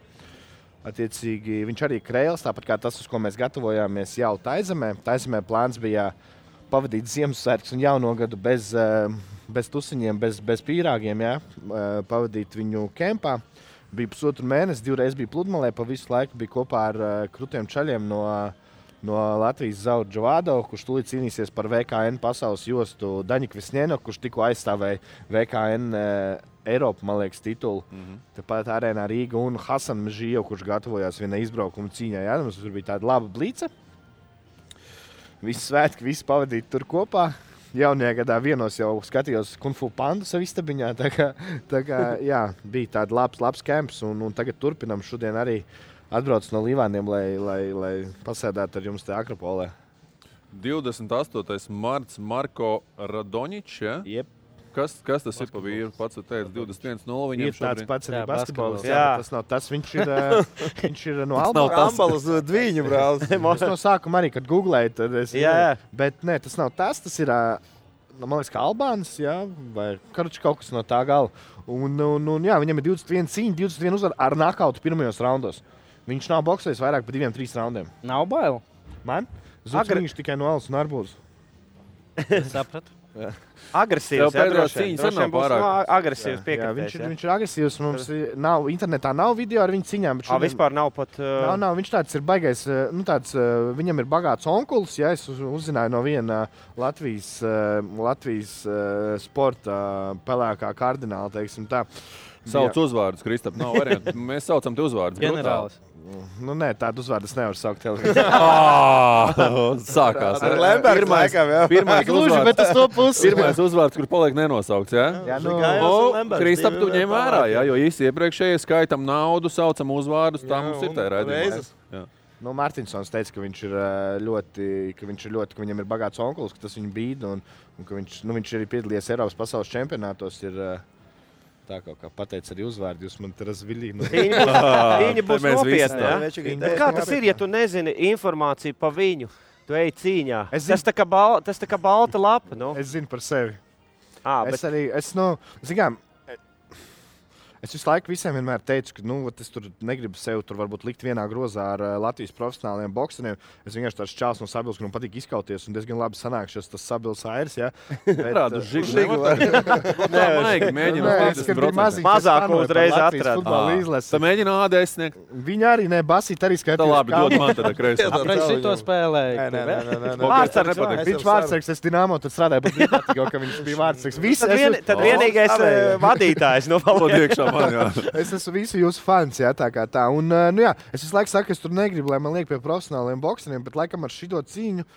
[SPEAKER 12] Attiecīgi viņš arī Kreils, tāpat kā tas, uz ko mēs gatavojāmies jau Taizemē. Taizemē plāns bija pavadīt Ziemassvētkus un jauno gadu bez tusiņiem, bez pīrāgiem, jā, pavadīt viņu kempā. Bija pusotru mēnesi, 2 reizes bija pludmalē, pa visu laiku bija kopā ar krutiem čaļiem no Latvijas Zauru Džovādo, kurš tūlīt cīnīsies par VKN pasaules jostu Daņika Visņēno, kurš tikko aizstāvēja VKN Eiropa, man liekas, titulu. Tāpat arēnā Rīga un Hasan Mežījo, kurš gatavojās vienai izbraukuma cīņai. Jā, mums tur bija tāda laba blīca. Visi svētki, visi pavadīti tur kopā. Jaunajā gadā vienos jau skatījos Kung Fu Pandu savu istabiņā. Tā kā jā, bija tāda labs kemps un tagad turpinam. Šodien arī atbrauc no Līvāniem, lai pasēdētu ar jums te Akropolē.
[SPEAKER 1] 28. marts Marko Radoničs, ja?
[SPEAKER 12] Jep.
[SPEAKER 1] Kas tas ir pa vīru? Pats teica 21-0 viņam
[SPEAKER 12] ir tāds pats arī basketbols.
[SPEAKER 11] Jā,
[SPEAKER 12] tas nav tas. Viņš ir no Ambalas Dviņu brālis. Es no sākuma arī, kad googlēju, tad es...
[SPEAKER 11] Jā.
[SPEAKER 12] Bet nē, tas nav tas. Tas ir, man liekas, kā Albānis, jā, vai kaut kas no tā gala. Un jā, viņam ir 21 cīņa, 21 uzvar ar nakautu pirmajos raundos. Viņš nav boksējis vairāk par 2-3 raundiem.
[SPEAKER 11] Nav bail?
[SPEAKER 12] Man? Viņš tikai no Alas un Arbūzes.
[SPEAKER 11] Sapratu. Agresīvs, agresīvs piekritējs.
[SPEAKER 12] Viņš ir agresīvs. Mums internetā nav video ar viņu ciņām.
[SPEAKER 11] Vispār nav pat...
[SPEAKER 12] Nav. Viņš tāds ir baigais. Viņam ir bagāts onkulis. Ja, es uzzināju no viena Latvijas sporta pelēkā kardināla, teiksim tā.
[SPEAKER 1] Sauc uzvārdus, Kristap. Nav variantu. Mēs saucam te uzvārdus.
[SPEAKER 11] Ģenerālis.
[SPEAKER 12] Nu, nē, tādu uzvārdu es nevaru saukt televīzijā.
[SPEAKER 1] Sākās.
[SPEAKER 12] Ar Lembergs laikam, jā.
[SPEAKER 1] Pirmais uzvārds, kur paliek nenosaukts, jā?
[SPEAKER 12] Jā,
[SPEAKER 1] Kristap, tu ņem vērā, jā, jo īsti iepriekšējie skaitam naudu, saucam uzvārdus, tā mums ir tā raidījumā.
[SPEAKER 12] Nu, Mārtiņsons teica, ka viņam ir bagāts onkulis, ka tas viņu bīd, un ka viņš arī piedalījies Eiropas pasaules čempionātos, ir... Tā kaut kā pateica arī uzvārdu, jūs man te razviļīgi.
[SPEAKER 11] Viņa būs nopietna, jā? Kā tas ir, ja tu nezini informāciju pa viņu? Tu ej cīņā. Tas tā kā balta lapa, nu?
[SPEAKER 12] Es zinu par sevi. Es visu laiku visiem vienmēr teicu, ka es tur negribu sevi tur varbūt likt vienā grozā ar Latvijas profesionāliem bokseriem. Es vienkārši tāds čāls no Sabils, kur man patīk izkauties un diezgan labi sanākšos tas Sabils airs, jā.
[SPEAKER 1] Rādu žigu nevar.
[SPEAKER 11] Mazāk uzreiz atrada.
[SPEAKER 1] Tā mēģina ADS sniegt.
[SPEAKER 12] Viņi arī basīt arī skatījās.
[SPEAKER 1] Tā labi, dod man tad kreisi.
[SPEAKER 11] Apreiz šito spēlēja.
[SPEAKER 12] Viņš vārdsargs, es Dinamo, tad strādāju, bet bija ka viņš bija vārdsargs.
[SPEAKER 11] Tad vienīgais vadītājs no
[SPEAKER 1] Paldiekšā.
[SPEAKER 12] Es esmu visu jūsu fans, jā, tā kā tā. Un, jā, es visu laiku saku, ka es tur negribu, lai man liek pie profesionāliem bokseriem, bet laikam ar šito cīņu,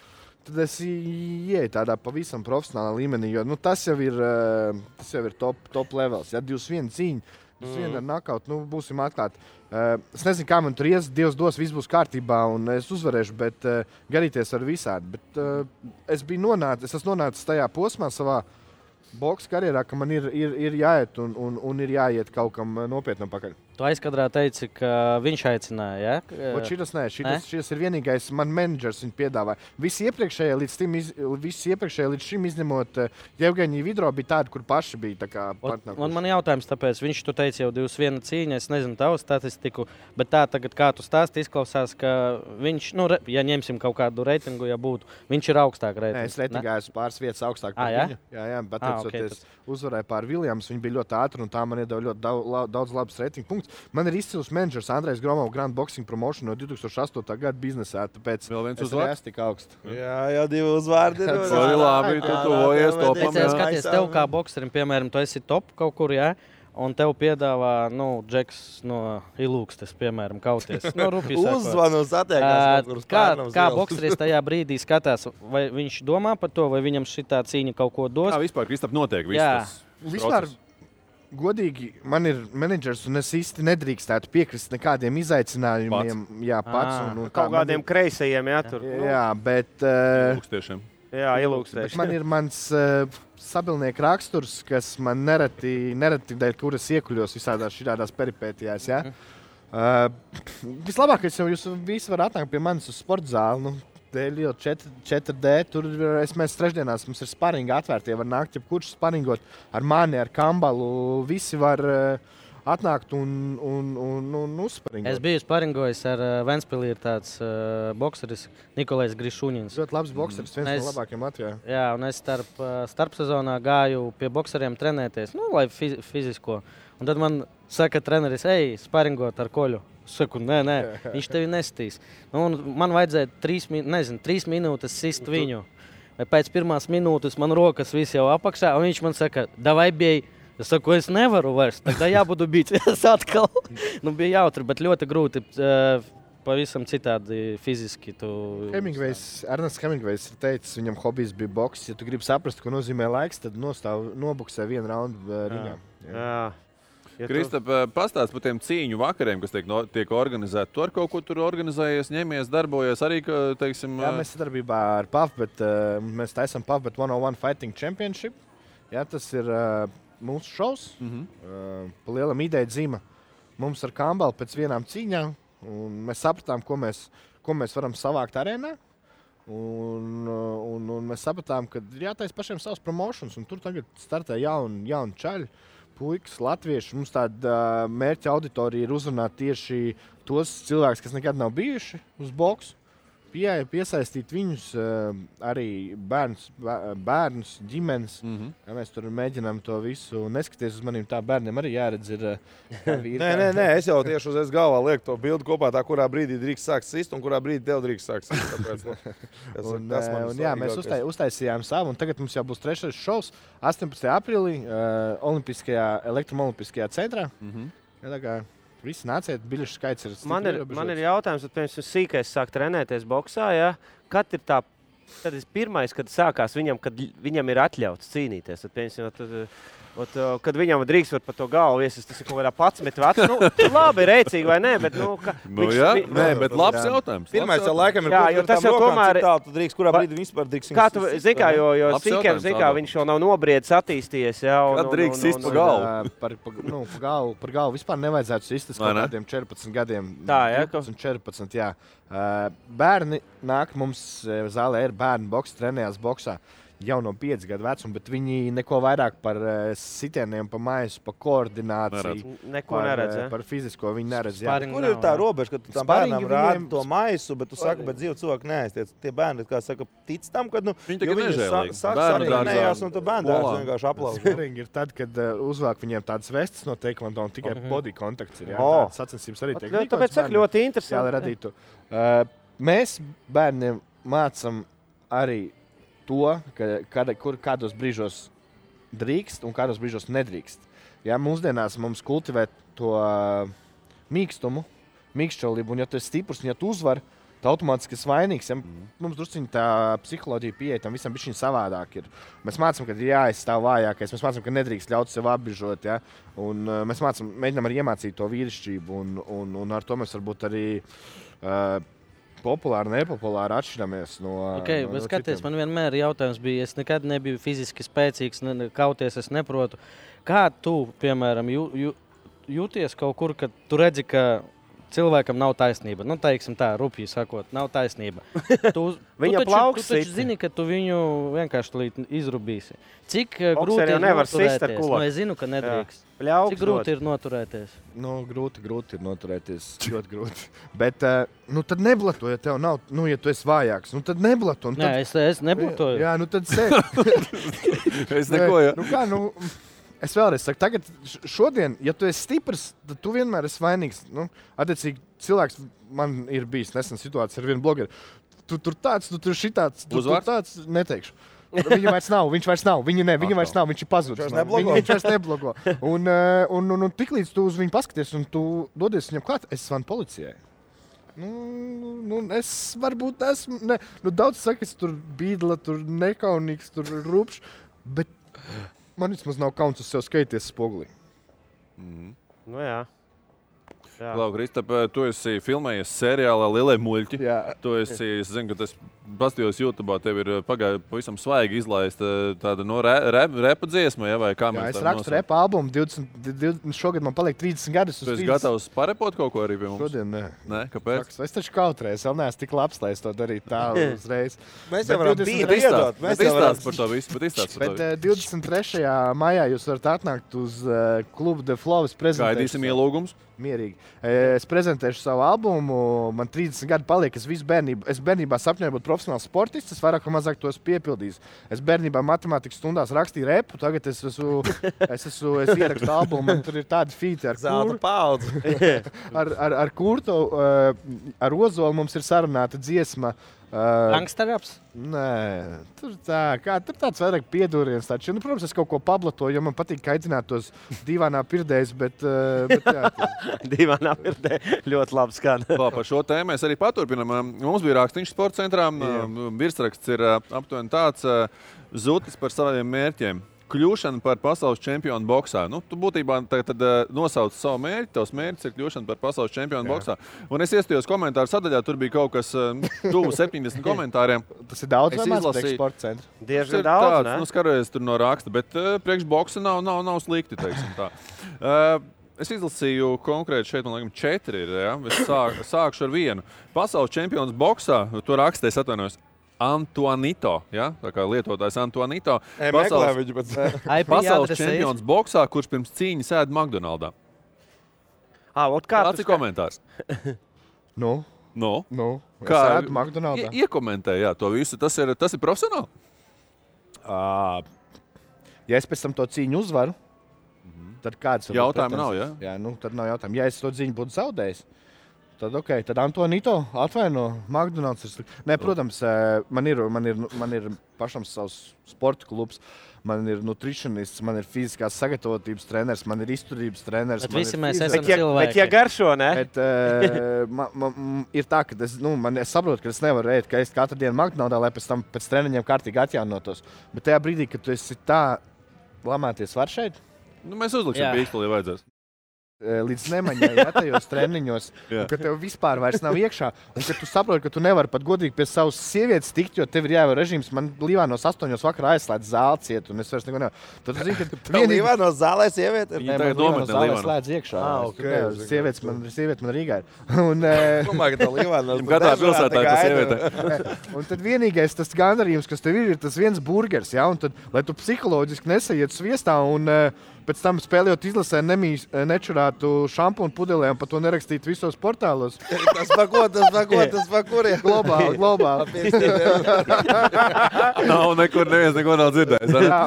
[SPEAKER 12] tad es ieju tādā pavisam profesionālā līmenī, jo tas jau ir top levels. Ja, 21 cīņa, 21 ar nakautu, būsim atklāti. Es nezinu, kā man tur ies, Dievs dos, viss būs kārtībā un es uzvarēšu, bet garīties ar visādi. Bet es esmu nonācis tajā posmā savā boksa karjerā, ka man ir jāiet un ir jāiet kaut kam nopietnam pakaļ.
[SPEAKER 8] Tu aizkadrā teici, ka viņš aicināja, ja?
[SPEAKER 12] Šis ir vienīgais man menedžers viņu piedāvāja. Visi iepriekšējie līdz šim izņemot Jevgeņiju Vidro bija tādi, kur paši bija tā kā partneri.
[SPEAKER 8] Un man jautājums tāpēc, viņš tu teici jau 2-1 cīņa, es nezinu tavu statistiku, bet tā tagad, kā tu stāsti, izklausās, ka viņš, ja ņemsim kaut kādu reitingu, ja būtu, viņš ir augstāk reitings.
[SPEAKER 12] Nē, es reitingā esmu pāris vietas augstāk par viņu. Jā, bet es uzvarēju pār Viljams, viņi bija ļoti ātri un tā man iedeva ļoti daudz labas reitingu punktus. Man ir izcils menedžers Andrejs Gromovs, Grand Boxing Promotion no 2008. Gada biznesā, tāpēc
[SPEAKER 1] es arī esmu
[SPEAKER 12] tik augsts.
[SPEAKER 9] Jā, 2 uzvārdi.
[SPEAKER 1] Tas ir labi, tu tuvojies topam.
[SPEAKER 8] Skaties, tev kā bokserim, piemēram, tu esi top kaut kur, jā? Un tev piedāvā, Džeks no Ilūkstes, piemēram, kauties.
[SPEAKER 9] Uzvanu satiekās.
[SPEAKER 8] Kā bokseris tajā brīdī skatās, vai viņš domā par to, vai viņam šitā cīņa kaut ko dos?
[SPEAKER 1] Kā vispār, Kristap, notiek viss tas process?
[SPEAKER 12] Godīgi, man ir menedžers, un es īsti nedrīkstētu piekrist nekādiem izaicinājumiem. Pats.
[SPEAKER 11] Kaut kādiem kreisajiem, tur.
[SPEAKER 12] Jā, bet...
[SPEAKER 1] Ilūkstiešiem.
[SPEAKER 11] Jā, ilūkstieši.
[SPEAKER 12] Man ir mans sabilnieku raksturs, kas man nereti dēļ, kuras iekuļos visādās peripētijās. Ja? Vislabākais jau jūs visi var atnākt pie manis uz sporta zāli. 4D, tur mēs trešdienās, mums ir sparingi atvērti, var nākt, ja kurš sparingot ar mani, ar Kambalu, visi var atnākt un uzsparingot.
[SPEAKER 8] Es biju sparingojis ar Ventspilī, ir tāds bokseris Nikolais Grišuņins.
[SPEAKER 12] Ļoti labs bokseris, viens no labākiem Latvijā.
[SPEAKER 8] Jā, un es starp sezonā gāju pie bokseriem trenēties, lai fizisko. Un tad man saka treneris, sparingot ar Koļu. Saku, nē, viņš tevi nestīs. Man vajadzēja 3 minūtes sist viņu. Pēc 1 minūtes man rokas viss jau apakšā, un viņš man saka, davai bij. Es saku, es nevaru vairs, tad jābudu bīt. Es atkal. Bija jautri, bet ļoti grūti. Pavisam citādi fiziski.
[SPEAKER 12] Ernsts Hemingvejs ir teicis, viņam hobijs bija boks. Ja tu gribi saprast, ko nozīmē laiks, tad nobuksē 1 raundu ringā.
[SPEAKER 11] Jā.
[SPEAKER 1] Kristap, pastāst par tiem cīņu vakariem, kas tiek organizēti. Tu ar kaut ko tur organizējies, ņemies, darbojies arī, teiksim...
[SPEAKER 12] Jā, mēs sadarbībā ar PAF, bet mēs taisam PAF, bet 101 Fighting Championship. Jā, tas ir mūsu šovs. Pa lielam ideja dzīma mums ar Kambalu pēc vienām cīņām. Un mēs sapratām, ko mēs varam savākt arēnā. Un mēs sapratām, ka ir jātais pašiem savs promotions. Un tur tagad startē jauni čaļi. Puikas, latvieši, mums tāda mērķa auditorija ir uzrunāt tieši tos cilvēkus, kas nekad nav bijuši uz boksu. Piesaistīt viņus, arī bērnus, ģimenes. Ja mēs tur mēģinām to visu neskaties uz maniem, tā bērniem arī jāredz ir vīri.
[SPEAKER 9] Nē, es jau tieši uzreiz galvā lieku to bildi kopā, tā kurā brīdī drīkst sākt sist un kurā brīdī tev drīkst sākt sist. Tāpēc,
[SPEAKER 12] jā, mēs uztaisījām savu, un tagad mums jau būs 3. šovs 18. aprīlī elektromolimpiskajā centrā. Tā kā visi nāciet, biļešu skaits ir stipri.
[SPEAKER 11] Man ir jautājums, tad piemēram sīkais sāk trenēties boksā, ja? Kad ir tad pirmais, kad sākās viņam, kad viņam ir atļauts cīnīties, tad piemēram, kad viņam drīkst var par to galvu iesist, tas ir kaut kādā 11 vecs. Labi, rēcīgi vai nē, bet
[SPEAKER 1] bet labs jautājums.
[SPEAKER 9] Pirmais jau laikam ir,
[SPEAKER 11] jo tas jau tomēr
[SPEAKER 9] tu drīkst, kurā brīdī vispār drīkst.
[SPEAKER 11] Kā tu zini, kā, jo sīkiem, viņš vēl nav nobriedis, attīstījies.
[SPEAKER 1] Kad drīkst sist pa galvu?
[SPEAKER 12] Par galvu vispār nevajadzētu sist kaut kādiem 14 gadiem.
[SPEAKER 11] Tā, jā?
[SPEAKER 12] 14, jā. Bērni nāk mums zālē ir bērni boks, trenējās boksā. Jau no 5 gadu vecuma, bet viņi neko vairāk par sitieniem, pa maisu, pa koordināciju.
[SPEAKER 11] Neko neredz,
[SPEAKER 12] par fizisko viņi neredz.
[SPEAKER 9] Kur ir tā robeža, ka tu tam bērnam rādi to maisu, bet tu saki, bet dzīvu cilvēku neaiztiec. Tie bērni, kā saka, tic tam, ka
[SPEAKER 1] viņi tagad nežēlīgi.
[SPEAKER 9] Sāks un tu bērndārs vienkārši aplauž.
[SPEAKER 12] Sparīgi ir tad, kad uzvāk viņiem tādas vestas no teikvando un tikai body kontakts ir. Tādas sacensības arī tiek.
[SPEAKER 11] Tāpēc saka ļoti interesanti.
[SPEAKER 12] Mēs bērniem mācam arī to, kādos brīžos drīkst un kādos brīžos nedrīkst. Ja, mūsdienās mums kultivē to mīkšķolību, un ja tu esi stiprs, un ja tu uzvar, tu automātiski esi vainīgs. Ja, mums drusciņi tā psiholoģija pieeja tam visam bišķiņ savādāk ir. Mēs mācam, ka ir jāaizstāv vājākais, mēs mācam, ka nedrīkst ļaut sev apbižot, ja, un mēs mēģinām arī iemācīt to vīrišķību, un ar to mēs varbūt arī populāri, nepopulāri atšķiramies no
[SPEAKER 8] skaties, man vienmēr jautājums bija, es nekad nebiju fiziski spēcīgs, kauties es neprotu. Kā tu, piemēram, jūties kaut kur, kad tu redzi, ka cilvēkam nav taisnība. Nu, teiksim tā, rupji sakot, nav taisnība.
[SPEAKER 11] Viņa plauks.
[SPEAKER 8] Tu taču zini, ka tu viņu vienkārši izrubīsi. Cik grūti ir noturēties? Nu, es zinu, ka nedrīkst. Cik grūti ir noturēties?
[SPEAKER 12] Nu, grūti ir noturēties. Ļoti grūti. Bet, tad neblato, ja tev nav, ja tu esi vājāks. Tad neblato.
[SPEAKER 8] Nē, es neblatoju.
[SPEAKER 12] Jā, tad sēd.
[SPEAKER 1] Es neko, jā.
[SPEAKER 12] Es vēlreiz saku, tagad šodien, ja tu esi stiprs, tad tu vienmēr esi vainīgs. Attiecīgi, cilvēks man ir bijis nesen situācija ar vienu blogeru. Tu tur tāds, tu tur šitāds, tu tur tāds, neteikšu. Viņa vairs nav, viņa vairs nav, viņš ir pazudis. Viņš vairs neblogo. Un tiklīdz tu uz viņu paskaties un tu dodies viņam klāt, es zvanu policijai. Es varbūt esmu, daudz saka, es tur bīdla, tur nekaunīgs, tur rupšs, bet man vismaz nav kauns uz sev skaities spogulī.
[SPEAKER 11] Nu jā.
[SPEAKER 1] Klau, Kristap, tu esi filmējies seriālā Lielie muļķi.
[SPEAKER 12] Jā.
[SPEAKER 1] Tu esi, es zinu, ka tas pastījos YouTube'ā, tev ir pavisam svaigi izlaista tāda repa dziesma, ja, vai kā mēs
[SPEAKER 12] es rakstu repa albumu, šogad man paliek 30 gadus uz 30.
[SPEAKER 1] Tu esi gatavs parepot kaut ko arī pie mums?
[SPEAKER 12] Šodien nē.
[SPEAKER 1] Nē, kāpēc?
[SPEAKER 12] Es taču kautreiz, vēl neesmu tik labs, lai es to darītu tā uzreiz.
[SPEAKER 3] Mēs jau varam iedot.
[SPEAKER 1] Bet izstāst par to visu,
[SPEAKER 12] Bet 23. maijā jūs varat atnākt uz klubu The Flow.
[SPEAKER 1] Gaidīsim ielūgums.
[SPEAKER 12] Mierīgi. Es prezentēšu savu albumu, man 30 gadi paliek, es bērnībā sapņoju būt profesionāls sportists, es vairāk vai mazāk to esmu piepildījis. Es bērnībā matemātikas stundās rakstīju repu, tagad es ierakstu albumu, un tur ir tādi feati ar
[SPEAKER 3] Zelta paudzi.
[SPEAKER 12] ar Kurtu, ar Ozolu mums ir sarunāta dziesma.
[SPEAKER 8] Gangsterraps?
[SPEAKER 12] Nē, tur tāds vairāk piedūriens. Protams, es kaut ko pablatoju, jo man patīk kaitināt tos dīvainā pirdējus, bet jā.
[SPEAKER 11] Dīvainā pirdēja ļoti labi skan.
[SPEAKER 1] Par šo tēmu mēs arī paturpinām. Mums bija rakstīņš sporta centrā. Virsraksts ir aptuveni tāds zutis par saviem mērķiem. Kļūšana par pasaules čempionu boksā. Tu būtībā tad nosauc savu mērķi. Tavs mērķis ir kļūšana par pasaules čempionu boksā. Un es iestājos komentāru sadaļā, tur bija kaut kas tuvu 70 komentāriem.
[SPEAKER 12] Tas ir daudz, vai maz priekš sporta centra?
[SPEAKER 11] Diezgan daudz, ne?
[SPEAKER 1] Skarojies tur no raksta, bet priekš boksa nav slikti, teiksim tā. Es izlasīju konkrēti šeit, man liekas, 4 ir. Ja? Es sākšu ar vienu. Pasaules čempions boksā, to raksta, es atvainojos. Antoanito, ja? Tā kā lietotājs Antoanito. Pasaules čempions boksā, kurš pirms cīņas ēd McDonaldā. Kāds ir komentārs?
[SPEAKER 12] Nu?
[SPEAKER 1] Kā
[SPEAKER 12] ēd McDonaldā?
[SPEAKER 1] Iekomentē, jā, to visu. Tas ir profesionāli?
[SPEAKER 12] Ja es pēc tam to cīņu uzvaru, tad kāds var
[SPEAKER 1] jautājumu nav, ja?
[SPEAKER 12] Jā, tad nav jautājumu. Ja es to cīņu būtu zaudējis, tad Antonito atvaino McDonald's. Nē, protams, man ir pašam savs sporta klubs, man ir nutricionists, man ir fiziskās sagatavotības treneris, man ir izturības treneris.
[SPEAKER 8] Bet visi mēs esam cilvēki.
[SPEAKER 11] Bet ja garšo, ne?
[SPEAKER 12] Ir tā, ka es saprotu, ka es nevaru ēst, ka es katru dienu McDonald's, lai pēc tam pēc treniņiem kārtīgi atjaunotos. Bet tajā brīdī, kad tu esi tā lamāties var šeit?
[SPEAKER 1] Mēs uzliksim pīkstuli, ja vajadzēs.
[SPEAKER 12] Līdz nemaņai, tajos treniņos, ka tev vispār vairs nav iekšā, un ka tu saproti, ka tu nevari pat godīgi pie savas sievietes tikt, jo tev ir jāievēro režīms. Man Līvānos 8 vakarā aizslēdz zāli ciet, un es vairs neko nevaru. Tad tu zini, ka
[SPEAKER 3] vienīgi... Līvānos zālē sieviete?
[SPEAKER 12] Nē, man Līvānos zālē slēdz iekšā. Sieviete man Rīgā ir.
[SPEAKER 3] Domāju, ka tā Līvānos...
[SPEAKER 1] Katrā pilsētā ir tā sieviete.
[SPEAKER 12] Un tad vienīgais tas gandarījums, kas tev ir tas viens burgers, ja? Un tad, lai tu psiholoģiski nesaiet sviestā un pēc tam spēlējot izlasē nečurātu šampūnu pudelē un par to nerakstīt visos portālos.
[SPEAKER 3] Tas pa kuriem?
[SPEAKER 12] Globāli.
[SPEAKER 1] Nav nekur, neviens neko nav dzirdējis.
[SPEAKER 12] Jā,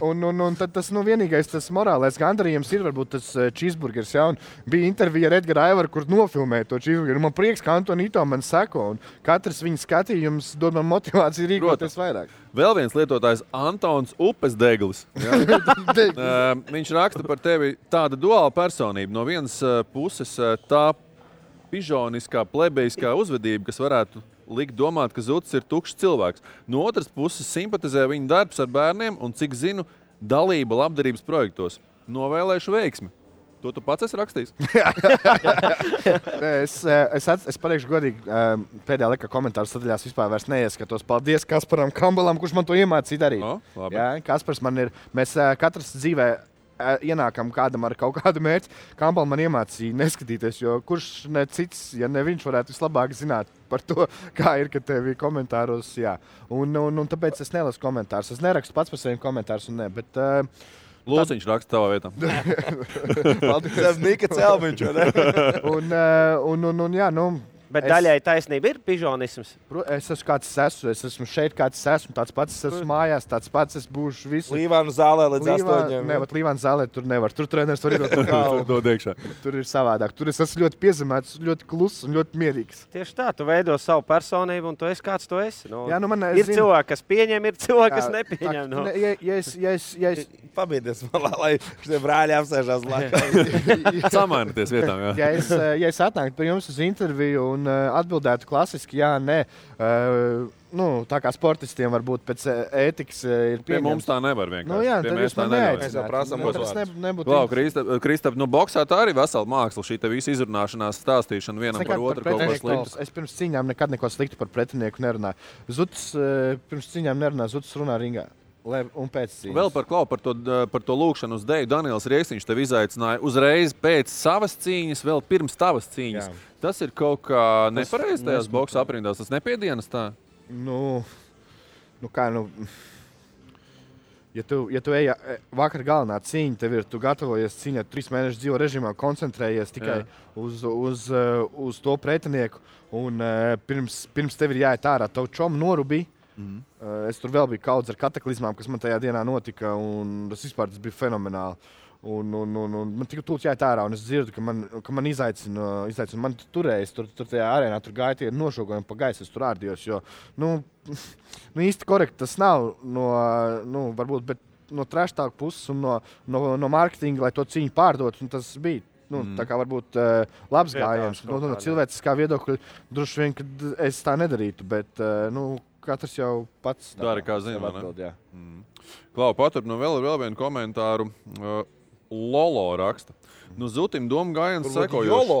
[SPEAKER 12] un tad tas vienīgais tas morālais gandarījums ir varbūt tas cheeseburgers. Ja? Un bija intervija ar Edgaru Aivaru, kur nofilmēja to cheeseburgeru. Man prieks, ka Antonito man seko, un katrs viņa skatījums dod man motivāciju rīkoties vairāk.
[SPEAKER 1] Vēl viens lietotājs Antons Upesdeglis. Viņš raksta par tevi tāda duāla personība. No vienas puses tā pižoniskā, plebejiskā uzvedība, kas varētu likt domāt, ka Zutis ir tukšs cilvēks. No otras puses simpatizē viņa darbs ar bērniem un, cik zinu, dalība labdarības projektos. Novēlēšu veiksmi. To tu pats esi rakstījis?
[SPEAKER 12] Es pateikšu godīgi, pēdējā laikā komentāru sadaļās vispār vairs neieskatos. Paldies Kasparam Kambalam, kurš man to iemācīja darīt. Jā, Kaspars man ir, mēs katrs dzīvē ienākam kādam ar kaut kādu mērķi. Kampala man iemācīja neskatīties, jo kurš ne cits, ja ne viņš varētu vislabāk zināt par to, kā ir, ka tev ir komentāros, jā. Un tāpēc es nelasu komentārus. Es nerakstu pats par saviem komentārus un ne, bet...
[SPEAKER 1] Lūsiņš raksta tavā vietā.
[SPEAKER 9] Paldies, Nika Celmiņš, vai ne?
[SPEAKER 12] Un jā, nu...
[SPEAKER 11] Bet daļai taisnība ir pižonisms.
[SPEAKER 12] Es esmu kāds esmu. Es esmu šeit kāds esmu. Tāds pats es esmu mājās. Tāds pats es būšu visu.
[SPEAKER 9] Līvānu zālē līdz 8.
[SPEAKER 12] Ne, bet Līvānu zālē tur nevar. Tur treneris var iedot
[SPEAKER 1] dod iekšā.
[SPEAKER 12] Tur ir savādāk. Tur es esmu ļoti piezemēts, ļoti kluss un ļoti mierīgs.
[SPEAKER 11] Tieši tā. Tu veido savu personību un tu esi kāds tu esi. Nu,
[SPEAKER 12] jā, nu man
[SPEAKER 11] ir cilvēki, kas pieņem, ir cilvēki, kas nepieņem. Nu.
[SPEAKER 12] Ja es
[SPEAKER 9] pabīdies malā, lai šie brāļi apsēžās laikā.
[SPEAKER 1] Samainoties vietām,
[SPEAKER 12] jā. Ja es atnāktu pie jums uz interviju un atbildētu klasiski, jā, nē. Tā kā sportistiem varbūt pēc ētikas ir pieņemts.
[SPEAKER 1] Pie mums tā nevar vienkārši.
[SPEAKER 12] Nu jā, tad jūs man
[SPEAKER 1] neaicināt. Kristap, boksā tā arī vesela māksla, šī te visa izrunāšanās, stāstīšana vienam par otru kaut ko sliktu.
[SPEAKER 12] Es pirms cīņām nekad neko sliktu par pretinieku nerunāju. Zuds pirms cīņām nerunā, Zuds runā ringā. Un pēc cīņas.
[SPEAKER 1] Vēl par to lūkšanu uz deju. Daniels Rieksniņš tev izaicināja uzreiz pēc savas cīņas, vēl pirms tavas cīņas. Jā. Tas ir kaut kā nepareizi tajās boksa aprindās. Tas nepiedienas tā?
[SPEAKER 12] Ja tu ej vakar galvenā cīņa, tev ir, tu gatavojies cīņā, 3 mēnešus dzīvo režīmā, koncentrējies tikai uz to pretinieku. Un pirms tev ir jāiet ārā, tavu čomu norubī. Es tur vēl biju kaudz ar kataklizmām, kas man tajā dienā notika, un tas bija fenomenāli. Man tikai tūlīt jāiet ārā, un es dzirdu, ka man izaicina. Man turējas, tur tajā arēnā tur gāja tie nošogojumi pa gaisu, es tur ārdījos, jo, īsti korekti tas nav varbūt, bet no trash talk puses un no marketinga, lai to cīņu pārdot, un tas bija. Tā kā varbūt labs gājiens. No cilvēciskā viedokļa droši vien, kad es tā nedarītu, bet, katrs jau pats
[SPEAKER 1] dara, kā zina, ne? Klau, paturpinu vēl vienu komentāru. Lolo raksta. Zutim domu gājiens sekojoši.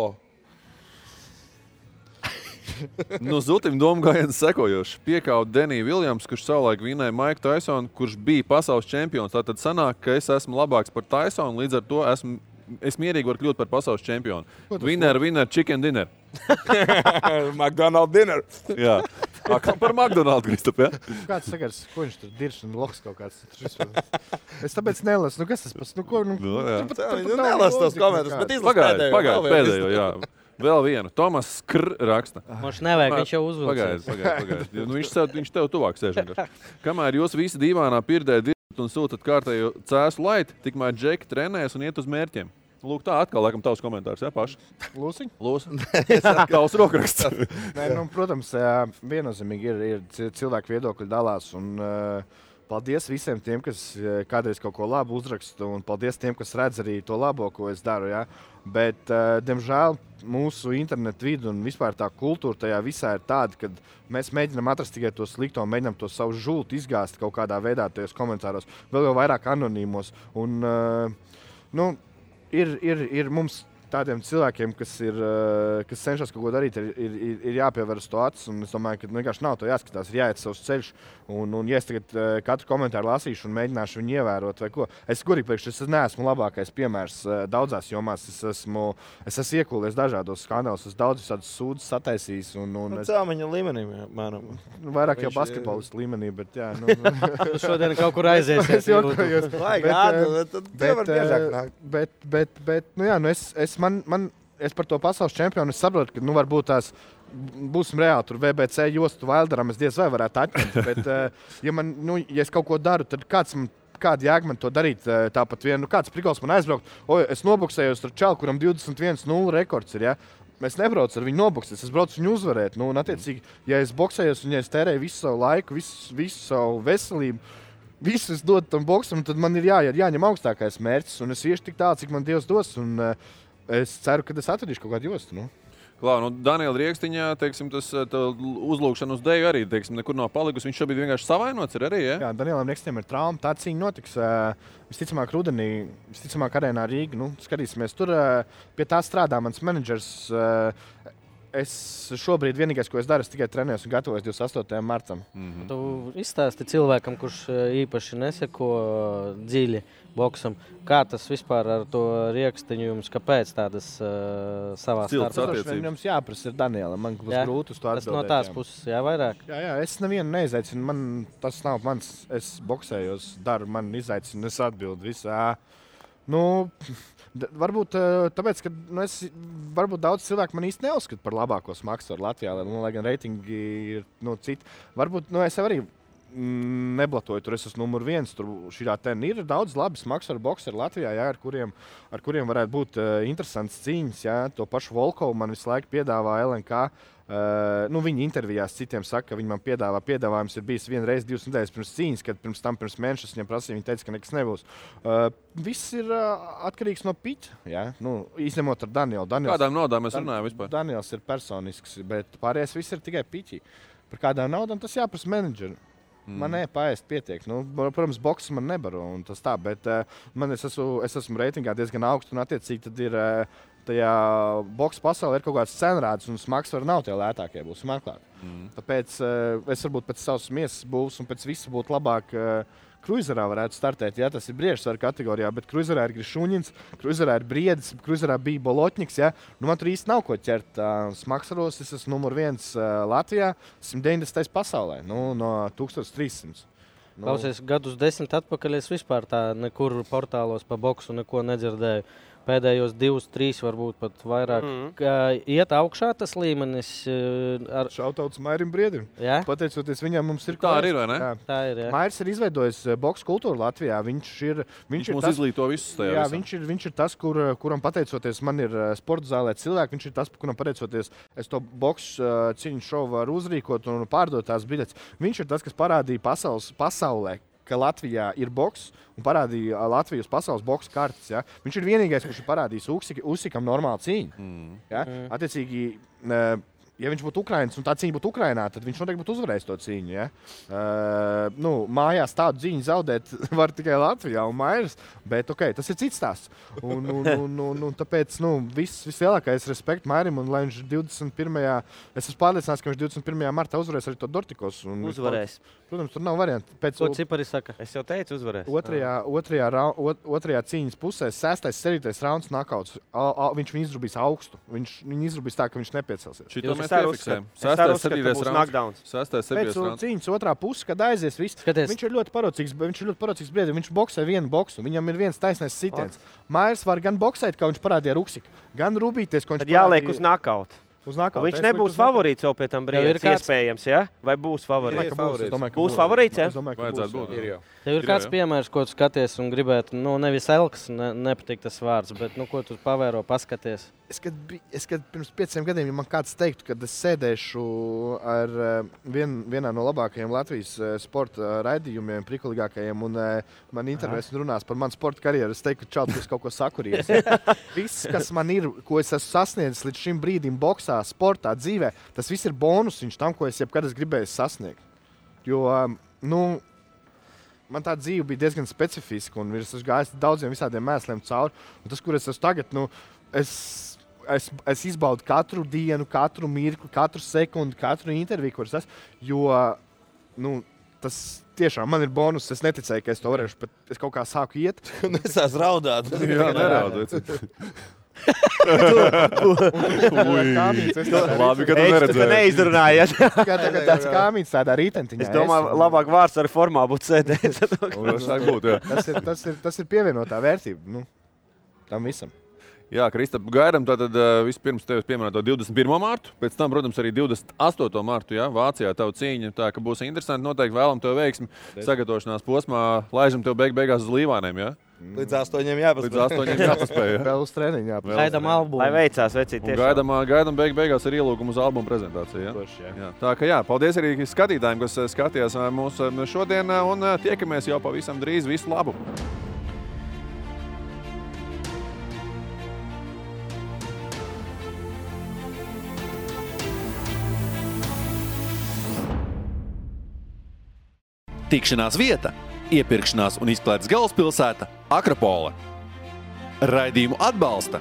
[SPEAKER 1] Zutim domu gājiens sekojoši. Piekaut Deniju Viljams, kurš savulaik vinēja Maiku Taisonu, kurš bija pasaules čempions. Tātad sanāk, ka es esmu labāks par Taisonu, līdz ar to es mierīgi varu kļūt par pasaules čempionu. Winner, chicken dinner.
[SPEAKER 9] McDonald's dinner.
[SPEAKER 1] Jā. Par McDonald's, Kristap, jā?
[SPEAKER 12] Kāds sakars, ko viņš tur dirš un loks kaut kāds? Es tāpēc nelasu. Kas tas pats?
[SPEAKER 9] Nelasu tos komentārus, bet izlasu
[SPEAKER 1] pēdējo, jā. Vēl vienu. Tomas Skr raksta.
[SPEAKER 8] Viņš nevajag, viņš jau uzvilcies.
[SPEAKER 1] Pagaid. Viņš tev tuvāk sēž. Kamēr jūs visi dīvānā pirdē dirbat un sūtat kārtējo cēsu laiti, tikmēr Džeki trenēs un iet uz mērķiem. Lūk, tā atkal, laikam, tavs komentārs, jā, paši?
[SPEAKER 12] Lūsiņ?
[SPEAKER 1] Tavs rokraksts.
[SPEAKER 12] Protams, viennozīmīgi ir cilvēku viedokļi dalās, un paldies visiem tiem, kas kādreiz kaut ko labu uzraksta, un paldies tiem, kas redz arī to labo, ko es daru, jā. Bet, diemžēl, mūsu internetu vidu un vispār tā kultūra tajā visā ir tāda, ka mēs mēģinām atrast tikai to slikto, mēģinām to savu žultu izgāzt kaut kādā veidā tajos komentāros, vēl jau vairāk anonīmos, un, Ir mums tādiem cilvēkiem, kas cenšas kaut ko darīt, ir jāpievērs to acis. Un es domāju, ka vienkārši nav to jāskatās, ir jāiet savs ceļš. Un ja es tagad katru komentāru lasīšu un mēģināšu viņu ievērot vai ko, es gurīgi priekš, es neesmu labākais piemērs daudzās jomās. Es esmu iekūlies dažādos skandālos, es daudz visādus sūdzes sataisījis.
[SPEAKER 9] Cēlmeņa līmenī, mēram.
[SPEAKER 12] Vairāk jau basketbolistu līmenī, bet jā.
[SPEAKER 8] Šodien kaut kur aiziesies.
[SPEAKER 12] Es par to pasaules čempionu saprotu, ka varbūt tās būsim reāli tur VBC jostu Wilderam, es diez vai varētu atņemt, bet ja es kaut ko daru, tad kāda jēga man to darīt tāpat vien, kāds prikols man aizbraukt, es noboksējos ar čalu, kuram 21-0 rekords ir, ja? Es nebraucu ar viņu noboksēt, es braucu viņu uzvarēt, un attiecīgi, ja es boksējos un ja es tērēju visu savu laiku, visu savu veselību, visu es dodu tam boksam, tad man ir jāņem augstākais mērķis, un es iešu tik tālu, cik man Dievs dos, un es ceru, ka es atradīšu kaut kādu jostu.
[SPEAKER 1] Klau, Daniela Riekstiņā, teiksim, tas uzlūkšana uz deju arī, teiksim, nekur nav palikusi. Viņš šobrīd vienkārši savainots ir arī, ja?
[SPEAKER 12] Jā, Danielam Riekstiņam ir trauma. Tā cīņa notiks visticamāk rudenī, visticamāk arēnā Rīga. Skatīsimies, tur pie tā strādā mans menedžers. Es šobrīd vienīgais, ko es daru, es tikai trenējos un gatavojos 28. martam.
[SPEAKER 8] Tu izstāsti cilvēkam, kurš īpaši neseko dziļi boksam, kā tas vispār ar to riekstiņu jums, kāpēc tādas savā starpā?
[SPEAKER 12] Jums jāprasa ir Daniela, man būs grūti uz to atbildēt.
[SPEAKER 8] Tas no tās puses, vairāk?
[SPEAKER 12] Jā, es nevienu neizzaicinu, tas nav mans, es boksējos, daru, man izaicinu, es atbildu visā. Varbūt tāpēc, ka varbūt daudz cilvēku man īsti neuzskata par labāko smaksaru Latvijā, lai gan reitingi ir citi. Varbūt es jau arī neblatoju, tur es esmu numur 1. Tur ir daudz labi smaksaru bokseri Latvijā, ar kuriem varētu būt interesants cīņas. Jā. To pašu Volkovu man visu laiku piedāvā LNK. Viņi intervijās citiem saka, ka viņi man piedāvājums ir bijis vienu reizi 2 nedēļas pirms cīņas, kad pirms mēneša viņam prasīja, viņi teica, ka nekas nebūs. Viss ir atkarīgs no piķa, izņemot ar Danielu.
[SPEAKER 1] Kādām naudām mēs runājam vispār?
[SPEAKER 12] Daniels ir personisks, bet pārējais viss ir tikai piķi. Par kādām naudām tas jāprasa menedžeri. Man paēst pietiek. Protams, boks man nebaro un tas tā, bet es esmu reitingā diezgan augstu un attiecīgi tad ir tajā boksa pasaulē ir kaut kāds cenrāds un smagsvari nav tie lētākie, būs meklēt. Tāpēc es varbūt pēc savas miesas būs un pēc visa būtu labāk Kruizerā varētu startēt, ja tas ir briežsvaru kategorijā, bet Kruizerā ir Grišuņins, Kruizerā ir Briedis, Kruizerā bija Bolotņiks, ja. Man tur īsti nav ko ķert. Smaksaros es esmu numur 1 Latvijā, 190. pasaulē, no 1300.
[SPEAKER 8] Klausies, gadus 10 atpakaļ es vispār tā nekur portālos pa boksu neko nedzirdēju. Pēdējos 2, 3, varbūt pat vairāk. Iet augšā tas līmenis.
[SPEAKER 12] Šautauts Mairim Briedim.
[SPEAKER 8] Ja?
[SPEAKER 12] Pateicoties viņam, mums ir
[SPEAKER 1] tā arī, vai ne?
[SPEAKER 12] Jā.
[SPEAKER 8] Tā ir, jā.
[SPEAKER 12] Mairis ir izveidojis boksu kultūru Latvijā. Viņš
[SPEAKER 1] mums izglīto visus tajā.
[SPEAKER 12] Jā, viņš ir tas, kuram pateicoties man ir sporta zālē cilvēki. Viņš ir tas, kuram pateicoties es to boksu cīņu šovu varu uzrīkot un pārdot tās biļetes. Viņš ir tas, kas parādīja pasaulē, ka Latvijā ir boks un parādīja Latvijas pasaules boksa kartes. Ja? Viņš ir vienīgais, kurš ir parādījis Usikam normālu cīņu. Ja? Attiecīgi, ja viņš būtu Ukrainas un tā cīņa būtu Ukrainā, tad viņš noteikti būtu uzvarējis to cīņu. Ja? Mājās tādu cīņu zaudēt var tikai Latvijā un Mairis, bet tas ir cits stāsts. Tāpēc vislielākais respekts Mairim un lai viņš 21. Es esmu pārliecināts, ka viņš 21. martā uzvarēs arī to Dortikos.
[SPEAKER 11] Uzvarēs.
[SPEAKER 12] Protams, tur nav variantu.
[SPEAKER 8] Ko cipari saka?
[SPEAKER 11] Es jau teicu, uzvarēs.
[SPEAKER 12] Otrajā cīņas pusē 6. 7. rauns nakauts. Viņš viņu izrubīs augstu. Viņu izrubīs tā, ka viņš nepiecelsies.
[SPEAKER 1] Šito mēs piefiksējam. 6. 7.
[SPEAKER 12] Pēc cīņas otrā puse, kad aizies viss. Viņš ir ļoti parocīgs Briedim. Viņš boksē vienu boksu. Viņam ir viens taisnais sitiens. Mairis var gan boksēt, kā viņš parādīja ar Uksiku, gan rūbīties, ko viņš
[SPEAKER 11] parādīja. Jāliek uz nakautu. Viņš nebūs favorīts jau pie tam brīdim, iespējams, ja? Vai būs favorīts? Būs favorīts, ja?
[SPEAKER 1] Vajadzētu būt.
[SPEAKER 8] Tev ir kāds piemērs, ko tu skaties un gribētu, nevis Elks, nepatīk tas vārds, bet ko tu pavēro, paskaties?
[SPEAKER 12] Es kad pirms 5 gadiem, ja man kāds teiktu, kad es sēdēšu ar vienā no labākajiem Latvijas sporta raidījumiem, prikuligākajiem, un man intervēs un runās par manu sporta karjeru, es teiktu, ka čaut, es kaut ko sakurījies. Viss, kas man ir, ko es esmu sasniedzis līdz šim brīdim boksā, sportā, dzīvē, tas viss ir bonusiņš tam, ko es jebkad gribēju sasniegt. Jo, man tā dzīve bija diezgan specifiska, un es esmu gājis daudziem visādiem mēsliem cauri. Un tas, kur es esmu tagad, es izbaudu katru dienu, katru mirkli, katru sekundi, katru interviju, kuras esmu, jo, tas tiešām man ir bonus. Es neticēju, ka es to varēšu, bet es kaut kā sāku iet.
[SPEAKER 9] Nesās raudāt.
[SPEAKER 1] Jā, neraudot.
[SPEAKER 12] Labi, ka tu neredzēji.
[SPEAKER 11] Neizrunājies.
[SPEAKER 12] Kā tagad tāds kāmīts tādā rītentiņā.
[SPEAKER 11] Es domāju, labāk vārds ar formā būtu sēdēt.
[SPEAKER 12] Tas ir pievienotā vērtība tam visam.
[SPEAKER 1] Jā, Kristap, gaidām tātad vispirms tevis pieminēto 21. martu, pēc tam, protams, arī 28. martu, ja, Vācijā tavu cīņu, tā ka būs interesanti, noteikti vēlam tev veiksmi sagatavošanās posmā, laižam tev beigās uz līvāniem, ja?
[SPEAKER 9] Līdz 8 jāpaspēj.
[SPEAKER 12] Vēl uz treniņu jāpaspēj.
[SPEAKER 8] Gaidām albumu.
[SPEAKER 11] Lai veicās, vecīt tiešām.
[SPEAKER 1] Gaidām beigās ar ielūgumu uz albumu prezentāciju, ja? Jā. Tā ka jā, paldies arī skatītājiem, kas skatījās mūs šodien, un tiekamies jau pavisam drīz. Visu labu!
[SPEAKER 13] Tikšanās vieta, iepirkšanās un izklaides galvaspilsēta Akropole. Raidījumu atbalsta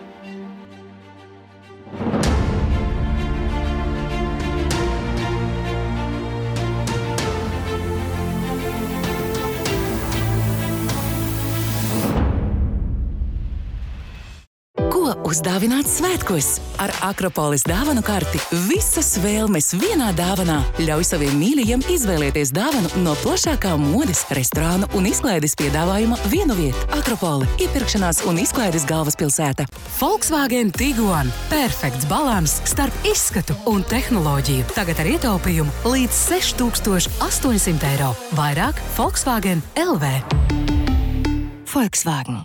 [SPEAKER 6] Uzdāvināts svētkos ar Akropolis dāvanu karti. Visas vēlmes vienā dāvanā. Ļauj saviem mīļajiem izvēlēties dāvanu no plašākā modes, restorānu un izklaides piedāvājuma vienu vietu. Akropole – iepirkšanās un izklaides galvaspilsēta.
[SPEAKER 14] Volkswagen Tiguan – perfekts balans starp izskatu un tehnoloģiju. Tagad ar ietaupījumu līdz 6800 eiro. Vairāk Volkswagen LV.
[SPEAKER 6] Volkswagen.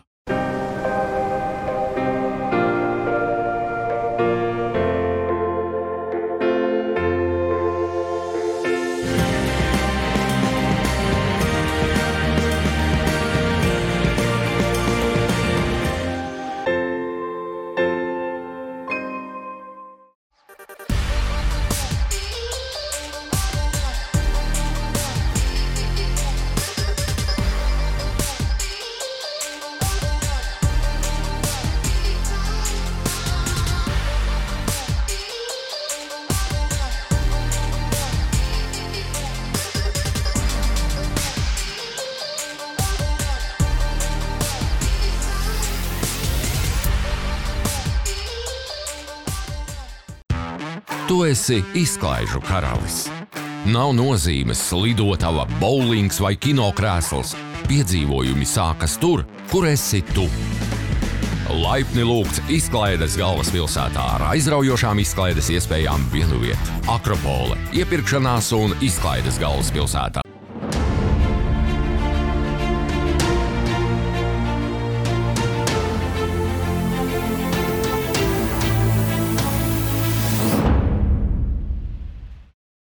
[SPEAKER 7] Tu esi izklaižu karalis. Nav nozīmes lidotava, bowlings vai kinokrēsls. Piedzīvojumi sākas tur, kur esi tu. Laipni lūgts izklaides galvaspilsētā ar aizraujošām izklaides iespējām vienu vietu. Akropole – iepirkšanās un izklaides galvaspilsētā.